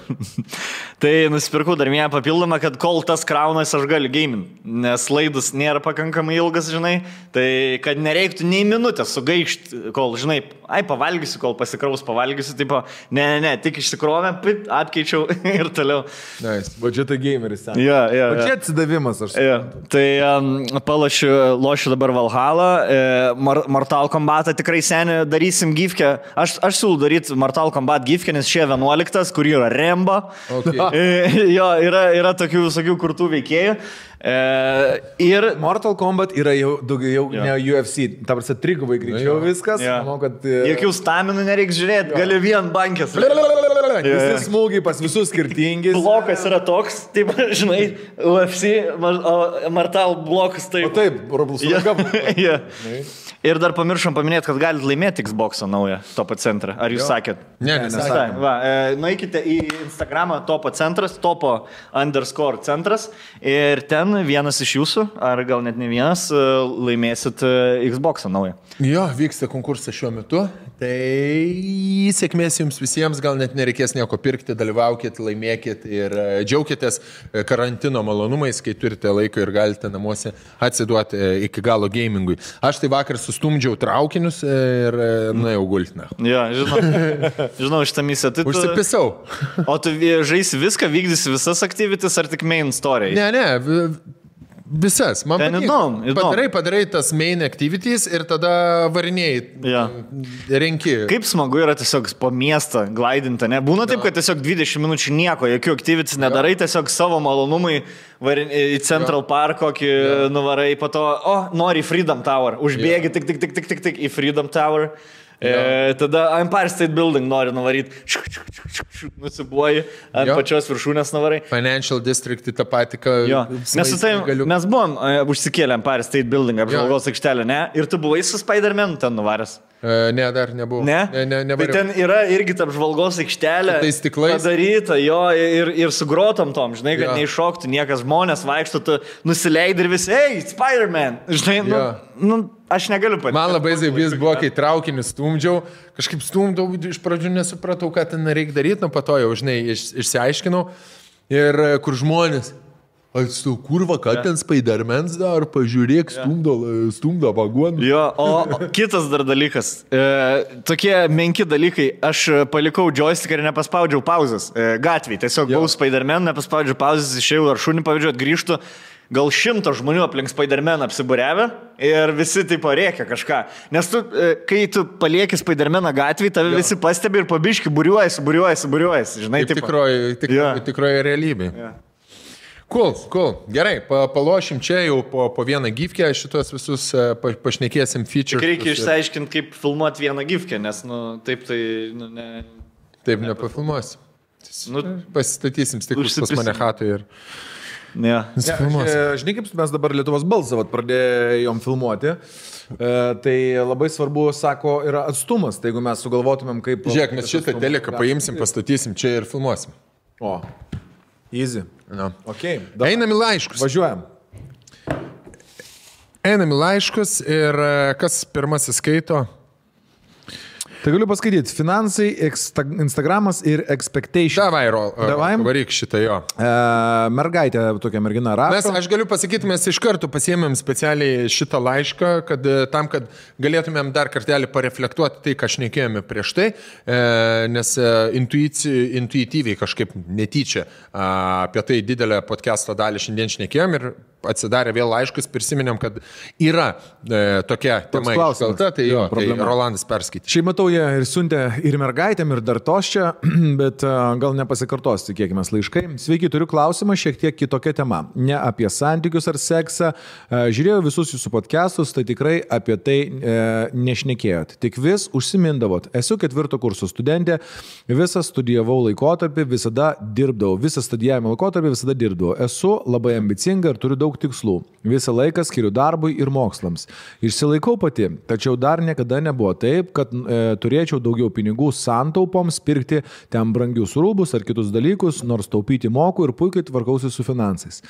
Tai nusipirkau dar vieną papildomą, kad kol tas kraunas aš galiu gaming, nes laidas nėra pakankamai ilgas, žinai, tai kad nereiktų nei minutės sugaišti, kol, žinai, pavalgysiu, kol pasikraus pavalgysiu, tipo, ne, tik išsikrovę, atkeičiau ir toliau. Nice. Budžeto gameris. Jo. Budžet atsidavimas, aš suprantu. Tai lošiu dabar Valhalla, Mortal Kombatą tikrai seniai darysim gifkę. Aš siūlau daryti Mortal Kombat gifkę, nes šie 11, kur yra Remba. Okay. Jo, yra tokių visokių kurtų veikėjų. Ir Mortal Kombat yra jau daugiau ne UFC. Ta prasme, trigubai greičiau viskas. Manau, kad... Jokių staminų nereiks žiūrėti, gali vien bankės. Visi smūgiai pas visus skirtingi. Blokas yra toks, taip, žinai, UFC, Mortal blokas taip. O taip, Roblox. Ir dar pamiršom paminėti, kad galite laimėti Xbox'ą naują Topo centrą. Ar jūs sakėt? Ne, nesakėm. Nueikite į Instagramą Topo centras, Topo_centras ir ten vienas iš jūsų, ar gal net ne vienas, laimėsit Xbox'ą naują. Jo, vyksta konkursas šiuo metu. Tai sėkmės jums visiems, gal net nereikės nieko pirkti, dalyvaukit, laimėkit ir džiaukitės karantino malonumais, kai turite laiko ir galite namuose atsiduoti iki galo gamingui. Aš tai vakar sustumdžiau traukinius ir nuėjau gulti. Jo, žinau šitą misiją. Užsipisau. O tu žaisi viską, vykdysi visas activities ar tik main story? Ne. Visas. Man įdomu. Padarai tas main activities ir tada varinėjai. Renki. Kaip smagu yra tiesiog po miestą glaidinti, ne? Būna taip, kad tiesiog 20 minučių nieko, jokių activities nedarai, tiesiog savo malonumui į Central Park kokį nuvarai, po to, nori į Freedom Tower, užbėgi tik į Freedom Tower. Tada Empire State Building nori nuvaryti, nusibuoji, ant pačios viršūnės nuvarai. Financial District tą patį, mes buvom užsikėlę Empire State Building, apžvalgos aikštelę, ne? Ir tu buvai su Spider-Man ten nuvaręs. Ne, dar nebuvau. Ne? Tai ten yra irgi ta apžvalgos aikštelė padaryta, ir su grotom tom, žinai, kad neiššoktų niekas, žmonės vaikšto, tu nusileidai ir visi, hey, Spider-Man, žinai, aš negaliu patys. Man labai zaibys buvo, kai traukinį stumdžiau, kažkaip stumdau, iš pradžių nesupratau, ką ten reikia daryti, po to jau, žinai, išsiaiškinau. Ir kur žmonės, atstau, kurva, ką ten Spider-Man's dar, pažiūrėk, stumdo vagoną. Jo, o kitas dar dalykas, tokie menki dalykai, aš palikau joystick ir nepaspaudžiau pauzes gatvėj, tiesiog buvau Spider-Man, nepaspaudžiau pauzes, išėjau ar šunį pavyzdžiui, grįžtų. Gal 100 žmonių aplink Spider-Man apsibūrevę ir visi taip rėkia kažką. Nes tu, kai tu palieki Spider-Maną gatvėje, tave visi pastebi ir pabiški būriuojasi. Žinai, tikroji realybė. Cool. Gerai, palošim čia jau po vieną gifkę, šitos visus pašnekėsim feature. Tik reikia išsiaiškinti, kaip filmuoti vieną gifkę, nes, taip tai, ne... Taip nepafilmuosi. Pasistatysim stiklus pas mane chatui ir... Žinai, kaip mes dabar Lietuvos balsą pradėjom filmuoti, tai labai svarbu, sako, yra atstumas, tai jeigu mes sugalvotumėm kaip... Žiūrėk, mes šitą teleką paimsim, pastatysim čia ir filmuosim. Easy. Okay, einam į laiškus. Važiuojam. Einam į laiškus ir kas pirmasis skaito? Tai galiu paskaityti. Finansai, Instagramas ir expectation. Davai, varyk šitą jo. Mergaitė, tokia mergina rašo. Aš galiu pasakyti, mes iš karto pasiėmėm specialiai šitą laišką, kad galėtumėm dar kartelį pareflektuoti tai, ką šnekėjome prieš tai, nes intuityviai kažkaip netyčia apie tai didelę podcast'o dalį šiandien šnekėjom ir atsidarė vėl laiškus, prisiminėm, kad yra tokia tema iškelta, tai jo, tai Rolandas perskaitė. Šiaip matau, jie ir siuntė ir mergaitėm, ir dar tos čia, bet gal nepasikartos, tikėkime, laiškai. Sveiki, turiu klausimą šiek tiek kitokia tema. Ne apie santykius ar seksą. Žiūrėjau visus jūsų podcastus, tai tikrai apie tai nešnekėjot. Tik vis užsimindavot. Esu 4 kurso studentė, visą studijavau laikotarpį, visada dirbdavau. Visą studijavimo laikotarpį visada dirbdavau. Esu labai ambicinga ir turiu daug tikslų. Visą laiką skiriu darbui ir mokslams. Išsilaikau pati, tačiau dar niekada nebuvo taip, kad turėčiau daugiau pinigų santaupoms pirkti ten brangius rūbus ar kitus dalykus, nors taupyti moku ir puikiai tvarkausi su finansais.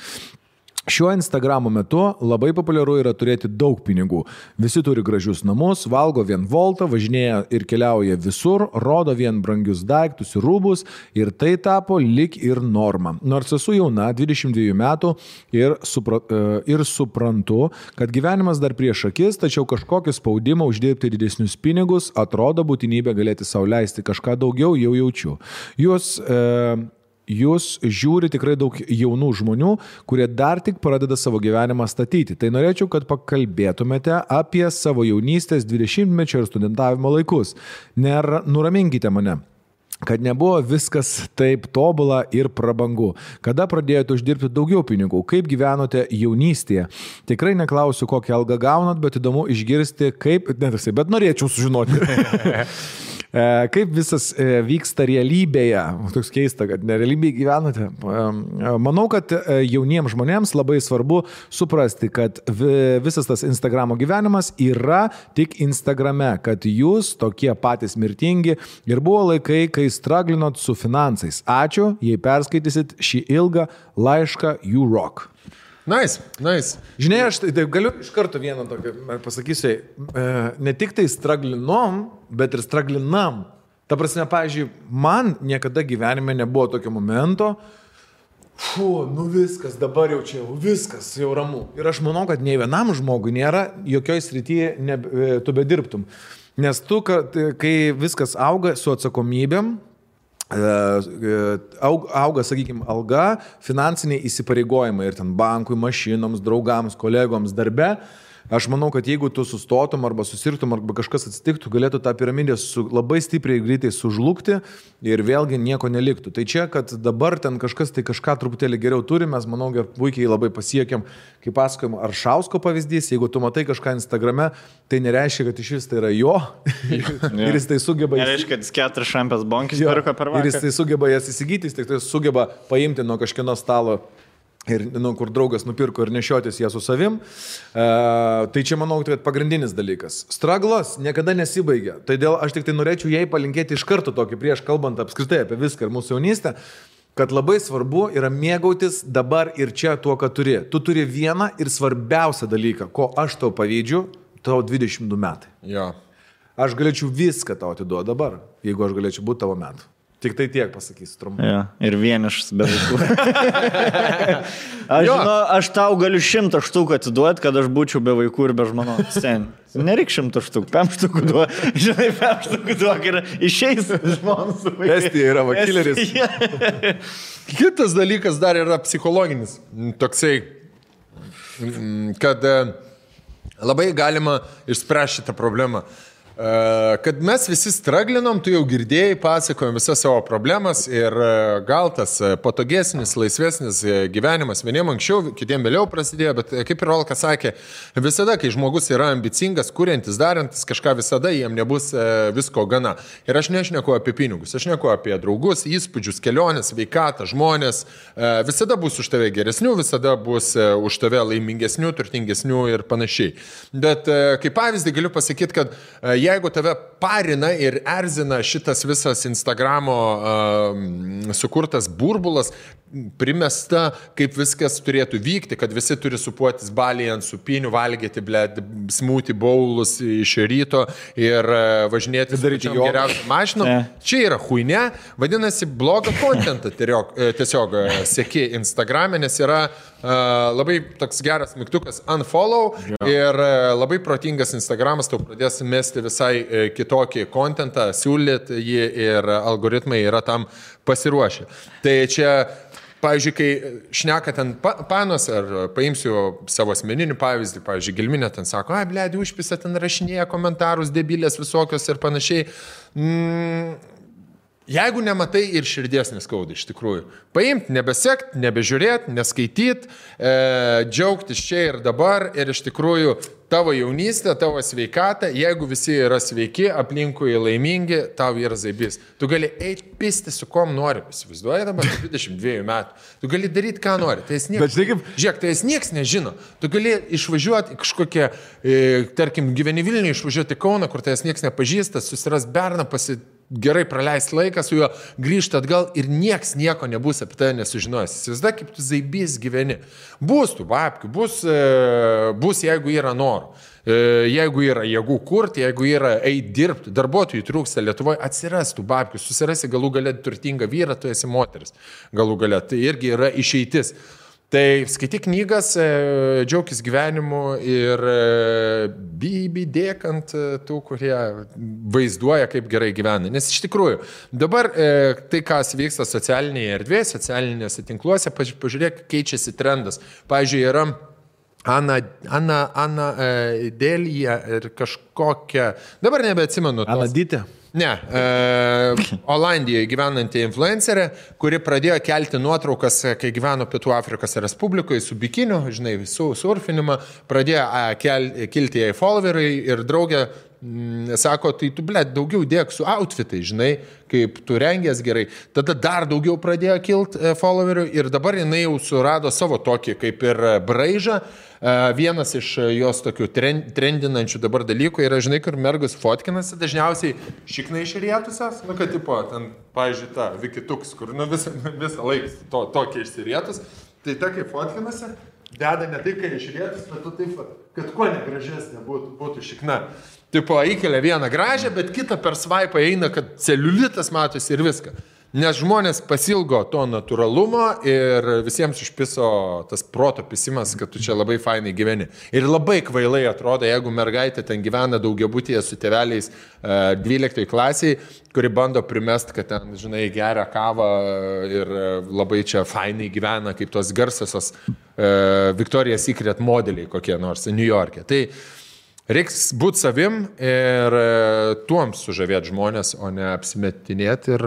Šiuo Instagramo metu labai populiaru yra turėti daug pinigų. Visi turi gražius namus, valgo vien voltą, važinėja ir keliauja visur, rodo vien brangius daiktus ir rūbus ir tai tapo lik ir norma. Nors esu jauna, 22 metų ir suprantu, kad gyvenimas dar prieš akis, tačiau kažkokį spaudimą uždirbti didesnius pinigus atrodo būtinybė galėti sau leisti kažką daugiau jau jaučiu. Jūs žiūri tikrai daug jaunų žmonių, kurie dar tik pradeda savo gyvenimą statyti. Tai norėčiau, kad pakalbėtumėte apie savo jaunystės 20-mečio ir studentavimo laikus. Nuraminkite mane, kad nebuvo viskas taip tobula ir prabangu. Kada pradėjote uždirbti daugiau pinigų? Kaip gyvenote jaunystėje? Tikrai neklausiu, kokią algą gaunat, bet įdomu išgirsti, bet norėčiau sužinoti. Kaip visas vyksta realybėje? Toks keista, kad nerealybėje gyvenate. Manau, kad jauniems žmonėms labai svarbu suprasti, kad visas tas Instagramo gyvenimas yra tik Instagrame, kad jūs tokie patys mirtingi ir buvo laikai, kai straglinot su finansais. Ačiū, jei perskaitysit šį ilgą laišką, you rock. Nice. Žinai, aš tai galiu iš karto vieną tokį pasakysiu, ne tik tai straglinom, bet ir straglinam. Ta prasme, pavyzdžiui, man niekada gyvenime nebuvo tokio momento, viskas, dabar jau čia, viskas, jau ramu. Ir aš manau, kad nei vienam žmogui nėra jokioj srityje tu bedirbtum. Nes tu, kai viskas auga su atsakomybėm, auga, sakykime, alga, finansiniai įsipareigojimai ir ten bankui, mašinoms, draugams, kolegoms darbe. Aš manau, kad jeigu tu sustotum arba susirtum arba kažkas atsitiktų, galėtų tą piramidę labai stipriai greitai sužlugti ir vėlgi nieko neliktų. Tai čia, kad dabar ten kažkas tai kažką truputėlį geriau turi, mes manau, puikiai labai pasiekėm, kaip pasakojom, Aršausko pavyzdys, jeigu tu matai kažką Instagrame, tai nereiškia, kad iš vis tai yra jo ir jis tai sugeba... Nereiškia, kad jis 4 šampės bonkis pirko per vakarą. Ir jis tai sugeba jas įsigyti, jis tai sugeba paimti nuo kažkieno stalo ir kur draugas nupirko ir nešiotis ją su savim. Tai čia manau, kad pagrindinis dalykas. Straglas niekada nesibaigia. Todėl aš tik tai norėčiau jai palinkėti iš karto tokį prieš kalbant apskritai apie viską ir mūsų jaunystę, kad labai svarbu yra mėgautis dabar ir čia tuo, ką turi. Tu turi vieną ir svarbiausią dalyką, ko aš tau pavydžiu, tau 22 metai. Jo. Aš galėčiau viską tau atiduoti dabar, jeigu aš galėčiau būti tavo metų. Tik tai tiek pasakysiu trumpai. Ja, ir vienišas be vaikų. Aš tau galiu 100 štukų atiduoti, kad aš būčiau be vaikų ir be žmonos. Nereik 100 štukų, 5 štukų duok. Žinai, 5 štukų duok ir išeis žmonos su vaikai. Estija yra vakileris. Kitas dalykas dar yra psichologinis. Toksai, kad labai galima išspręsti šitą problemą. Kad mes visi straglinom, tu jau girdėjai, pasakojom visas savo problemas ir gal tas patogesnis, laisvesnis gyvenimas vieniem anksčiau, kitiem vėliau prasidėjo, bet kaip ir Rolka sakė, visada, kai žmogus yra ambicingas, kuriantis, darantis kažką, visada jiem nebus visko gana. Ir aš nešneku apie pinigus, aš neku apie draugus, įspūdžius, keliones, sveikatą, žmonės, visada bus už tave geresnių, visada bus už tave laimingesnių, turtingesnių ir panašiai. Bet kaip pavyzdį galiu pasakyti, kad jeigu tave parina ir erzina šitas visas Instagramo sukurtas burbulas, primesta, kaip viskas turėtų vykti, kad visi turi supuotis balyje ant supinių, valgyti, smoothie bowlus iš ryto ir važinėti geriausią mašiną. Čia yra huinė, vadinasi, blogą kontentą tiesiog seki Instagrame, nes yra labai toks geras mygtukas unfollow ir labai protingas Instagramas tau pradės mesti visai kitokį kontentą, siūlyti jį ir algoritmai yra tam pasiruošę. Tai čia pavyzdžiui, kai šneka ten panos, ar paimsiu savo asmeninį pavyzdį, pavyzdžiui, Gelminė ten sako, blėdi, užpisa ten rašinėja komentarus, debilės visokios ir panašiai. Jeigu nematai ir širdies neskauda iš tikrųjų. Paimt, nebesekt, nebežiūrėt, neskaityt, džiaugtis čia ir dabar ir iš tikrųjų tavo jaunystė, tavo sveikata, jeigu visi yra sveiki, aplinkui laimingi, tau yra zaibys. Tu gali eiti pisti su kom nori, įsivaizduoji dabar 22 metų. Tu gali daryti, ką nori. Tai žiūrėk, tai nieks nežino. Tu gali išvažiuoti į kažkokią, tarkim, gyveni Vilniuje, išvažiuoti į Kauną, kur tai nieks nepažįsta, susiras berną, gerai praleisti laiką su juo, grįžti atgal ir nieks nieko nebus apie tai nesužinojęs. Įsivaizduoji, kaip tu zaibys gyveni. Bus tų babkių, bus jeigu yra norų. Jeigu yra jėgų kurti, jeigu yra eiti dirbti, darbuotojų trūksta Lietuvoje, atsiras tų babkių, susirasi galų galę turtingą vyrą, tu esi moteris. Galų galę, tai irgi yra išeitis. Tai skaityk knygas, džiaukis gyvenimu ir dėk ant tų, kurie vaizduoja, kaip gerai gyvena. Nes iš tikrųjų, dabar tai, kas vyksta socialinėje erdvėje, socialinėse tinkluose, pažiūrėk, keičiasi trendas. Pavyzdžiui, yra Ana Delija ir kažkokia, dabar nebeatsimenu. Anadytė? Ne, Olandijoje gyvenanti influencerė, kuri pradėjo kelti nuotraukas, kai gyveno Pietų Afrikos Respublikoje su bikiniu, žinai, su surfinimą, pradėjo kilti jai followeriai ir draugė sako, tai tu, daugiau dėk su outfitai, žinai, kaip tu rengies gerai. Tada dar daugiau pradėjo kilti followerių ir dabar jinai jau surado savo tokį kaip ir braižą. Vienas iš jos tokių trendinančių dabar dalykų yra, žinai, kur mergus fotkinasi, dažniausiai šiknai išrietusias, kad tipo, ten, pavyzdžiui, ta Vikituks, kur visą laiką tokia išsirietus, tai ta kaip fotkinasi, deda ne tai, kai išrietus, bet tu taip, kad kuo negražesnė būtų šikna. Tipo, įkelia vieną gražią, bet kitą per svaipą eina, kad celiulitas matosi ir viską. Nes žmonės pasilgo to natūralumo ir visiems užpiso tas proto pisimas, kad tu čia labai fainai gyveni. Ir labai kvailai atrodo, jeigu mergaitė ten gyvena daugiabutyje su tėveliais 12 klasiai, kuri bando primest, kad ten, žinai, geria kavą ir labai čia fainai gyvena, kaip tos garsiosios Victoria's Secret modeliai kokie nors New York'e. Tai reiks būti savim ir tuom sužavėti žmonės, o ne apsimetinėti ir...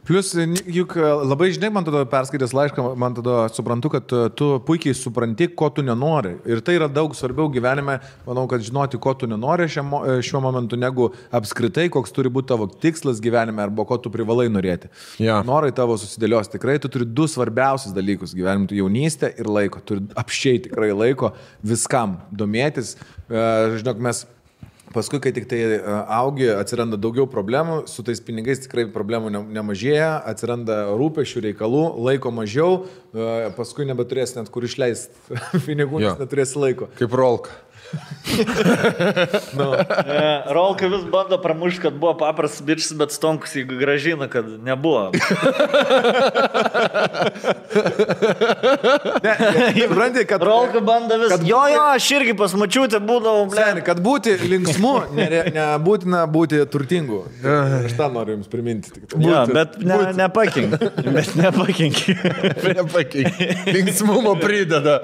Plius, juk labai žinai, man tada perskaitęs laišką, man tada suprantu, kad tu puikiai supranti, ko tu nenori. Ir tai yra daug svarbiau gyvenime, manau, kad žinoti, ko tu nenori šiuo momentu, negu apskritai, koks turi būti tavo tikslas gyvenime arba ko tu privalai norėti. Ja. Norai tavo susidėlios tikrai, tu turi du svarbiausius dalykus gyvenime, tu jaunystę ir laiko. Turi apsčiai tikrai laiko viskam domėtis. Žinok, mes... Paskui, kai tik tai augi, atsiranda daugiau problemų, su tais pinigais tikrai problemų nemažėja, atsiranda rūpesčių reikalų, laiko mažiau, paskui nebeturėsi net kur išleisti pinigų, nes neturėsi laiko. Kaip Rolka. No. Rolka vis bando pramušti, kad buvo paprastas bičas, bet Stonkus jį gražina, kad nebuvo. Supranti, kad Rolka bando vis. Jo, aš irgi pasmačiūtė būdavau. Kad būti linksmu, nebūtina būti turtingu. Aš tą noriu jums priminti. Ja, bet nepakink. Bet nepakink. Linksmumo prideda.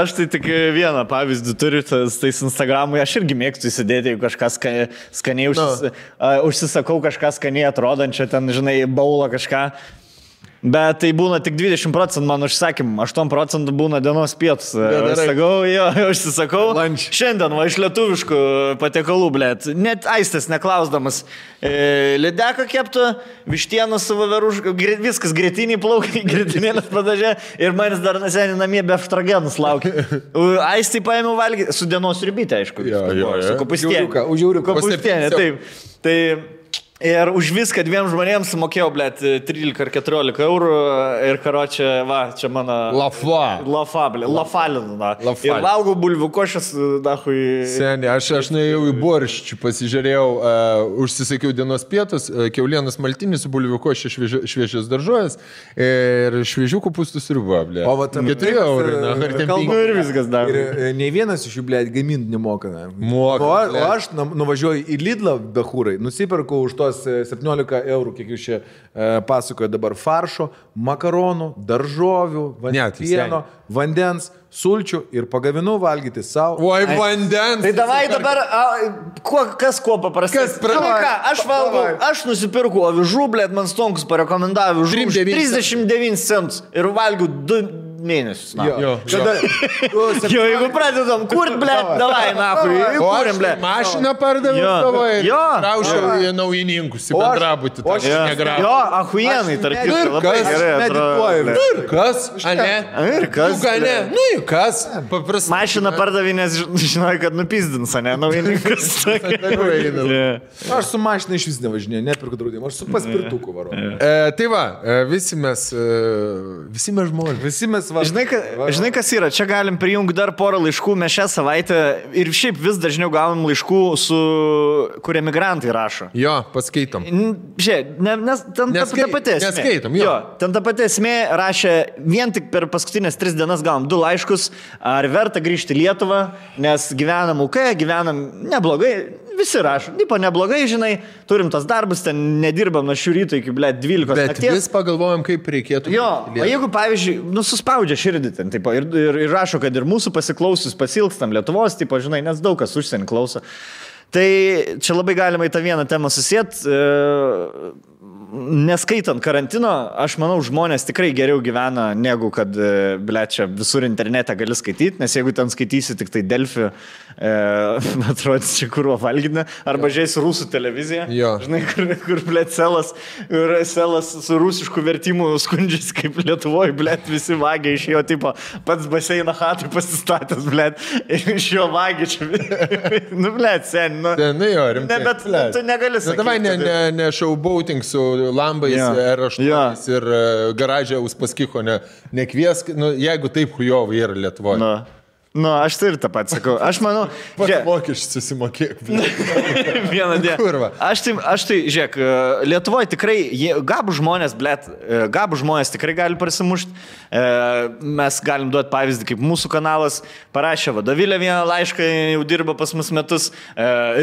Aš tai tik vieną pavyzdį turiu, tais Instagramui, aš irgi mėgstu įsidėti, jeigu kažką skaniai užsisakau, kažką skaniai atrodančią, ten, žinai, baulą kažką. Bet tai būna tik 20% mano užsakymų, 8% būna dienos pietus. Užsisakau. Šiandien va iš lietuviškų patiekalų, blėt. Net aistės neklausdamas. Lideką keptų, vištieną su vaverušką, viskas grėtiniai plaukai, grėtinėlės padažė ir manis dar neseniai namie be eftragenus laukia. Aistai paėmiau valgyti, su dienos ribytė, aišku. Su kopūstienė. Kopūstienė, taip. Tai... Ir už viską dviem žmonėms mokėjau, blėt, 13 ar 14 eurų ir karočią, va, čia mano... Lafalina. Ir valgau bulvių košės, dahui... Seniai, aš nuėjau į borščių, pasižiūrėjau, užsisakiau dienos pietus, kiaulienos maltinį su bulvių košė šviežios daržovės ir šviežių kopūstų sriuba, blėt. O va, 4 eurų. Ir viskas dar. Ir nei vienas iš jų, blėt, gaminti nemoka. Moka. O aš nuvažiuoju į Lidlą, behūrai, nusipirkau už tuos 17 eurų, kiek jūs čia pasakoja dabar, faršo, makaronų, daržovių, pieno, vandens, sulčių ir pagavinu valgyti savo. Oi, vandens. Tai davai dabar, kas kuo paprastai. Aš valgau, aš nusipirku avižų, blėt, man Stonkus parekomendavo avižų 39 centus ir valgiau 2 mėnesius. Jo, jeigu pradedam kurt, blėt, davai, nahui, kūrim, blėt. Mašiną pardaviau savo ir raušiau į naujininkus, į bendrabutį. Jo, ahuienai, tarp kitko, labai gerai atrodo. Ir kas? Ir kas? Nu, ir kas? Mašiną pardavinės, žinoj, kad nupizdins, ne, naujininkas. Aš su mašina iš vis nevažinėjau, nepirku draudimą, aš su paspirtuku varu. Tai va, visi mes žmonės. Žinai, kas yra, čia galim prijungti dar porą laiškų, mes šią savaitę ir šiaip vis dažniau gaunam laiškų, kur emigrantai rašo. Jo, paskaitom. Žiūrėk, ten ta pati esmė. Neskaitom, jo. Ten ta pati esmė rašė, vien tik per paskutinės 3 dienas gavom 2 laiškus, ar verta grįžti į Lietuvą, nes gyvenam UK, gyvenam neblogai. Visi rašo, tipo neblogai, žinai, turim tas darbus, ten nedirbam nuo šių ryto iki, blėt, 12 nakties. Bet vis pagalvojam, kaip reikėtų. Jo, o jeigu, pavyzdžiui, suspaudžia širdį ten, tipo, ir rašo, kad ir mūsų pasiklausius pasilgstam Lietuvos, tipo, žinai, nes daug kas užsienį klauso. Tai čia labai galima į tą vieną temą susėt. Neskaitant karantino, aš manau, žmonės tikrai geriau gyvena, negu kad, blėt, čia visur internete gali skaityti, nes jeigu ten skaitysi tik tai Delfi, atrodys čia kurvo valgydina, arba žiūrėsi rusų televiziją, žinai, kur blėt, selas su rusišku vertimu skundžiasi, kaip Lietuvoje, blėt, visi vagia iš jo, tipo, pats baseiną hatui pasistatęs, blėt, ir iš jo vagia čia, nu, blėt, sen, nu, jo, rimtai. Ne, bet tu negali sakyti. Davai ne showboating su lambais, R8 ir garažė Uspaskicho nekviesk, nu, jeigu taip hujovai yra Lietuvoje. Nu, aš tai ir tą pat sakau. Aš manau... Mokesčius susimokėk. Vieną dieną. Kurva. Aš tai, žiūrėk, Lietuvoje tikrai, gabų žmonės, blėt, gabų žmonės tikrai gali prasimušti. Mes galim duoti pavyzdį, kaip mūsų kanalas parašė vadovėlę vieną laišką, jau dirba pas mus metus,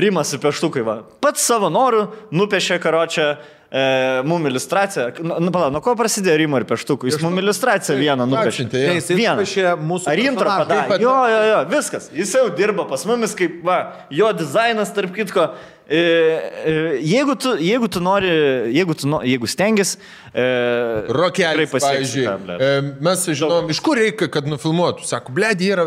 Rimas ir Peštukai, va. Pats savo norų nupešė karočią mum iliustraciją. Nuo ko prasidėjo Rimo ir Peštukų? Jis mum iliustraciją vieną nupešė. Vieną. Ar intro padarė? Jo, viskas. Jis jau dirba pas mumis, kaip, va, jo dizainas, tarp kitko. Jeigu tu nori, jeigu stengis, Rokelis, pavyzdžiui, mes žinom, iš kur reikia, kad nufilmuotų. Sako, blėdį yra,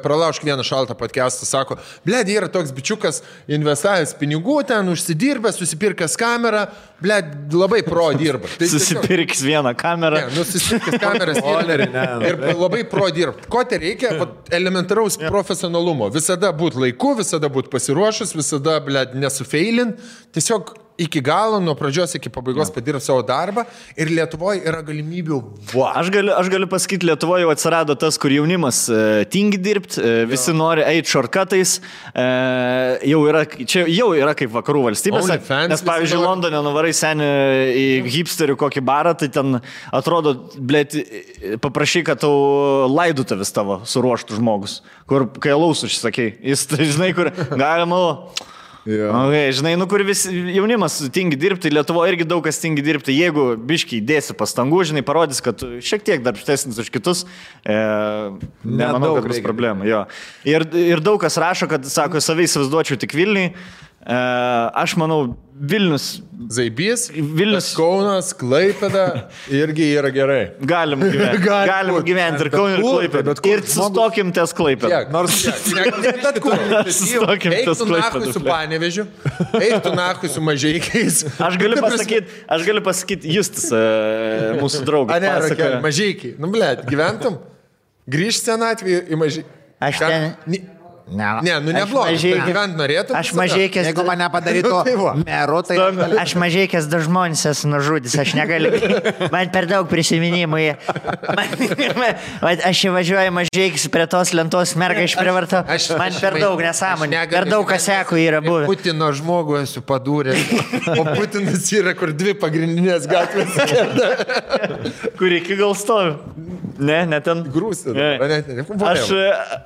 pralaušk vieną šaltą podcastą, sako, blėdį yra toks bičiukas, investavęs pinigų ten, užsidirbęs, susipirkęs kamerą, blėdį labai pro dirba. Tai susipirkęs vieną kamerą. Ne, susipirkęs kameras ir labai pro dirba. Ko tai reikia? Elementaraus profesionalumo. Visada būt laiku, visada būt pasiruošus, visada, blėdį, nesufeilint. Tiesiog iki galo, nuo pradžios iki pabaigos padirb savo darbą ir Lietuvoje yra galimybių. Aš galiu pasakyti, Lietuvoje jau atsirado tas, kur jaunimas tingi dirbti, visi nori eiti shortcutais, jau yra kaip vakarų valstybėse, nes pavyzdžiui, Londone nuvarai senį į hipsterių kokį barą, tai ten atrodo, blėt, paprašy, kad tau laidotuves tavo suruoštų žmogus, kur kai alaus užsakei, jis, žinai, kur galima... Okay, žinai, kur visi jaunimas tingi dirbti, Lietuvoje irgi daug kas tingi dirbti, jeigu biškiai dėsi pastangų, žinai, parodys, kad šiek tiek darbštesnis už kitus, nemanau, kad bus problemų. Ir daug kas rašo, kad, sako, savai įsivaizduočiau tik Vilniui. Aš manau, Vilnius. Zaibys, Vilnius, Kaunas, Klaipėda irgi yra gerai. Galim gyventi ir Kaunui, ir Klaipėda. Ir sustokim ties Klaipėda. Nors sustokim ties Klaipėda. Su Panevežiu, eiktų nachui su Mažeikiais. Aš galiu pasakyti, Justis, mūsų draugas. Rokelį, Mažeikiai. Nu, blėt, gyventum? Grįžt senatvį į Mažeikiai. Aš ten... Neblogai. Gyvent norėtum? Aš Mažeikės... Jeigu mane padarytų meru, tai... Aš Mažeikės du žmonės esu nužudęs, aš negaliu. Man per daug prisiminimų. Aš įvažiuoju Mažeikės prie tos lentos, mergą išprivartau. Man per daug nesąmonė. Per daug kasekų yra buvę. Putino žmogų esu padūręs. O Putinas yra, kur 2 pagrindinės gatvės. Kur iki gal stovi. Ne ten. Grūsė.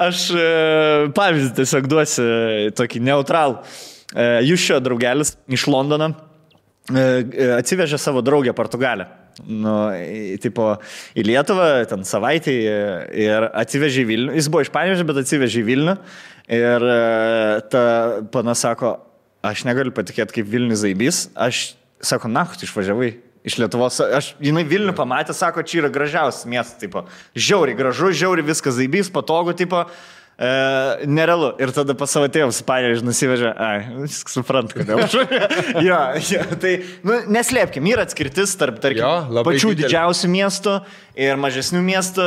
Aš pavyzdį tiesiog duosiu tokį neutralų. Jūs šio draugelis iš Londono atsivežė savo draugę Portugalę. Į Lietuvą, ten savaitį ir atsivežė į Vilnių. Jis buvo iš Panevėžio, bet atsivežė į Vilnių. Ir ta pana sako, aš negaliu patikėti, kaip Vilnius zaibys. Aš, sako, tu išvažiavai iš Lietuvos. Jinai Vilnių pamatė, sako, čia yra gražiausias miestas. Žiauriai gražu, žiauriai viskas zaibys, patogu. Nerealu. Ir tada pas savo tėvus Panevėžį nusivežė. Suprant, kodėl. Jo, tai neslėpkim, yra atskirtis tarp pačių didžiausių miestų ir mažesnių miestų.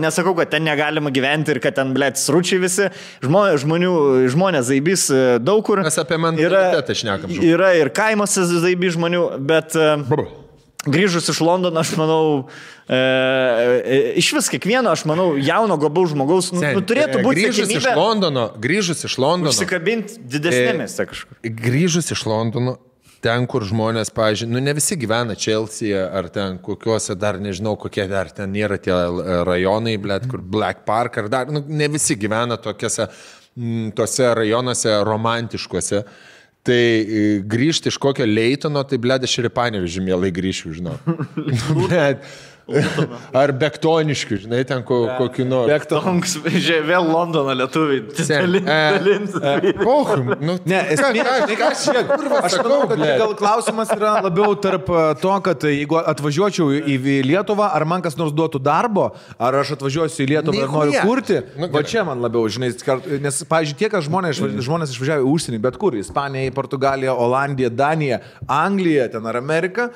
Nesakau, kad ten negalima gyventi ir kad ten, sručiai visi. Žmonės zaibys daug kur. Mes apie mentalitetą šnekam. Yra ir kaimuose zaibys žmonių, bet grįžus iš Londono, aš manau, iš vis kiekvieno, aš manau, jauno gabaus žmogaus turėtų būti grįžus iš Londono užsikabinti didesnėmis kažkur. Grįžus iš Londono, ten, kur žmonės, pavyzdžiui, ne visi gyvena Chelsea ar ten kokiuose dar, nežinau, kokie dar ten nėra tie rajonai, kur Black Park ar dar, ne visi gyvena tose rajonuose romantiškuose. Tai grįžti iš kokio Leitono, tai aš ir į Panevėžį mielai grįšiu, žinau. Ar Bektoniškių, žinai, ten kokiu nors. Bektonks, vėl Londono lietuviai. Aš manau, kad gal klausimas yra labiau tarp to, kad jeigu atvažiuočiau į Lietuvą, ar man kas nors duotų darbo, ar aš atvažiuosiu į Lietuvą ir noriu kurti, va čia man labiau, žinai, nes, pavyzdžiui, tie, kad žmonės išvažiavo į užsienį, bet kur, Ispanija, Portugalija, Olandija, Danija, Anglija, ten ar Amerika.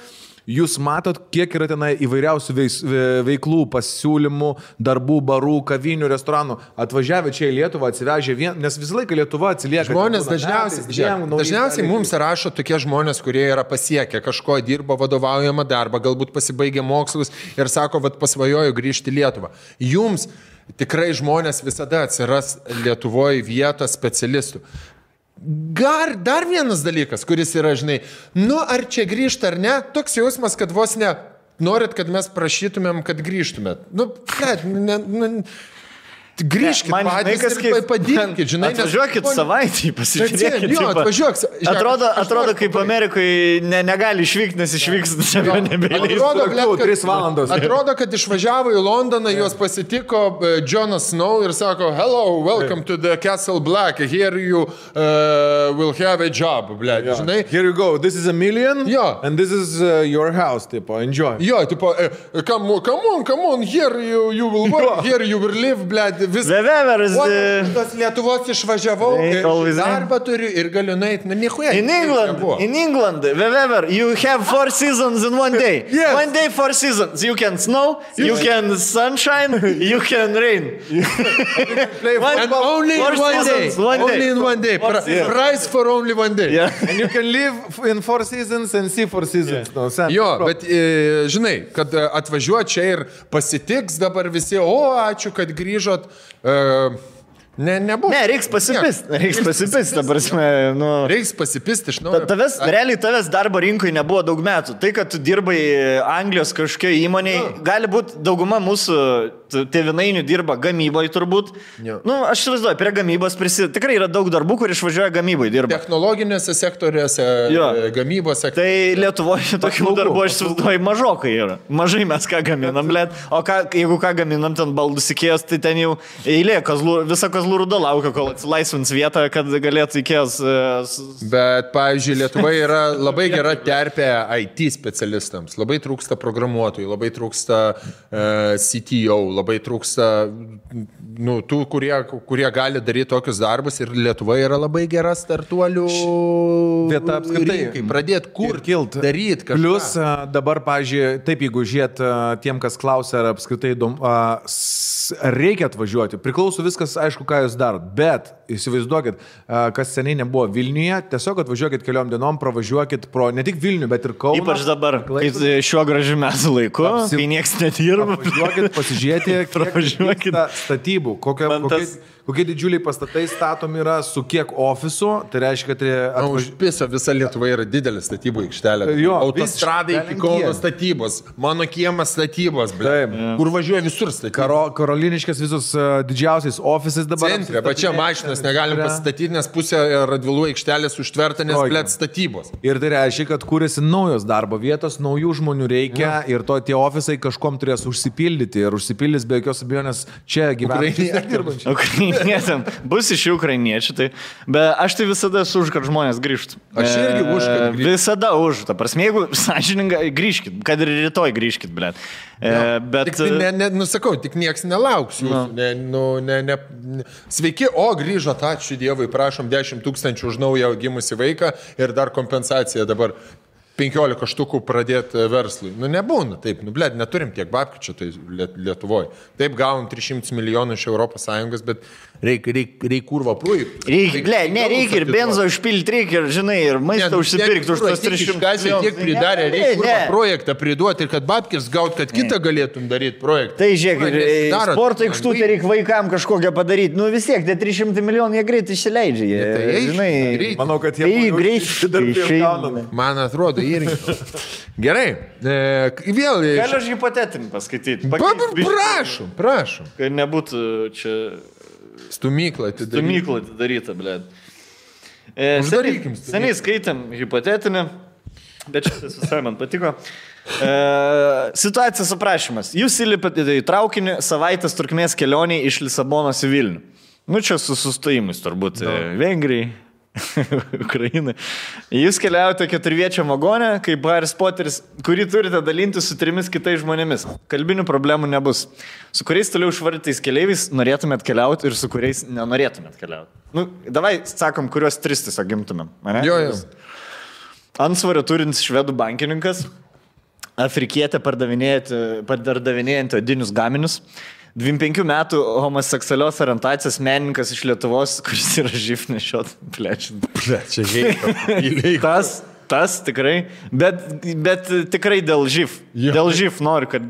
Jūs matot, kiek yra tenai įvairiausių veiklų, pasiūlymų, darbų, barų, kavinių, restoranų. Atvažiavę čia į Lietuvą, atsivežė nes visą laiką Lietuva atsilieka. Žmonės dažniausiai mums rašo tokie žmonės, kurie yra pasiekę kažko, dirbo vadovaujamą darbą, galbūt pasibaigė mokslus ir sako, pasvajoju grįžti į Lietuvą. Jums tikrai žmonės visada atsiras Lietuvoje vietos specialistų. Dar vienas dalykas, kuris yra, žinai, ar čia grįžta ar ne, toks jausmas, kad vos ne norit, kad mes prašytumėm, kad grįžtumėt. Grįžkit patys ir padinkit, žinai. Atvažiuokit savaitį, pasižiūrėkit. Jo, atvažiuok. Atrodo, kaip Amerikoje negali išvykti, nes išvyks nebeleis. Atrodo, kad išvažiavo į Londoną, juos pasitiko Jonas Snow ir sako, hello, welcome to the Castle Black, here you will have a job, žinai. Here you go, this is $1 million, and this is your house, enjoy. Jo, come on, here you will work, here you will live, Lietuvos išvažiavau, darbą turiu ir galiu nueiti, nichuja. In England, wherever, you have 4 seasons in one day. Yes. One day 4 seasons. You can snow, you can sunshine, you can rain. And only in one day. Price for only one day. Yeah. And you can live in 4 seasons and see 4 seasons. Jo, bet žinai, kad atvažiuot čia ir pasitiks dabar visi, ačiū, kad grįžot. Nebuvo. Ne, reiks pasipist, ta prasme, Reiks pasipist iš naujo. Realiai tavęs darbo rinkoje nebuvo daug metų. Tai, kad tu dirbai Anglijos kažkokioje įmonėje, gali būti dauguma mūsų tėvinainių dirba gamyboje turbūt. Aš įsivaizduoju, prie gamybos tikrai yra daug darbų, kur išvažiuoja gamyboje dirba. Technologinėse sektoriuose, gamybos sektoriuose. Tai Lietuvoje tokių darbų, aš įsivaizduoju, mažokai yra. Mažai mes ką gaminam, o jeigu ką gaminam, ten baldus Ikėjos, tai ten jau eilė, visa Kazlų Rūda laukia, kol atsilaisvins vietą, kad galėtų Ikėjos. Bet, pavyzdžiui, Lietuvoje yra labai gera terpė IT specialistams. Labai trūksta programuotojų, labai trūksta CTO, labai trūksta tų, kurie gali daryti tokius darbus ir Lietuva yra labai gera startuolių vieta apskritai. Pradėti kurti, daryti kažką. Plius dabar, pavyzdžiui, taip, jeigu žiūrėt tiem, kas klausia, ar apskritai reikia atvažiuoti, priklauso viskas, aišku, ką jūs darot, bet įsivaizduokit, kas seniai nebuvo Vilniuje, tiesiog atvažiuokit keliom dienom, pravažiuokit pro ne tik Vilnių, bet ir Kauną. Ypač dabar, kai šiuo gražiu metų laiku, kai nieks nedirba. Apvažiuokit, pasižiūrėti, kiek statybų statybų, kokie didžiuliai pastatai statomi yra, su kiek ofisų, tai reiškia, kad... Užpiso visa Lietuva yra didelė statybų aikštelė. Autostradai iki Kauno statybos, mano kiemas statybos, kur važiuoja visur statybos. Karoliniškės visus didžiausiais ofisais dabar. Centre, bet čia mašinas negalim pasistatyti, nes pusė Radvilų aikštelės užtverta, nes blėt statybos. Ir tai reiškia, kad kūrėsi naujos darbo vietos, naujų žmonių reikia ir tie ofisai kažkom turės užsipildyti ir užsipildys be jokios abejonės čia gyvenantys. Bus iš ukrainiečių, tai. Bet aš tai visada esu už, kad žmonės grįžtų. Aš irgi už, kad grįžtų. Visada už. Ta prasme, jeigu sąžiningai grįžkit, kad ir rytoj grįžkit, blėt. Bet... Nusakau, tik nieks nelauks jūsų. Sveiki, grįžot, ačiū Dievui, prašom 10 000 už naują gimusį vaiką ir dar kompensaciją dabar 15 štukų pradėti verslui. Nebūna taip, neturim tiek babkių čia tai Lietuvoje. Taip gavom 300 milijonų iš ES, bet reikia kurva projektų. Reikia ir benzo užpilti, reikia ir, žinai, ir maistą užsipirkti už tos 300 milijonų. Tiek pridarė, reikia kurva projektą priduoti ir kad babkis gaut, kad kitą galėtum daryti projektą. Tai žiūrėk, sporto aikštutę reikia vaikam kažkokią padaryti. Vis tiek, tie 300 milijonų jie greit išsileidžia. Manau, kad jie greit. Man atrodo, irgi. Gerai. Vėl. Galiu aš hipotetinį paskaityti. Prašom. Kad nebūtų čia... Stumykla atidaryta, blėt. Seniai skaitėm hipotetinį, bet šitas visai man patiko. Situacijos aprašymas. Jūs įlipate į traukinį savaitės trukmės kelionį iš Lisabonos į Vilnių. Čia su sustojimais turbūt Vengrijai. Ukrainai. Jūs keliaujate 4-viečiam vagone, kaip Harry Potteris, kurį turite dalinti su 3 kitais žmonėmis. Kalbinių problemų nebus. Su kuriais toliau išvardytais keleiviais norėtumėt keliauti ir su kuriais nenorėtumėt keliauti. Davai, sakom, kuriuos 3 tiesiog gimtumėm. Jo. Ansvario turintis švedų bankininkas, afrikietė pardavinėjantį odinius gaminius, 25 metų homoseksualios orientacijos menininkas iš Lietuvos, kuris yra živ nešiot, Tas tikrai, bet tikrai dėl živ. Dėl živ noriu, kad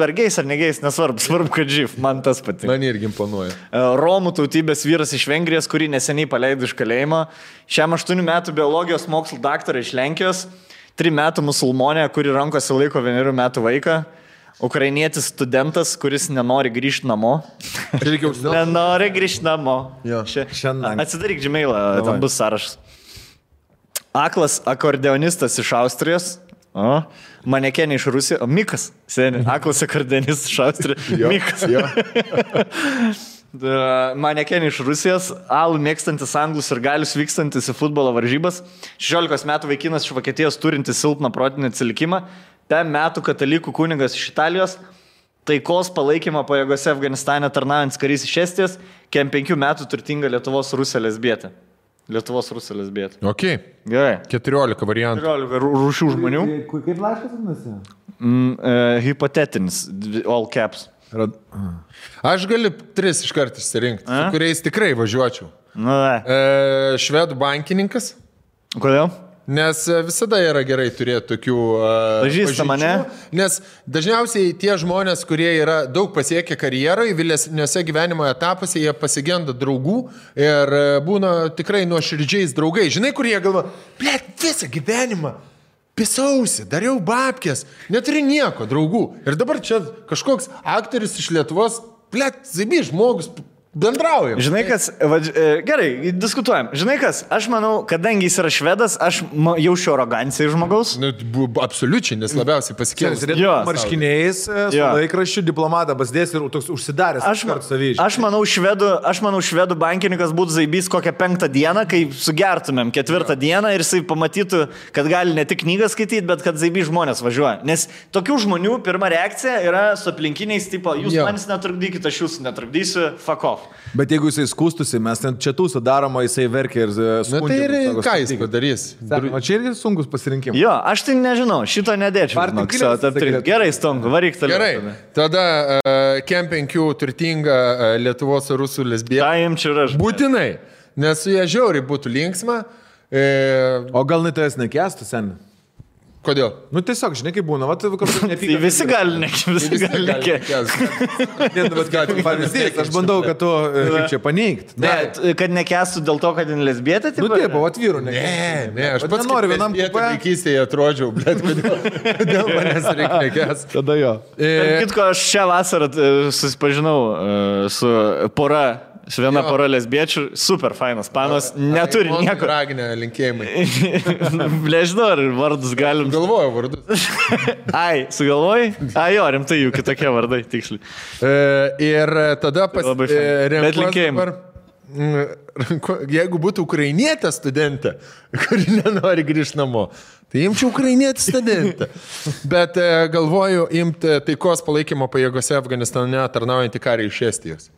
vergiais ar negais, nesvarbu, kad živ, man tas patinka. Man irgi imponuoja. Romų tautybės vyras iš Vengrijos, kurį neseniai paleido iš kalėjimo, šiam 8 metų biologijos mokslų daktarą iš Lenkijos, 3 metų musulmonė, kuri rankose laiko 1 metų vaiką, ukrainietis studentas, kuris nenori grįžti namo. Nenori grįžti namo. Atsidaryk Gmailą, ten bus sąrašas. Aklas akordeonistas iš Austrijos. Manekenė iš Rusijos. Mikas. Aklas akordeonistas iš Austrijos. Mikas. Manekenė iš Rusijos. Alų mėgstantis anglus ir galius vykstantis į futbolo varžybas. 16 metų vaikinas iš Vokietijos turintis silpną protinį atsilikimą. 5 metų katalikų kunigas iš Italijos, taikos palaikymo pajėgose Afganistane tarnaujantis karys iš Estijos, 5 metų turtinga Lietuvos Rusija lesbietė. Ok. Gerai. 14 variantų. 14 rūšių žmonių. Kaip laiškas vadinasi? Hipotetinis, all caps. Aš galiu 3 iškart išsirinkti, su kuriais tikrai važiuočiau. Švedų bankininkas. Kodėl? Nes visada yra gerai turėti tokių pažįstamų, ne? Nes dažniausiai tie žmonės, kurie yra daug pasiekę karjeroje, vėlesniuose gyvenimo etapuose, jie pasigenda draugų ir būna tikrai nuoširdžiais draugai. Žinai, kur jie galvo, visą gyvenimą pisausi, dariau babkės, neturi nieko draugų. Ir dabar čia kažkoks aktorius iš Lietuvos, zabi žmogus, bendraujam. Žinai kas, gerai, diskutuojam. Žinai kas, aš manau, kadangi jis yra švedas, aš jaučiu aroganciją žmogaus. Absoliučiai, nes labiausiai pasikėlęs. Marškiniais, su laikraščiu, diplomatą basdės ir toks užsidaręs. Aš manau, švedų bankininkas būtų zaibys kokią 5 dieną, kai sugertumėm 4 dieną ir jisai pamatytų, kad gali ne tik knygą skaityti, bet kad zaibys žmonės važiuoja. Nes tokių žmonių pirma reakcija yra su aplinkiniais, tipo, jūs manis netrukdykite, aš jūsų netrukdysiu, fuck off. Bet jeigu jisai skūstusi, mes ten čia tūsą daroma, jisai verkia ir skundžia. Na tai ir ką jis padarys? Čia irgi sunkus pasirinkimas. Jo, aš tai nežinau, šito nedėčiau. Gerai, Stonku, varyk toliau. Gerai, tada Kem 5 turtinga Lietuvos rusų lesbietė. Būtinai, nes su jie žiauriai būtų linksma. O gal net jas nekestų, sen? Kodėl? Nu tiesiog, žinai, kaip būna, va, Tai visi gali nekėsti. Aš bandau, kad tu kaip čia paneigti. Ne, kad nekestų dėl to, kad jin lesbietė, tai... Nu taip, o atvyru nekesti. Ne, aš pats noriu vienam kupė. Vaikystėje atrodžiau, bet kodėl manęs reikia nekesti. Tada jo. Kitko, aš šią vasarą susipažinau su pora. Su viena pora lesbiečių, super fainas panos, neturi nieko. Raginę linkėjimai. Nežinau, ar vardus galim. Galvoju vardus. Ai, sugalvojai? Ai, jo, rimtai jų kitokie vardai, tiksliai. Ir tada Bet linkėjimai. Jeigu būtų ukrainietė studentė, kuri nenori grįžti namo, tai imčiau ukrainietį studentę. Bet galvoju imti taikos palaikymo pajėgose Afganistane tarnaujantį karį iš Estijos.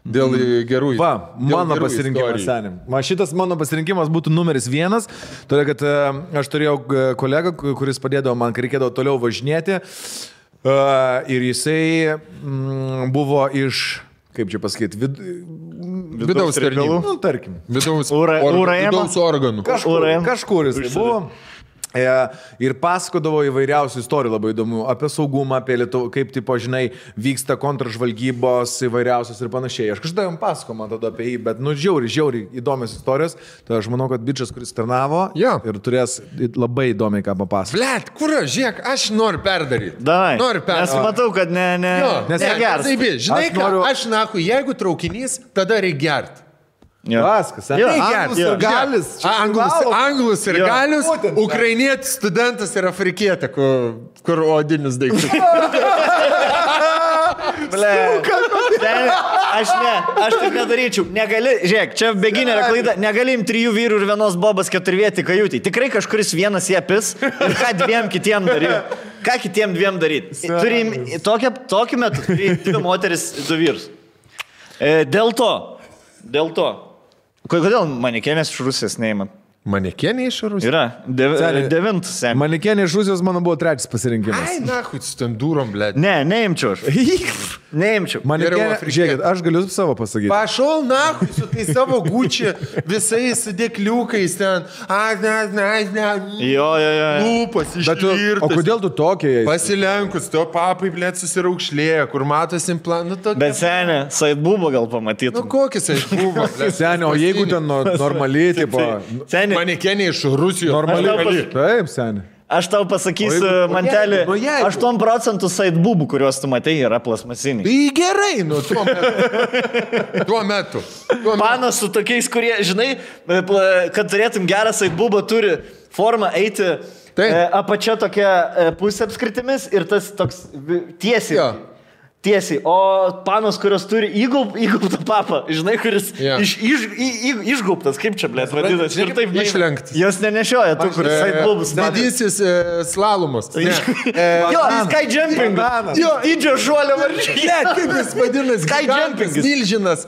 Dėl gerų Va, mano pasirinkimas, senim. Šitas mano pasirinkimas būtų numeris 1, todėl kad aš turėjau kolegą, kuris padėdavo man, kai reikėdavo toliau važinėti. Ir jisai buvo iš, kaip čia pasakyti, vidaus tarnybų. Nu, tarkim. Vidaus organų. Kažkur jisai buvo. Ir pasakodavo įvairiausių istorijų labai įdomių apie saugumą, apie Lietuvą, kaip, tipo, žinai, vyksta kontržvalgybos įvairiausios ir panašiai. Aš kažkada jam pasakojau man tada apie jį, bet, nu, žiauriai įdomios istorijos. Tai aš manau, kad bičas, kuris tarnavo ir turės labai įdomiai ką papasakoti. Blet, kur aš, žiūrėk, aš noriu perdaryti. Noriu perdaryti. Nes matau, kad negers. Žinai, aš naku, jeigu traukinys, tada reikia gerti. Vaskas, Anglus ir galius, ukrainietis studentas ir afrikietė, kur odinis daiktas. Aš taip nedaryčiau. Negali, žiūrėk, čia beginė klaida, negalim 3 vyrų ir vienos bobas 4-vietį kajutį. Tikrai kažkuris vienas jie pis ir ką 2 kitiem daryti. Ką kitiem 2 daryti? Turim tokiu metu 2 moteris, 2 vyrus. Dėl to. Kodėl manekenės iš Rusijos neįman? Manekenė iš Rusijos? Yra. 9. Manekenė iš Rusijos mano buvo 3 pasirinkimas. Ai, nahui, su ten durom, blėt. Neimčiau aš. Neimčiau. Manekenė, žiūrėkit, aš galiu savo pasakyti. Pašol, nahui, su tai savo gučiu, visais dėkliukais ten. Jo. Lūpas išvirtas. O kodėl tu tokia? Pasilenkus, to papai, blėt, susiraukšlėja, kur matosi implantų. Bet senė, saidbubo gal pamatytum. Nu, kokis saidbubo, blėt. Senė, o jeigu ten normaliai, tipo... Manekenė iš Rusijos. Normaliai. Taip, senė. Aš tau pasakysiu, mantelį, 8% saidbubų, kuriuos tu matai, yra plasmasiniai. Tai gerai, nu, tuo metu. Panas su tokiais, kurie, žinai, kad turėtum gerą saidbubą, turi formą eiti apačia tokia pusė apskritimis ir tas toks tiesiai. Tiesiai, o panos, kurios turi įgaubtą papą, žinai, kuris išgaubtas, kaip čia, blėt, vadinasi, ir taip išlenktas. Jos nenešioja tų, kuris saidbubus. Didysis slalomas. Jo, sky jumping. Jo, didžio šuolio varžybos. Ne, kaip jis vadinasi? Sky jumping. Milžinas.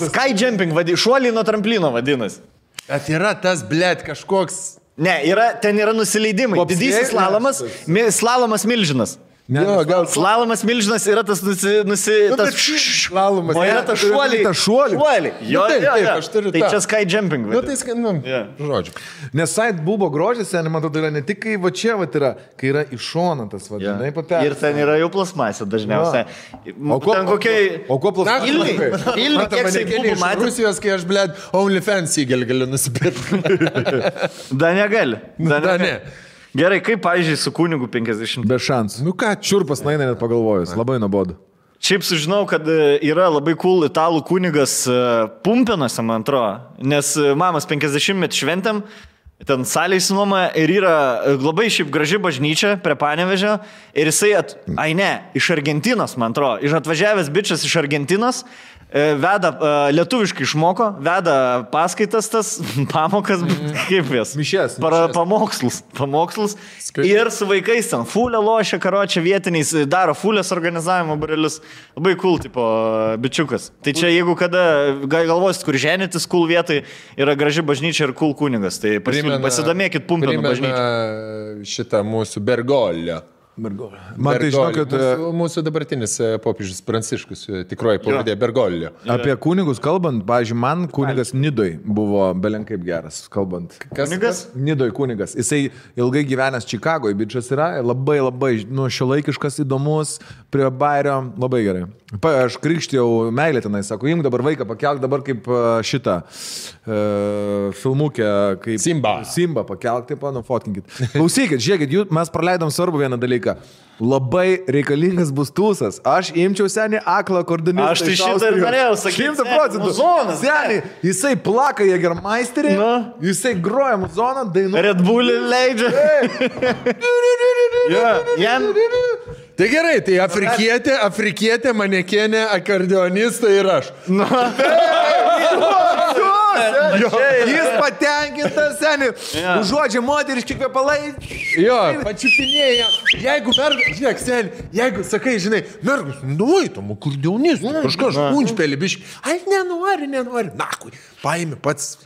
Sky jumping, šuoliai nuo tramplino vadinasi. Bet yra tas, blėt, kažkoks... Ne, ten yra nusileidimai. Didysis slalomas milžinas. Ne, slalomas milžinas yra tas slalomas. O yra tas šuoliai. Jo, aš turiu tą. Tai čia sky jumping. Nu, tai žodžiu. Nes side bubo grožis, man atrodo, yra ne tik kai va čia va yra, kai yra iššonantas, vadinai, papėras. Ir ten yra jau plasmasė dažniausiai. O kuo plasmasė? Ilgi, kiek saidbubų matė. Rusijos, kai aš, blėd, OnlyFans įgelį galiu nusipirkti. Da negali. Da ne. Gerai, kaip, pavyzdžiui, su kunigu 50? Be šansų. Nu ką, čiurpas naina net pagalvojus. Labai nuobodu. Šiaip sužinau, kad yra labai cool italų kunigas Pumpinuose, man atrodo. Nes mamos 50-metį šventėm, ten salė įsinuomoja ir yra labai šiaip graži bažnyčia prie Panevėžio. Ir jisai, iš Argentinos, man atrodo. Atvažiavęs bičas iš Argentinos. Veda, lietuviškai išmoko, veda paskaitas tas, pamokas, kaip jas? Mišės. Pamokslus. Ir su vaikais ten fulę lošia, karočią vietiniais, daro fulės organizavimo barelius. Labai cool, tipo, bičiukas. Tai čia jeigu kada galvosit, kur ženytis cool vietai, yra graži bažnyčia ir cool kunigas. Tai pasidomėkit Pumpinų bažnyčią. Šitą mūsų Bergoglio. Man tai žinau, kad... Mūsų dabartinis popiežius Pranciškus, tikroji pavadė Bergoglio. Apie kunigus kalbant, pavyzdžiui, man kunigas Nidoj buvo belenkaip geras, kalbant. Kunigas? Nidoj kunigas. Jisai ilgai gyvenęs Čikagoje, bičias yra, labai, šiuolaikiškas, įdomus, prie Bairio, labai gerai. Aš krikštėjau meilę tenai, sako, imk dabar vaiką, pakelk dabar kaip šitą filmukę, kaip... Simba pakelk, taip, fotkinkit. Klausykit, žiūrėkit, mes praleidom svarbu vieną dalyką. Labai reikalingas bus tūsas. Aš imčiau senį aklą akordonistą. Aš tai šitą ir norėjau sakyti. 100%. Senį, jisai plaka Jägermeisterį, jisai groja muzoną, dainuoja. Red Bullį leidžia. Tai gerai, tai afrikietė, manekenė, akordeonistą ir aš. Jis patenkintas, seniai. Užuodžia moteriški kvepalai. Jo, pačiupinėja. Jeigu mergas, žiūrėk, seniai, jeigu sakai, žinai, mergas, nueitum, akordeonistų, kažkas punčpelį biškį. Ai, nenori. Nakui, paimi pats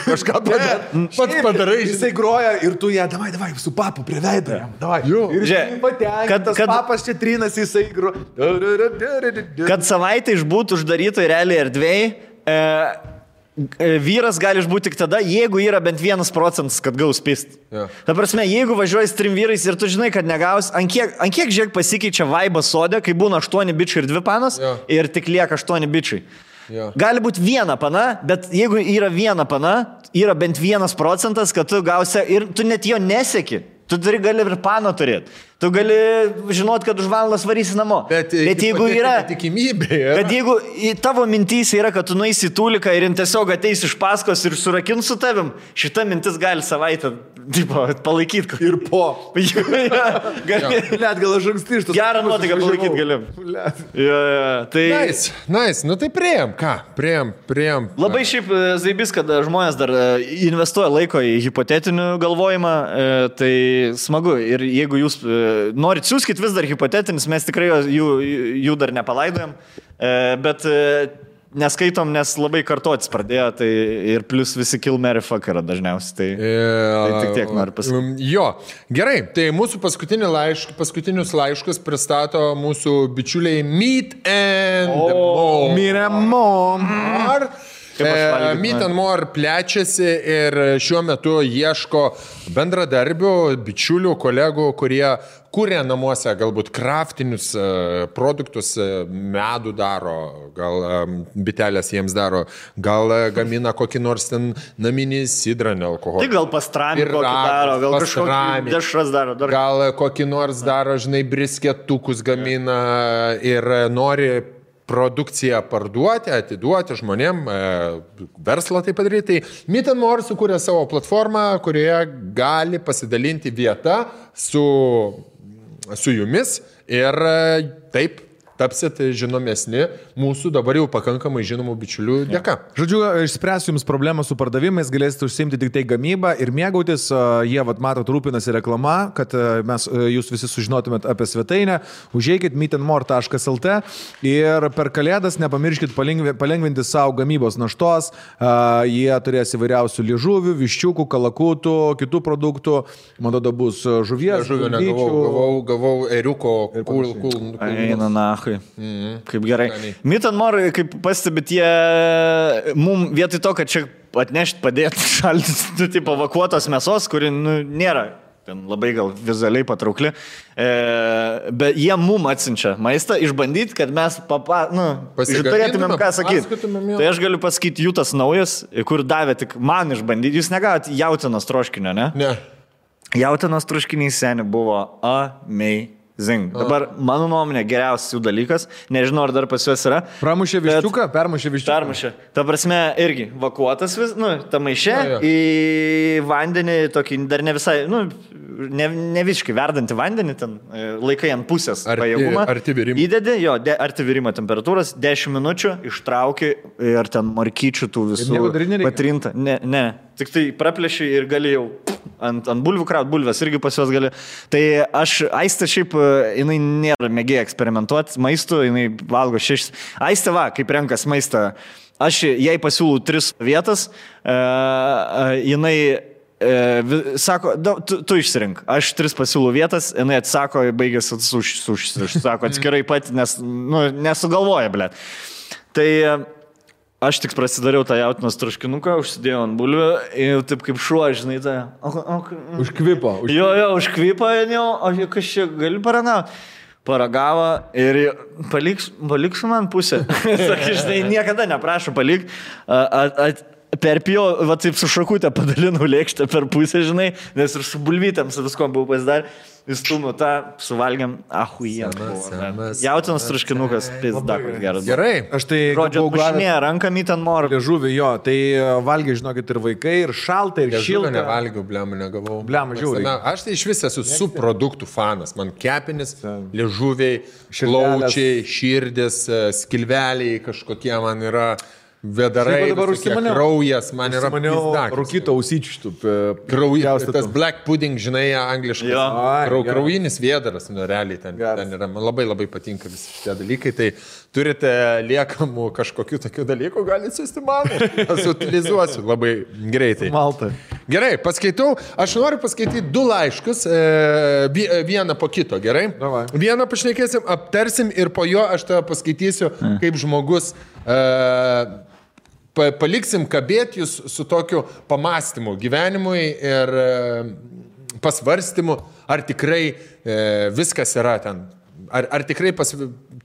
kažką padarai. Jisai groja ir tu ją, davai, su papu prie veido. Ir jisai patenkintas, papas čia trinas, jisai groja. Kad savaitę išbūtų uždarytoj realiai erdvėj, vyras gali išbūti tik tada, jeigu yra bent 1%, kad gaus pist. Ta prasme, jeigu važiuoji su 3 vyrais ir tu žinai, kad negaus, ant kiek žiūrėk pasikeičia vaibas sode, kai būna 8 bičiai ir 2 panos ir tik lieka 8 bičiai. Gali būti 1 pana, bet jeigu yra 1 pana, yra bent 1%, kad tu gausi ir tu net jo neseki. Tu gali ir pano turėti. Tu gali žinot, kad už valandas varysi namo. Bet jeigu yra... Tikimybė. Bet jeigu tavo mintys yra, kad tu nueisi į tūliką ir tiesiog ateis iš paskos ir surakins su tavim, šita mintis gali savaitę palaikyti. Ir po. Net gal aš anksti iš tos... Gerą nuotaiką palaikyti galim. Nice. Nu tai priėjom. Ką? Priėjom. Labai šiaip zaibis, kad žmonės dar investuoja laiko į hipotetinių galvojimą, tai smagu. Ir jeigu jūs norit, siūskit vis dar hipotetinis, mes tikrai jų dar nepalaidojam, bet neskaitom, nes labai kartotis pradėjo, tai ir plus visi kill, marry, fuck yra dažniausiai, tai tik tiek noriu pasakyti. Jo, gerai, tai mūsų paskutinius laiškus pristato mūsų bičiuliai Meat and More. Meat and More plečiasi ir šiuo metu ieško bendradarbių, bičiulių, kolegų, kurie kuria namuose galbūt kraftinius produktus, medų daro, gal bitelės jiems daro, gal gamina kokį nors ten naminį sidrą, nealkoholį. Tai gal pastrami kokį daro, gal kažkokį dešras daro. Gal kokį nors daro, žinai, brisketukus gamina ir nori produkciją parduoti, atiduoti žmonėm, verslą tai padaryti. Tai Meat and More sukūrė savo platformą, kurioje gali pasidalinti vietą su jumis ir taip tapsit žinomesni mūsų dabar jau pakankamai žinomų bičiulių dėka. Žodžiu, išspręsiu jums problemą su pardavimais, galėsite užsiimti tik tai gamybą ir mėgautis. Jie, matot, rūpinasi reklama, kad jūs visi sužinotumėt apie svetainę. Užeikit meatandmore.lt ir per kalėdas nepamirškit palengvinti savo gamybos naštos. Jie turės įvairiausių liežuvių, viščiukų, kalakutų, kitų produktų. Man tada bus žuvies. Žuvio negavau eriuko. Eina nachui. Kaip gerai. Meat and More, kaip pastebit, jie mum vietoj to, kad čia atnešti, padėti šaldyti, tipo vakuotos mėsos, kuri nėra ten labai gal vizualiai patraukli, bet jie mum atsiunčia maistą išbandyti, kad mes turėtumėm ką sakyti. Tai aš galiu pasakyti, jų tas naujas, kur davė tik man išbandyti. Jūs negavot jautienos troškinio, ne? Ne. Jautienos troškinys seniai buvo amazing. Dabar, mano nuomonė, geriausias jų dalykas. Nežinau, ar dar pas juos yra. Pramušė viščiuką? Permušė viščiuką. Permušė. Ta prasme, irgi vakuotas ta maišė į vandenį, tokį dar ne visai, ne visiškai verdantį vandenį, ten laikai ant pusės pajėgumą. Arti virimo. Įdedi, arti virimo temperatūros, 10 minučių, ištrauki ir ten markyčių tų visų patrinta. Ne. Tik tai praplėši ir gali jau ant bulvių kraut, bulvės irgi pas juos gali. Tai Aistė šiaip, jinai nėra mėgėja eksperimentuoti maistu, jinai valgo 6. Aistė kaip renkas maistą, aš jai pasiūlau 3 vietas, jinai sako, tu išsirink, aš 3 pasiūlų vietas, jinai atsako, baigėsi sako atskirai pat, nes nesugalvoja, ble. Tai aš tik prasidariau tą jautinos traškinuką, užsidėjau ant bulvių ir taip kaip šuo, žinai, tai... Užkvipo. Jo, užkvipo, o kas čia gali paranauti? Paragavo ir paliksiu man pusę. Sakai, žinai, niekada neprašau palik. Perpijau, va taip su šakutė padalinau lėkštę per pusę, žinai, nes ir su bulvytėm, su viskom buvau pasidarę. Įstumiu tą, suvalgiam, jautinos traškinukas, pizda, kur geras. Gerai. Aš tai... Rodžio, pušinė, rankam į ten morą. Liežuvį, jo, tai valgiai, žinokit, ir vaikai, ir šalta, ir šilta. Liežuvį nevalgiau, blemą negavau. Blemą, žiūrėjau. Aš tai iš vis esu subproduktų fanas. Man kepinis, liežuviai, plaučiai, širdis, skilveliai kažkokie man yra... Vedarai, kraujas, man yra pizdak. Rūkyto ausyčių. Kraujas, tas black pudding, žinai, angliškai. Kraujinis vėdaras, realiai ten yra. Man labai labai patinka visi šitie dalykai. Tai turite liekamų kažkokių tokių dalykų, galite siūsti man. Aš utilizuosiu labai greitai. Malta. Gerai, paskaitau. Aš noriu paskaityti 2 laiškus, vieną po kito, gerai? Davai. Vieną pašnekėsim, aptarsim ir po jo aš tave paskaitysiu kaip žmogus... Paliksim kabėti jūs su tokiu pamastymu gyvenimui ir pasvarstymu, ar tikrai viskas yra ten. Ar tikrai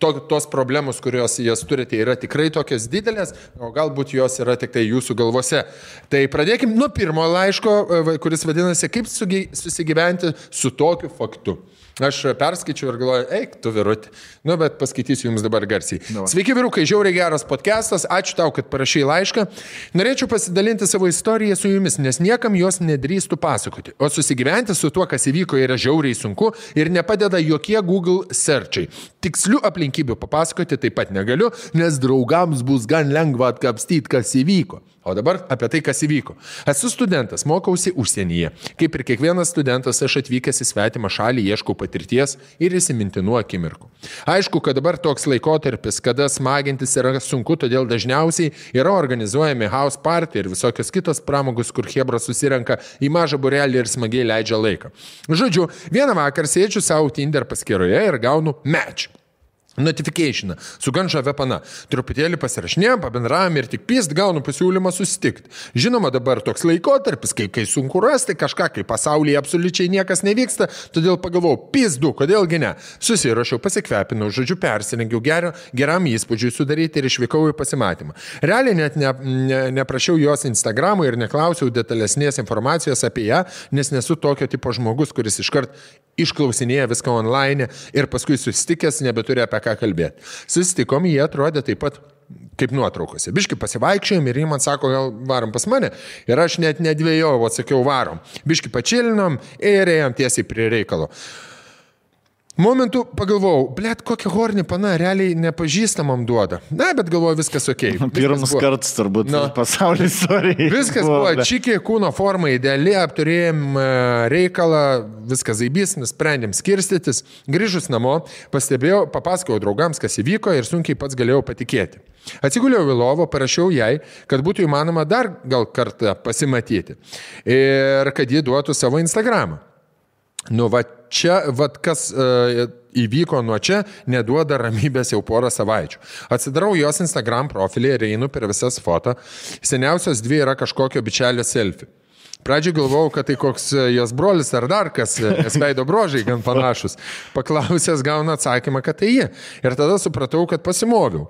tos problemos, kurios jas turite, yra tikrai tokios didelės, o galbūt jos yra tik tai jūsų galvose. Tai pradėkim nuo pirmo laiško, kuris vadinasi, kaip susigyventi su tokiu faktu. Aš perskaičiu ir galvoju, eik, tu virutį. Bet paskaitysiu jums dabar garsiai. Sveiki, vyrukai, žiauriai geras podcastas. Ačiū tau, kad parašai laišką. Norėčiau pasidalinti savo istoriją su jumis, nes niekam jos nedrįstų pasakoti. O susigyventi su tuo, kas įvyko, yra žiauriai sunku ir nepadeda jokie Google searchai. Tikslių aplinkybių papasakoti taip pat negaliu, nes draugams bus gan lengva atkapstyti, kas įvyko. O dabar apie tai, kas įvyko. Esu studentas, mokausi užsienyje. Kaip ir kiekvienas studentas, aš atvykęs į svetimą šalį, ieškau patirties ir įsimintinų akimirkų. Aišku, kad dabar toks laikotarpis, kada smagintis yra sunku, todėl dažniausiai yra organizuojami house party ir visokios kitos pramogos, kur chebra susirenka į mažą burelį ir smagiai leidžia laiką. Žodžiu, vieną vakarą sėdžiu savo Tinder paskyroje ir gaunu match. Notification, su gan žavia pana. Truputėlį pasirašinėjom, pabendravom ir tik pist gaunu pasiūlymą susitikti. Žinoma, dabar toks laikotarpis, kai sunku rasti kažką, kai pasaulyje absoliučiai niekas nevyksta, todėl pagalvojau, pizdu, kodėlgi ne. Susirašiau, pasikvepinau, žodžiu, persirengiau geram įspūdžiui sudaryti ir išvykau į pasimatymą. Realiai net neprašiau jos Instagramų ir neklausiau detalesnės informacijos apie ją, nes nesu tokio tipo žmogus, kuris iškart išklausinėja viską online ir paskui susitikęs nebeturi apie ką kalbėti. Susitikom, jie atrodė taip pat kaip nuotraukose. Biški pasivaikščiojom ir jie man sako, gal varom pas mane. Ir aš net nedvėjau, atsakiau varom. Biški pačilinom ir ėjom tiesiai prie reikalo. Momentu pagalvojau, blėt, kokią hornį pana realiai nepažįstamam duoda. Na, bet galvoju, viskas ok. Pirmas kartas turbūt pasaulio istorijai. Viskas buvo čikė, kūno forma ideali, apturėjom reikalą, viskas zaibys, nusprendėm skirstytis. Grįžus namo, papasakojau draugams, kas įvyko ir sunkiai pats galėjau patikėti. Atsiguliau į lovą, parašiau jai, kad būtų įmanoma dar gal kartą pasimatyti ir kad ji duotų savo Instagramą. Kas įvyko nuo čia, neduoda ramybės jau porą savaičių. Atsidarau jos Instagram profilį ir einu per visas foto. Seniausios 2 yra kažkokio bičelio selfie. Pradžiai galvojau, kad tai koks jos brolis ar dar kas, nes veido brožiai gan panašus. Paklausęs gauna atsakymą, kad tai ji. Ir tada supratau, kad pasimoviau.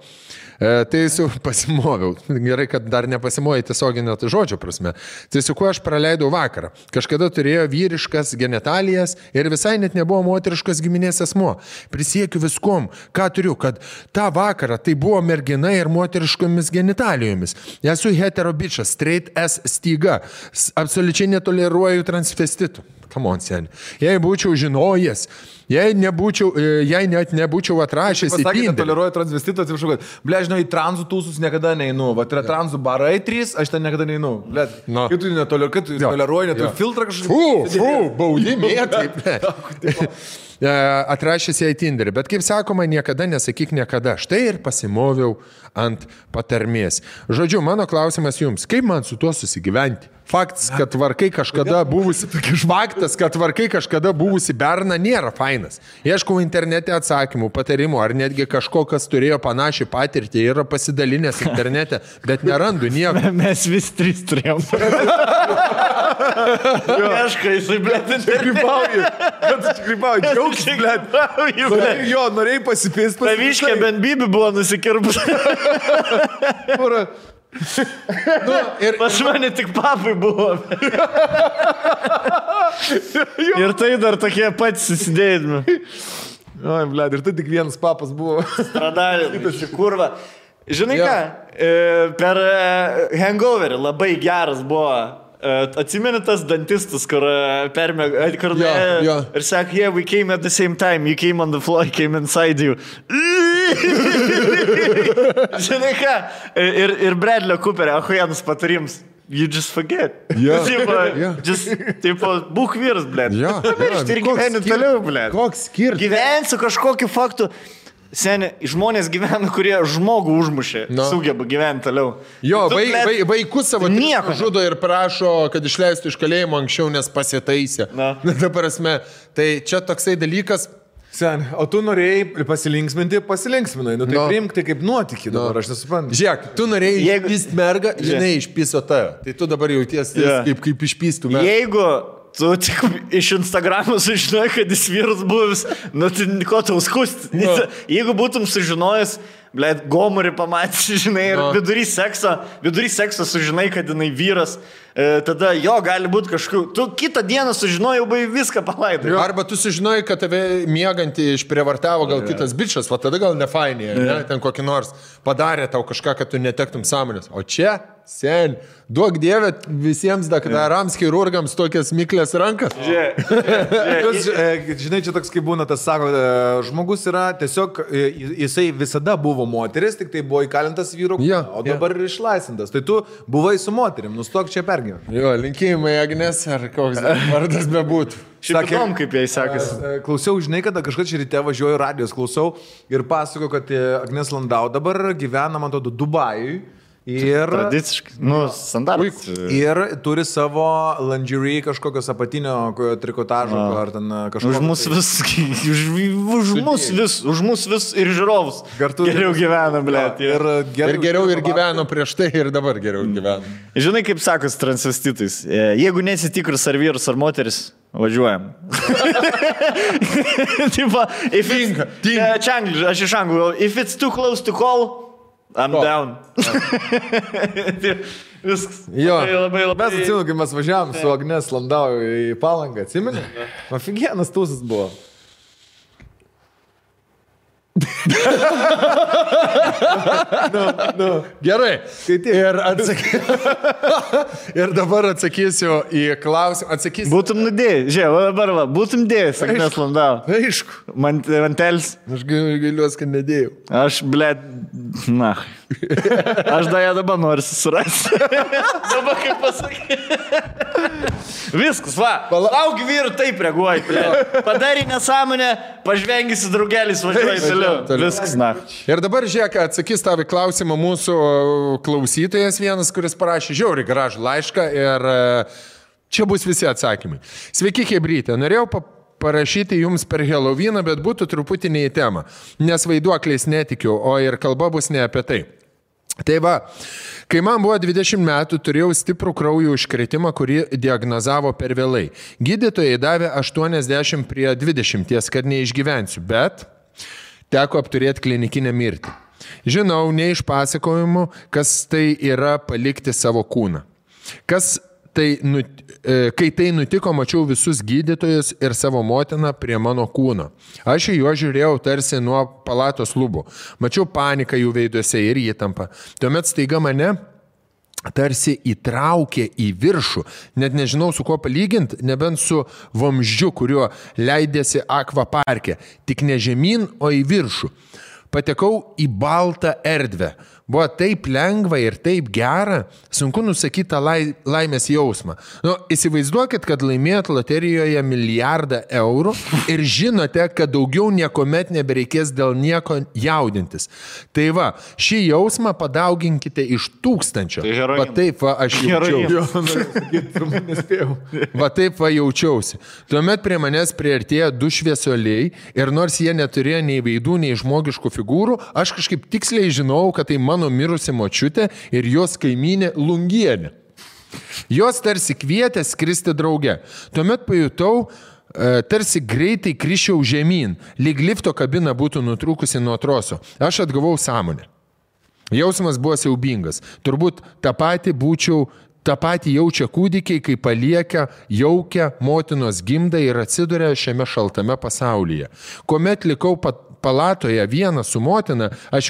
Pasimoviau. Gerai, kad dar nepasimoviau tiesioginio žodžio prasme. Tai su kuo aš praleidau vakarą. Kažkada turėjo vyriškas genitalijas ir visai net nebuvo moteriškas giminės asmuo. Prisiekiu viskom, ką turiu, kad tą vakarą tai buvo mergina ir moteriškomis genitalijomis. Esu hetero bičas, straight as styga. Absoliučiai netoleruoju transvestitų. come on, seni. Jei būčiau žinojęs, jei net nebūčiau atrašęs į Tinderį. Toleruoju transvestitą, atsiprašau, kad, ble, žinau, į tranzų tūsus niekada neinu. Vat yra tranzų barai 3, aš ten niekada neinu. Ble, kaip tu netoleruoji, neturi filtrą kažkaip. Baudimė, taip. Atrašęs į Tinderį, bet kaip sakoma, niekada nesakyk niekada. Štai ir pasimoviau ant patarmės. Žodžiu, mano klausimas jums, kaip man su tuo susigyventi? Faktas, kad tvarkai kažkada buvusi berna nėra fainas. Ieškau internete atsakymų, patarimų, ar netgi kažko, kas turėjo panašią patirtį, yra pasidalinęs internete, bet nerandu nieko. Mes vis 3 turėjom. Ieškai, jisai, blėt, Grybauji, džiaugs, blėt. Jo, norėjai pasipėsti. Taviškė bent bibi buvo nusikirpus. Ir pas mane tik papai buvo. Ir tai dar tokie patys susidėjami. Oi, blėt, ir tai tik vienas papas buvo. Stradalė, kurva. Žinai ką, per Hangoverį labai geras buvo. Atsimeni tas dantistas, kur ir sakė, yeah, we came at the same time, you came on the floor, I came inside you. Žinai ką, ir Bradley Cooper, ahujanus patarims, you just forget. Tipo, būk vyras, blėt. Ir gyveni toliau, blėt. Koks skirtas? Gyvensiu kažkokiu faktu. Seni, žmonės gyvena, kurie žmogų užmušė, sugeba gyventi toliau. Jo, vaikus savo žudo ir prašo, kad išleistų iš kalėjimo anksčiau, nes pasitaisė. Ta prasme, tai čia toksai dalykas. Seni, o tu norėjai pasilinksminai. Nu tai priimk tai kaip nuotykį dabar, aš nesuprantu. Žiūrėk, tu norėjai išpyst mergą, žinai, išpyso tave. Tai tu dabar jautiesi kaip išpystų mergą. Jeigu tu tik iš Instagramo sužinojai, kad jis vyras buvęs, nu tai ko tau skusti? Jeigu būtum sužinojęs, blėt, gomurį pamatys, žinai, ir vidury sekso sužinai, kad jinai vyras, tada jo gali būti kažkokiu, tu kitą dieną sužinojai, jau viską palaidai. Arba tu sužinojai, kad tave miegantį išprievartavo gal kitas bičas, va tada gal nefainė, ten kokį nors padarė tau kažką, kad tu netektum sąmonės. O čia, sen, duok dievę visiems daktarams, chirurgams tokias miklės rankas. Žinai, čia toks kaip būna, tas sako, žmogus yra tiesiog, jisai visada buvo moteris, tik tai buvo įkalintas vyru, o dabar ir išlaisvintas. Tai tu buvai su moterim, nustok čia pergyventi. Jo, linkėjimai Agnes, ar koks vardas bebūtų. Šiaip įdomu, kaip jai sekasi. Klausiau, žinai, kada kažkas čia ryte važiuoju radijos, klausau ir pasako, kad Agnes Landau dabar gyvena, man atrodo, Dubajui. Ir tradiciškai, standartas. Ir turi savo lingerie kažkokios apatinio trikotažo, ar ten kažkokio. Už mus vis ir žiūrovus. Geriau gyvena, blėt. Ir geriau ir gyveno prieš tai, ir dabar geriau gyvena. Žinai, kaip sakos transvestitais. Jeigu nesitikris ar vyras ar moteris, važiuojam. Aš iš anglų. If it's too close to call, I'm down. Viskas. Jo, mes atsimenu, kai mes važiavom su Agnes Landau į Palangą, atsimeni? Afigienas tūsas buvo. Gerai. Ir dabar atsakysiu į klausimą. Būtum nudėjai. Žiūrėjau, dabar būtum dėjęs, Agnes Landau. Aišku. Mantelis. Aš gailiuosi, kad nedėjau. Aš, blėt, na. Aš dabar noriu susirasti. Dabar kaip pasakyti. Viskas, va. Lauk vyrų taip reaguoji. Padarai nesąmonę, pažvengysi draugelis, važiuoji toliau. Viskas, na. Ir dabar, žiūrėk, atsakys tavo klausimą mūsų klausytojas vienas, kuris parašė žiauriai gražų laišką ir čia bus visi atsakymai. Sveiki, chebrytė. Norėjau parašyti jums per Helovyną, bet būtų truputį ne į temą, nes vaiduokliais netikiu, o ir kalba bus ne apie tai. Tai va, kai man buvo 20 metų, turėjau stiprų kraujo užkretimą, kurį diagnozavo per vėlai. Gydytojai davė 80 prie 20, kad neišgyvensiu, bet teko apturėti klinikinę mirtį. Žinau, ne iš pasakojimų, kas tai yra palikti savo kūną. Kai tai nutiko, mačiau visus gydytojus ir savo motiną prie mano kūno. Aš į juos žiūrėjau tarsi nuo palatos lubų. Mačiau paniką jų veiduose ir įtampą. Tuomet staiga mane tarsi įtraukė į viršų. Net nežinau, su kuo palyginti, nebent su vamzdžiu, kuriuo leidėsi akvaparke. Tik ne žemyn, o į viršų. Patekau į baltą erdvę. Buvo taip lengva ir taip gera, sunku nusakyti tą laimės jausmą. Įsivaizduokit, kad laimėjot loterijoje 1 milijardą eurų ir žinote, kad daugiau niekuomet nebereikės dėl nieko jaudintis. Tai va, šį jausmą padauginkite iš 1000. Va taip va aš jaučiausi. Va taip va jaučiausi. Tuomet prie manęs priartėjo 2 šviesuoliai ir nors jie neturėjo nei veidų, nei žmogiškų figūrų, aš kažkaip tiksliai žinau, kad tai mano mirusi močiutė ir jos kaimynė Lungienė. Jos tarsi kvietė skristi drauge. Tuomet pajutau, tarsi greitai krišiau žemyn, lyg lifto kabina būtų nutrūkusi nuo troso. Aš atgavau sąmonę. Jausmas buvo siaubingas. Turbūt tą patį jaučia kūdikiai, kai palieka jaukia motinos gimdą ir atsiduria šiame šaltame pasaulyje. Kuomet likau palatoje vieną su motina, aš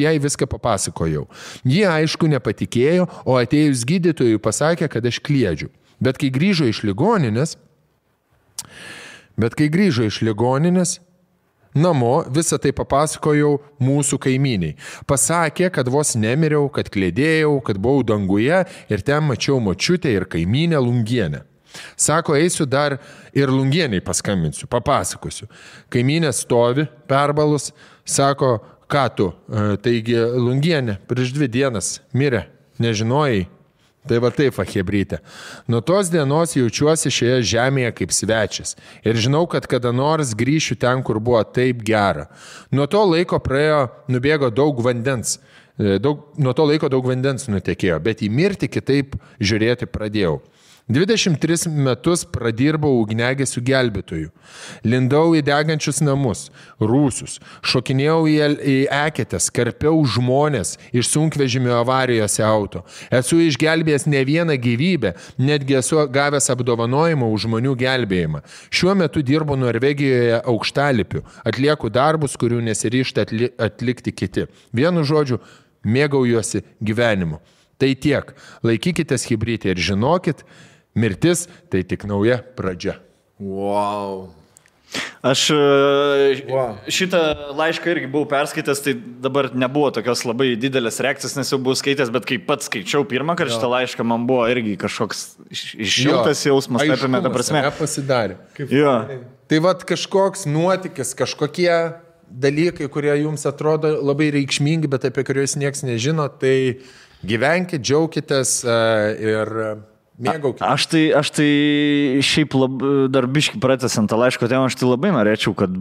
jai viską papasakojau. Ji aišku nepatikėjo, o atėjus gydytojui pasakė, kad aš kliedžiu. Bet kai grįžo iš ligoninės, namo visą tai papasakojau mūsų kaimyniai. Pasakė, kad vos nemiriau, kad klėdėjau, kad buvau danguje ir ten mačiau močiutę ir kaimynę Lungienę. Sako, eisiu dar ir Lungieniai paskambinsiu, papasakosiu. Kaimynė stovi, perbalus, sako, ką tu, taigi Lungienė prieš 2 dienas mirė, nežinojai. Tai va taip, chebrytė. Nuo tos dienos jaučiuosi šioje žemėje kaip svečias. Ir žinau, kad kada nors grįšiu ten, kur buvo taip gera. Nuo to laiko nubėgo daug vandens. Nuo to laiko daug vandens nutekėjo, bet į mirtį kitaip žiūrėti pradėjau. 23 metus pradirbau ugniagesių gelbėtojų. Lindau į degančius namus, rūsius, šokinėjau į eketės, karpiau žmonės iš sunkvežimio avarijose auto. Esu išgelbėjęs ne vieną gyvybę, netgi esu gavęs apdovanojimą už žmonių gelbėjimą. Šiuo metu dirbu Norvegijoje aukštalipiu, atlieku darbus, kurių nesiryžta atlikti kiti. Vienu žodžiu, mėgaujuosi gyvenimu. Tai tiek. Laikykitės chebrytė ir žinokit, mirtis tai tik nauja pradžia. Wow. Aš šitą laišką irgi buvau perskaitęs, tai dabar nebuvo tokios labai didelės reakcijos, nes jau buvau skaitęs, bet kai pats skaičiau pirmą kartą šitą laišką, man buvo irgi kažkoks išjautas jausmas, apėmė tą prasme. Pasidarė. Tai vat kažkoks nuotykis, kažkokie dalykai, kurie jums atrodo labai reikšmingi, bet apie kuriuos niekas nežino, tai gyvenkit, džiaukitės ir mėgaukit. Aš tai šiaip dar biškį pratęsiant tą laiško temą, aš tai labai norėčiau, kad,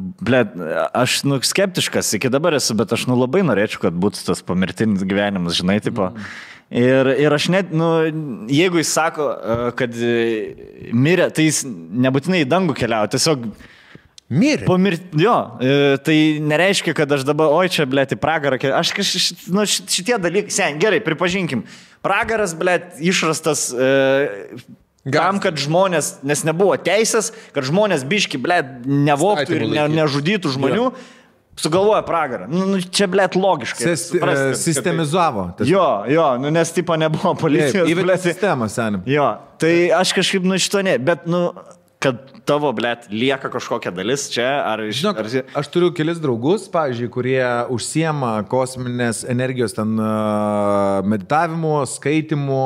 aš skeptiškas iki dabar esu, bet aš labai norėčiau, kad būtų tas pomirtinis gyvenimas, žinai, tipo. Ir aš net, jeigu jis sako, kad mirė, tai jis nebūtinai į dangų keliauja, tiesiog mirė. Tai nereiškia, kad aš dabar, čia, į pragarą, šitie dalykai, gerai, pripažinkim, pragaras, išrastas tam, kad žmonės, nes nebuvo teisės, kad žmonės biški, nevoktų ir nežudytų žmonių, sugalvoja pragarą. Čia, logiškai. Sistemizavo. Nes tipo nebuvo policijos. Įvedė sistemą, senim. Tai aš kažkaip šito ne, bet, kad tavo, lieka kažkokia dalis čia, ar... Žinok, aš turiu kelis draugus, pavyzdžiui, kurie užsiema kosminės energijos ten meditavimu, skaitimu,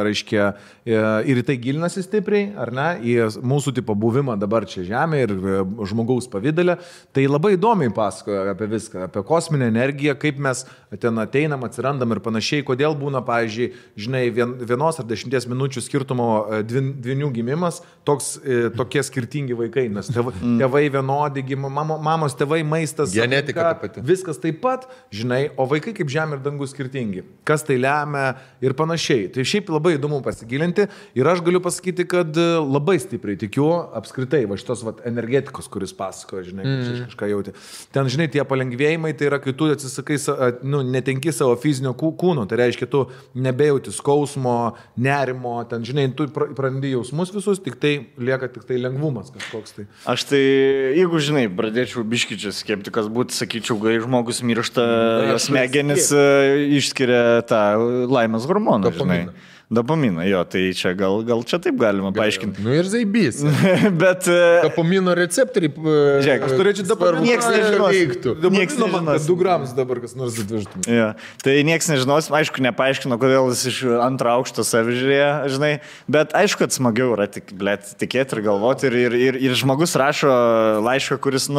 reiškia, ir į tai gilinasi stipriai, ar ne, į mūsų tipo buvimą dabar čia žemė ir žmogaus pavidalę. Tai labai įdomiai pasakoja apie viską, apie kosminę energiją, kaip mes ten ateinam, atsirandam ir panašiai, kodėl būna, pavyzdžiui, žinai, 1 ar 10 minučių skirtumo dvinių gimimas, tokie skirtingi vaikai, nes tėvai vienodi, mamos tėvai, maistas, genetika ta pati. Viskas taip pat, žinai, o vaikai kaip žemė ir dangus skirtingi. Kas tai lemia ir panašiai. Tai šiaip labai įdomu pasigilinti ir aš galiu pasakyti, kad labai stipriai tikiu apskritai va šitos energetikos, kuris pasakoja, žinai, kažką jauti. Ten, žinai, tie palengvėjimai, tai yra, kai tu atsisakai, netenki savo fizinio kūno, tai reiškia, tu nebejauti skausmo, nerimo, ten, žinai, tu prarandi jausmus visus, tik tai lieka tik tai lengvumas. lengvumas kažkoks tai. Aš tai, jeigu žinai, pradėčiau biškičias skeptikas būti, sakyčiau, kai žmogus miršta, smegenis išskiria tą laimės hormoną, žinai. Dopaminą, jo, tai čia gal čia taip galima paaiškinti. Nu ir zaibys. Bet... Dopamino receptoriai... Žiūrėk, aš turėčiau dopaminą. Nieks nežinos. Nieks nežinos. 2 gramus dabar kas nors atvežtum. Ja. Tai nieks nežinos, aišku, nepaaiškino, kodėl jis iš antro aukšto savižiūrėjo, žinai. Bet aišku, kad smagiau yra tikėti ir galvoti. Ir žmogus rašo laišką, kuris,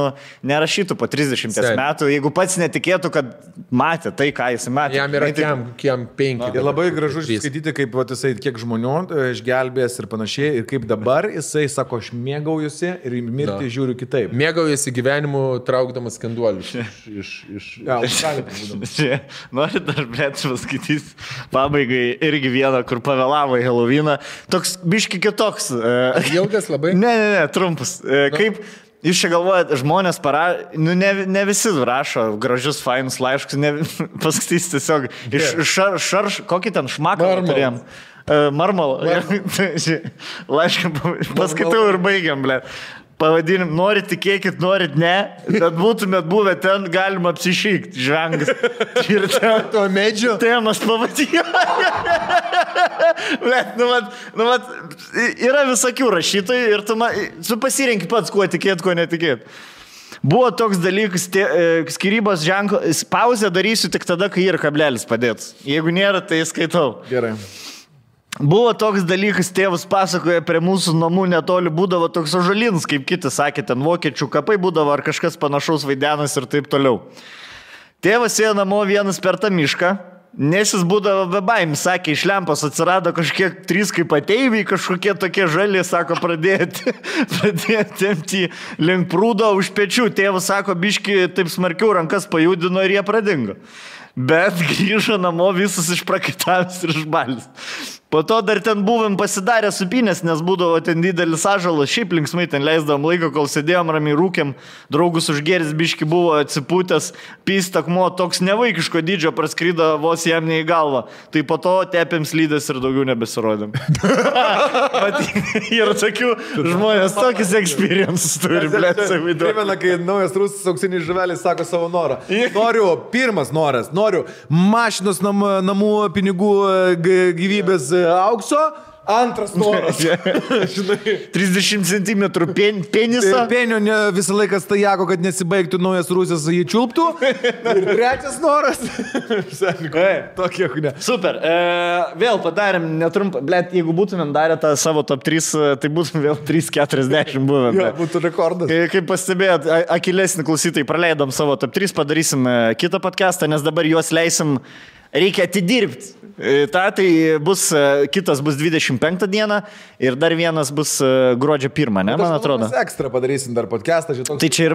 nerašytų po 30 metų, jeigu pats netikėtų, kad matė tai, ką jis matė. Jam yra kiam 5. Ir labai gražu skaityti, kaip jisai kiek žmonių išgelbės ir panašiai, ir kaip dabar jisai sako, aš mėgaujusi ir mirti žiūriu kitaip. Mėgaujasi gyvenimu traukdamas skanduolius Nori dar, blėt, paskaitys pabaigai irgi vieną, kur pavėlavo į Helovyną. Toks biški kitoks. Ilgas labai? Ne, trumpas. Kaip... Jūs čia galvojat, žmonės ne visi rašo gražius, fainus laiškus, paskaitys tiesiog kokį ten šmaką turėjom. Marmalą. Laišką paskaitau ir baigiam, ble. Pavadinim, norit tikėkit, norit ne, bet būtumėt buvę ten, galima apsišykti, žvengas. Ir ten to medžio. Temas pavadėjo. Yra visokių rašytojų ir tu pasirenki pats, kuo tikėt, kuo netikėt. Buvo toks dalykas, skyrybos ženklo, pauzę darysiu tik tada, kai ir kablelis padėt. Jeigu nėra, tai skaitau. Gerai. Buvo toks dalykas, tėvas pasakoja, prie mūsų namų netoli būdavo toks ąžuolinis, kaip kiti sakė, ten vokiečių kapai būdavo ar kažkas panašaus vaidenas ir taip toliau. Tėvas ėjo namo vienas per tą mišką, nes jis būdavo be baimės, sakė, iš lempos atsirado kažkiek 3 kaip ateiviai, kažkokie tokie žali, sako, pradėti tempti link prūdo už pečių. Tėvas sako, biški taip smarkiau rankas pajudino ir jie pradingo. Bet grįžo namo visus išprakaitavęs ir išbalis. Po to dar ten buvom pasidarę supinės, nes būdavo ten didelis ąžuolas, šiaip linksmai ten leisdavom laiką, kol sėdėjom ramiai rūkėm, draugus užgeris biški buvo atsipūtęs, pystakmo toks nevaikiško dydžio praskrydo vos jam ne į galvą. Tai po to tepėm slydės ir daugiau nebesirodėm. Ir tokių žmonės tokius experiences turi, blėt, savidu. Primena, kai naujas rusas auksinis žuvelis sako savo norą. Pirmas noras, noriu mašinos namų pinigų gyvybės aukso, antras noras. 30 cm penisą. Penio visą laiką stajako, kad nesibaigtų naujas rusas jį čiulptų. Ir trečias noras. Tokie, ne. Super. Vėl padarėm netrumpą. Blet, jeigu būtumėm darę tą savo top 3, tai būtum vėl 3:40 buvę. Jo, būtų rekordas. Kaip pastebėjot, akilesnį klausytojai, praleidom savo top 3, padarysim kitą podcastą, nes dabar juos leisim. Reikia atidirbti. Tai bus, kitas bus 25 dieną ir dar vienas bus gruodžio 1, ne, man atrodo. Mes ekstra padarysim dar podcastą. Tai čia ir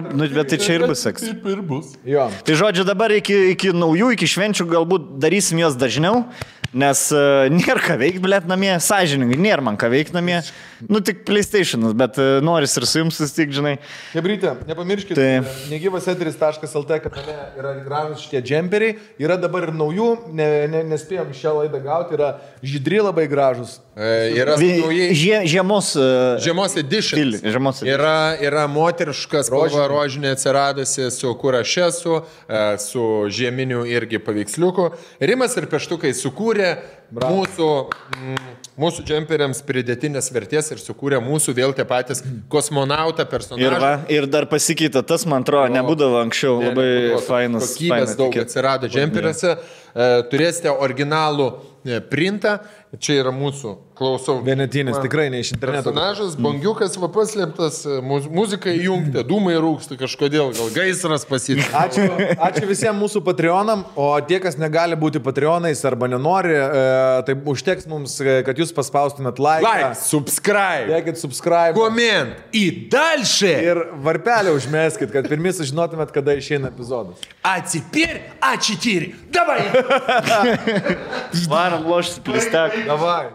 bus ekstra. Taip ir bus. Jo. Tai žodžiu, dabar iki naujų, iki švenčių galbūt darysim juos dažniau, nes nėra ką veikti, blėt, namie, sąžiningai, nėra man ką veikti namie. Tik PlayStation'as, bet noris ir su jums sustik, žinai. Hebrytė, nepamirškite, negyvaseteris.lt kanale yra gražus šitie džemperiai, yra dabar ir naujų, nespėjom šią laidą gauti, yra žydri labai gražus. Yra žiemos edition. Yra moteriškas spalva rožinė atsiradusi su kur aš esu, su žieminiu irgi paveiksliuku. Rimas ir Peštukai sukūrė mūsų džemperiams pridėtinės vertės ir sukūrė mūsų vėl tie patys kosmonautą personažą. Ir dar pasikeitė, tas man atrodo, nebūdavo anksčiau, labai fainas. Kokybės daug atsirado džemperiuose. Turėsite originalų printą. Čia yra mūsų, klausau. Vienetinis, tikrai ne iš interneto. Personažas, bangiukas, paslėptas, muzika įjungta, dūmai rūksta kažkodėl, gal gaisras pasitė. Ačiū visiems mūsų Patreonam, o tie, kas negali būti Patreonais arba nenori, tai užteks mums, kad jūs paspaustumėt like, subscribe, dėkit subscribe, comment, į dalšį ir varpelį užmeskit, kad pirmi sužinotumėt, kada išeina epizodas. А теперь А4. Давай! Varom loštis plistek. Давай.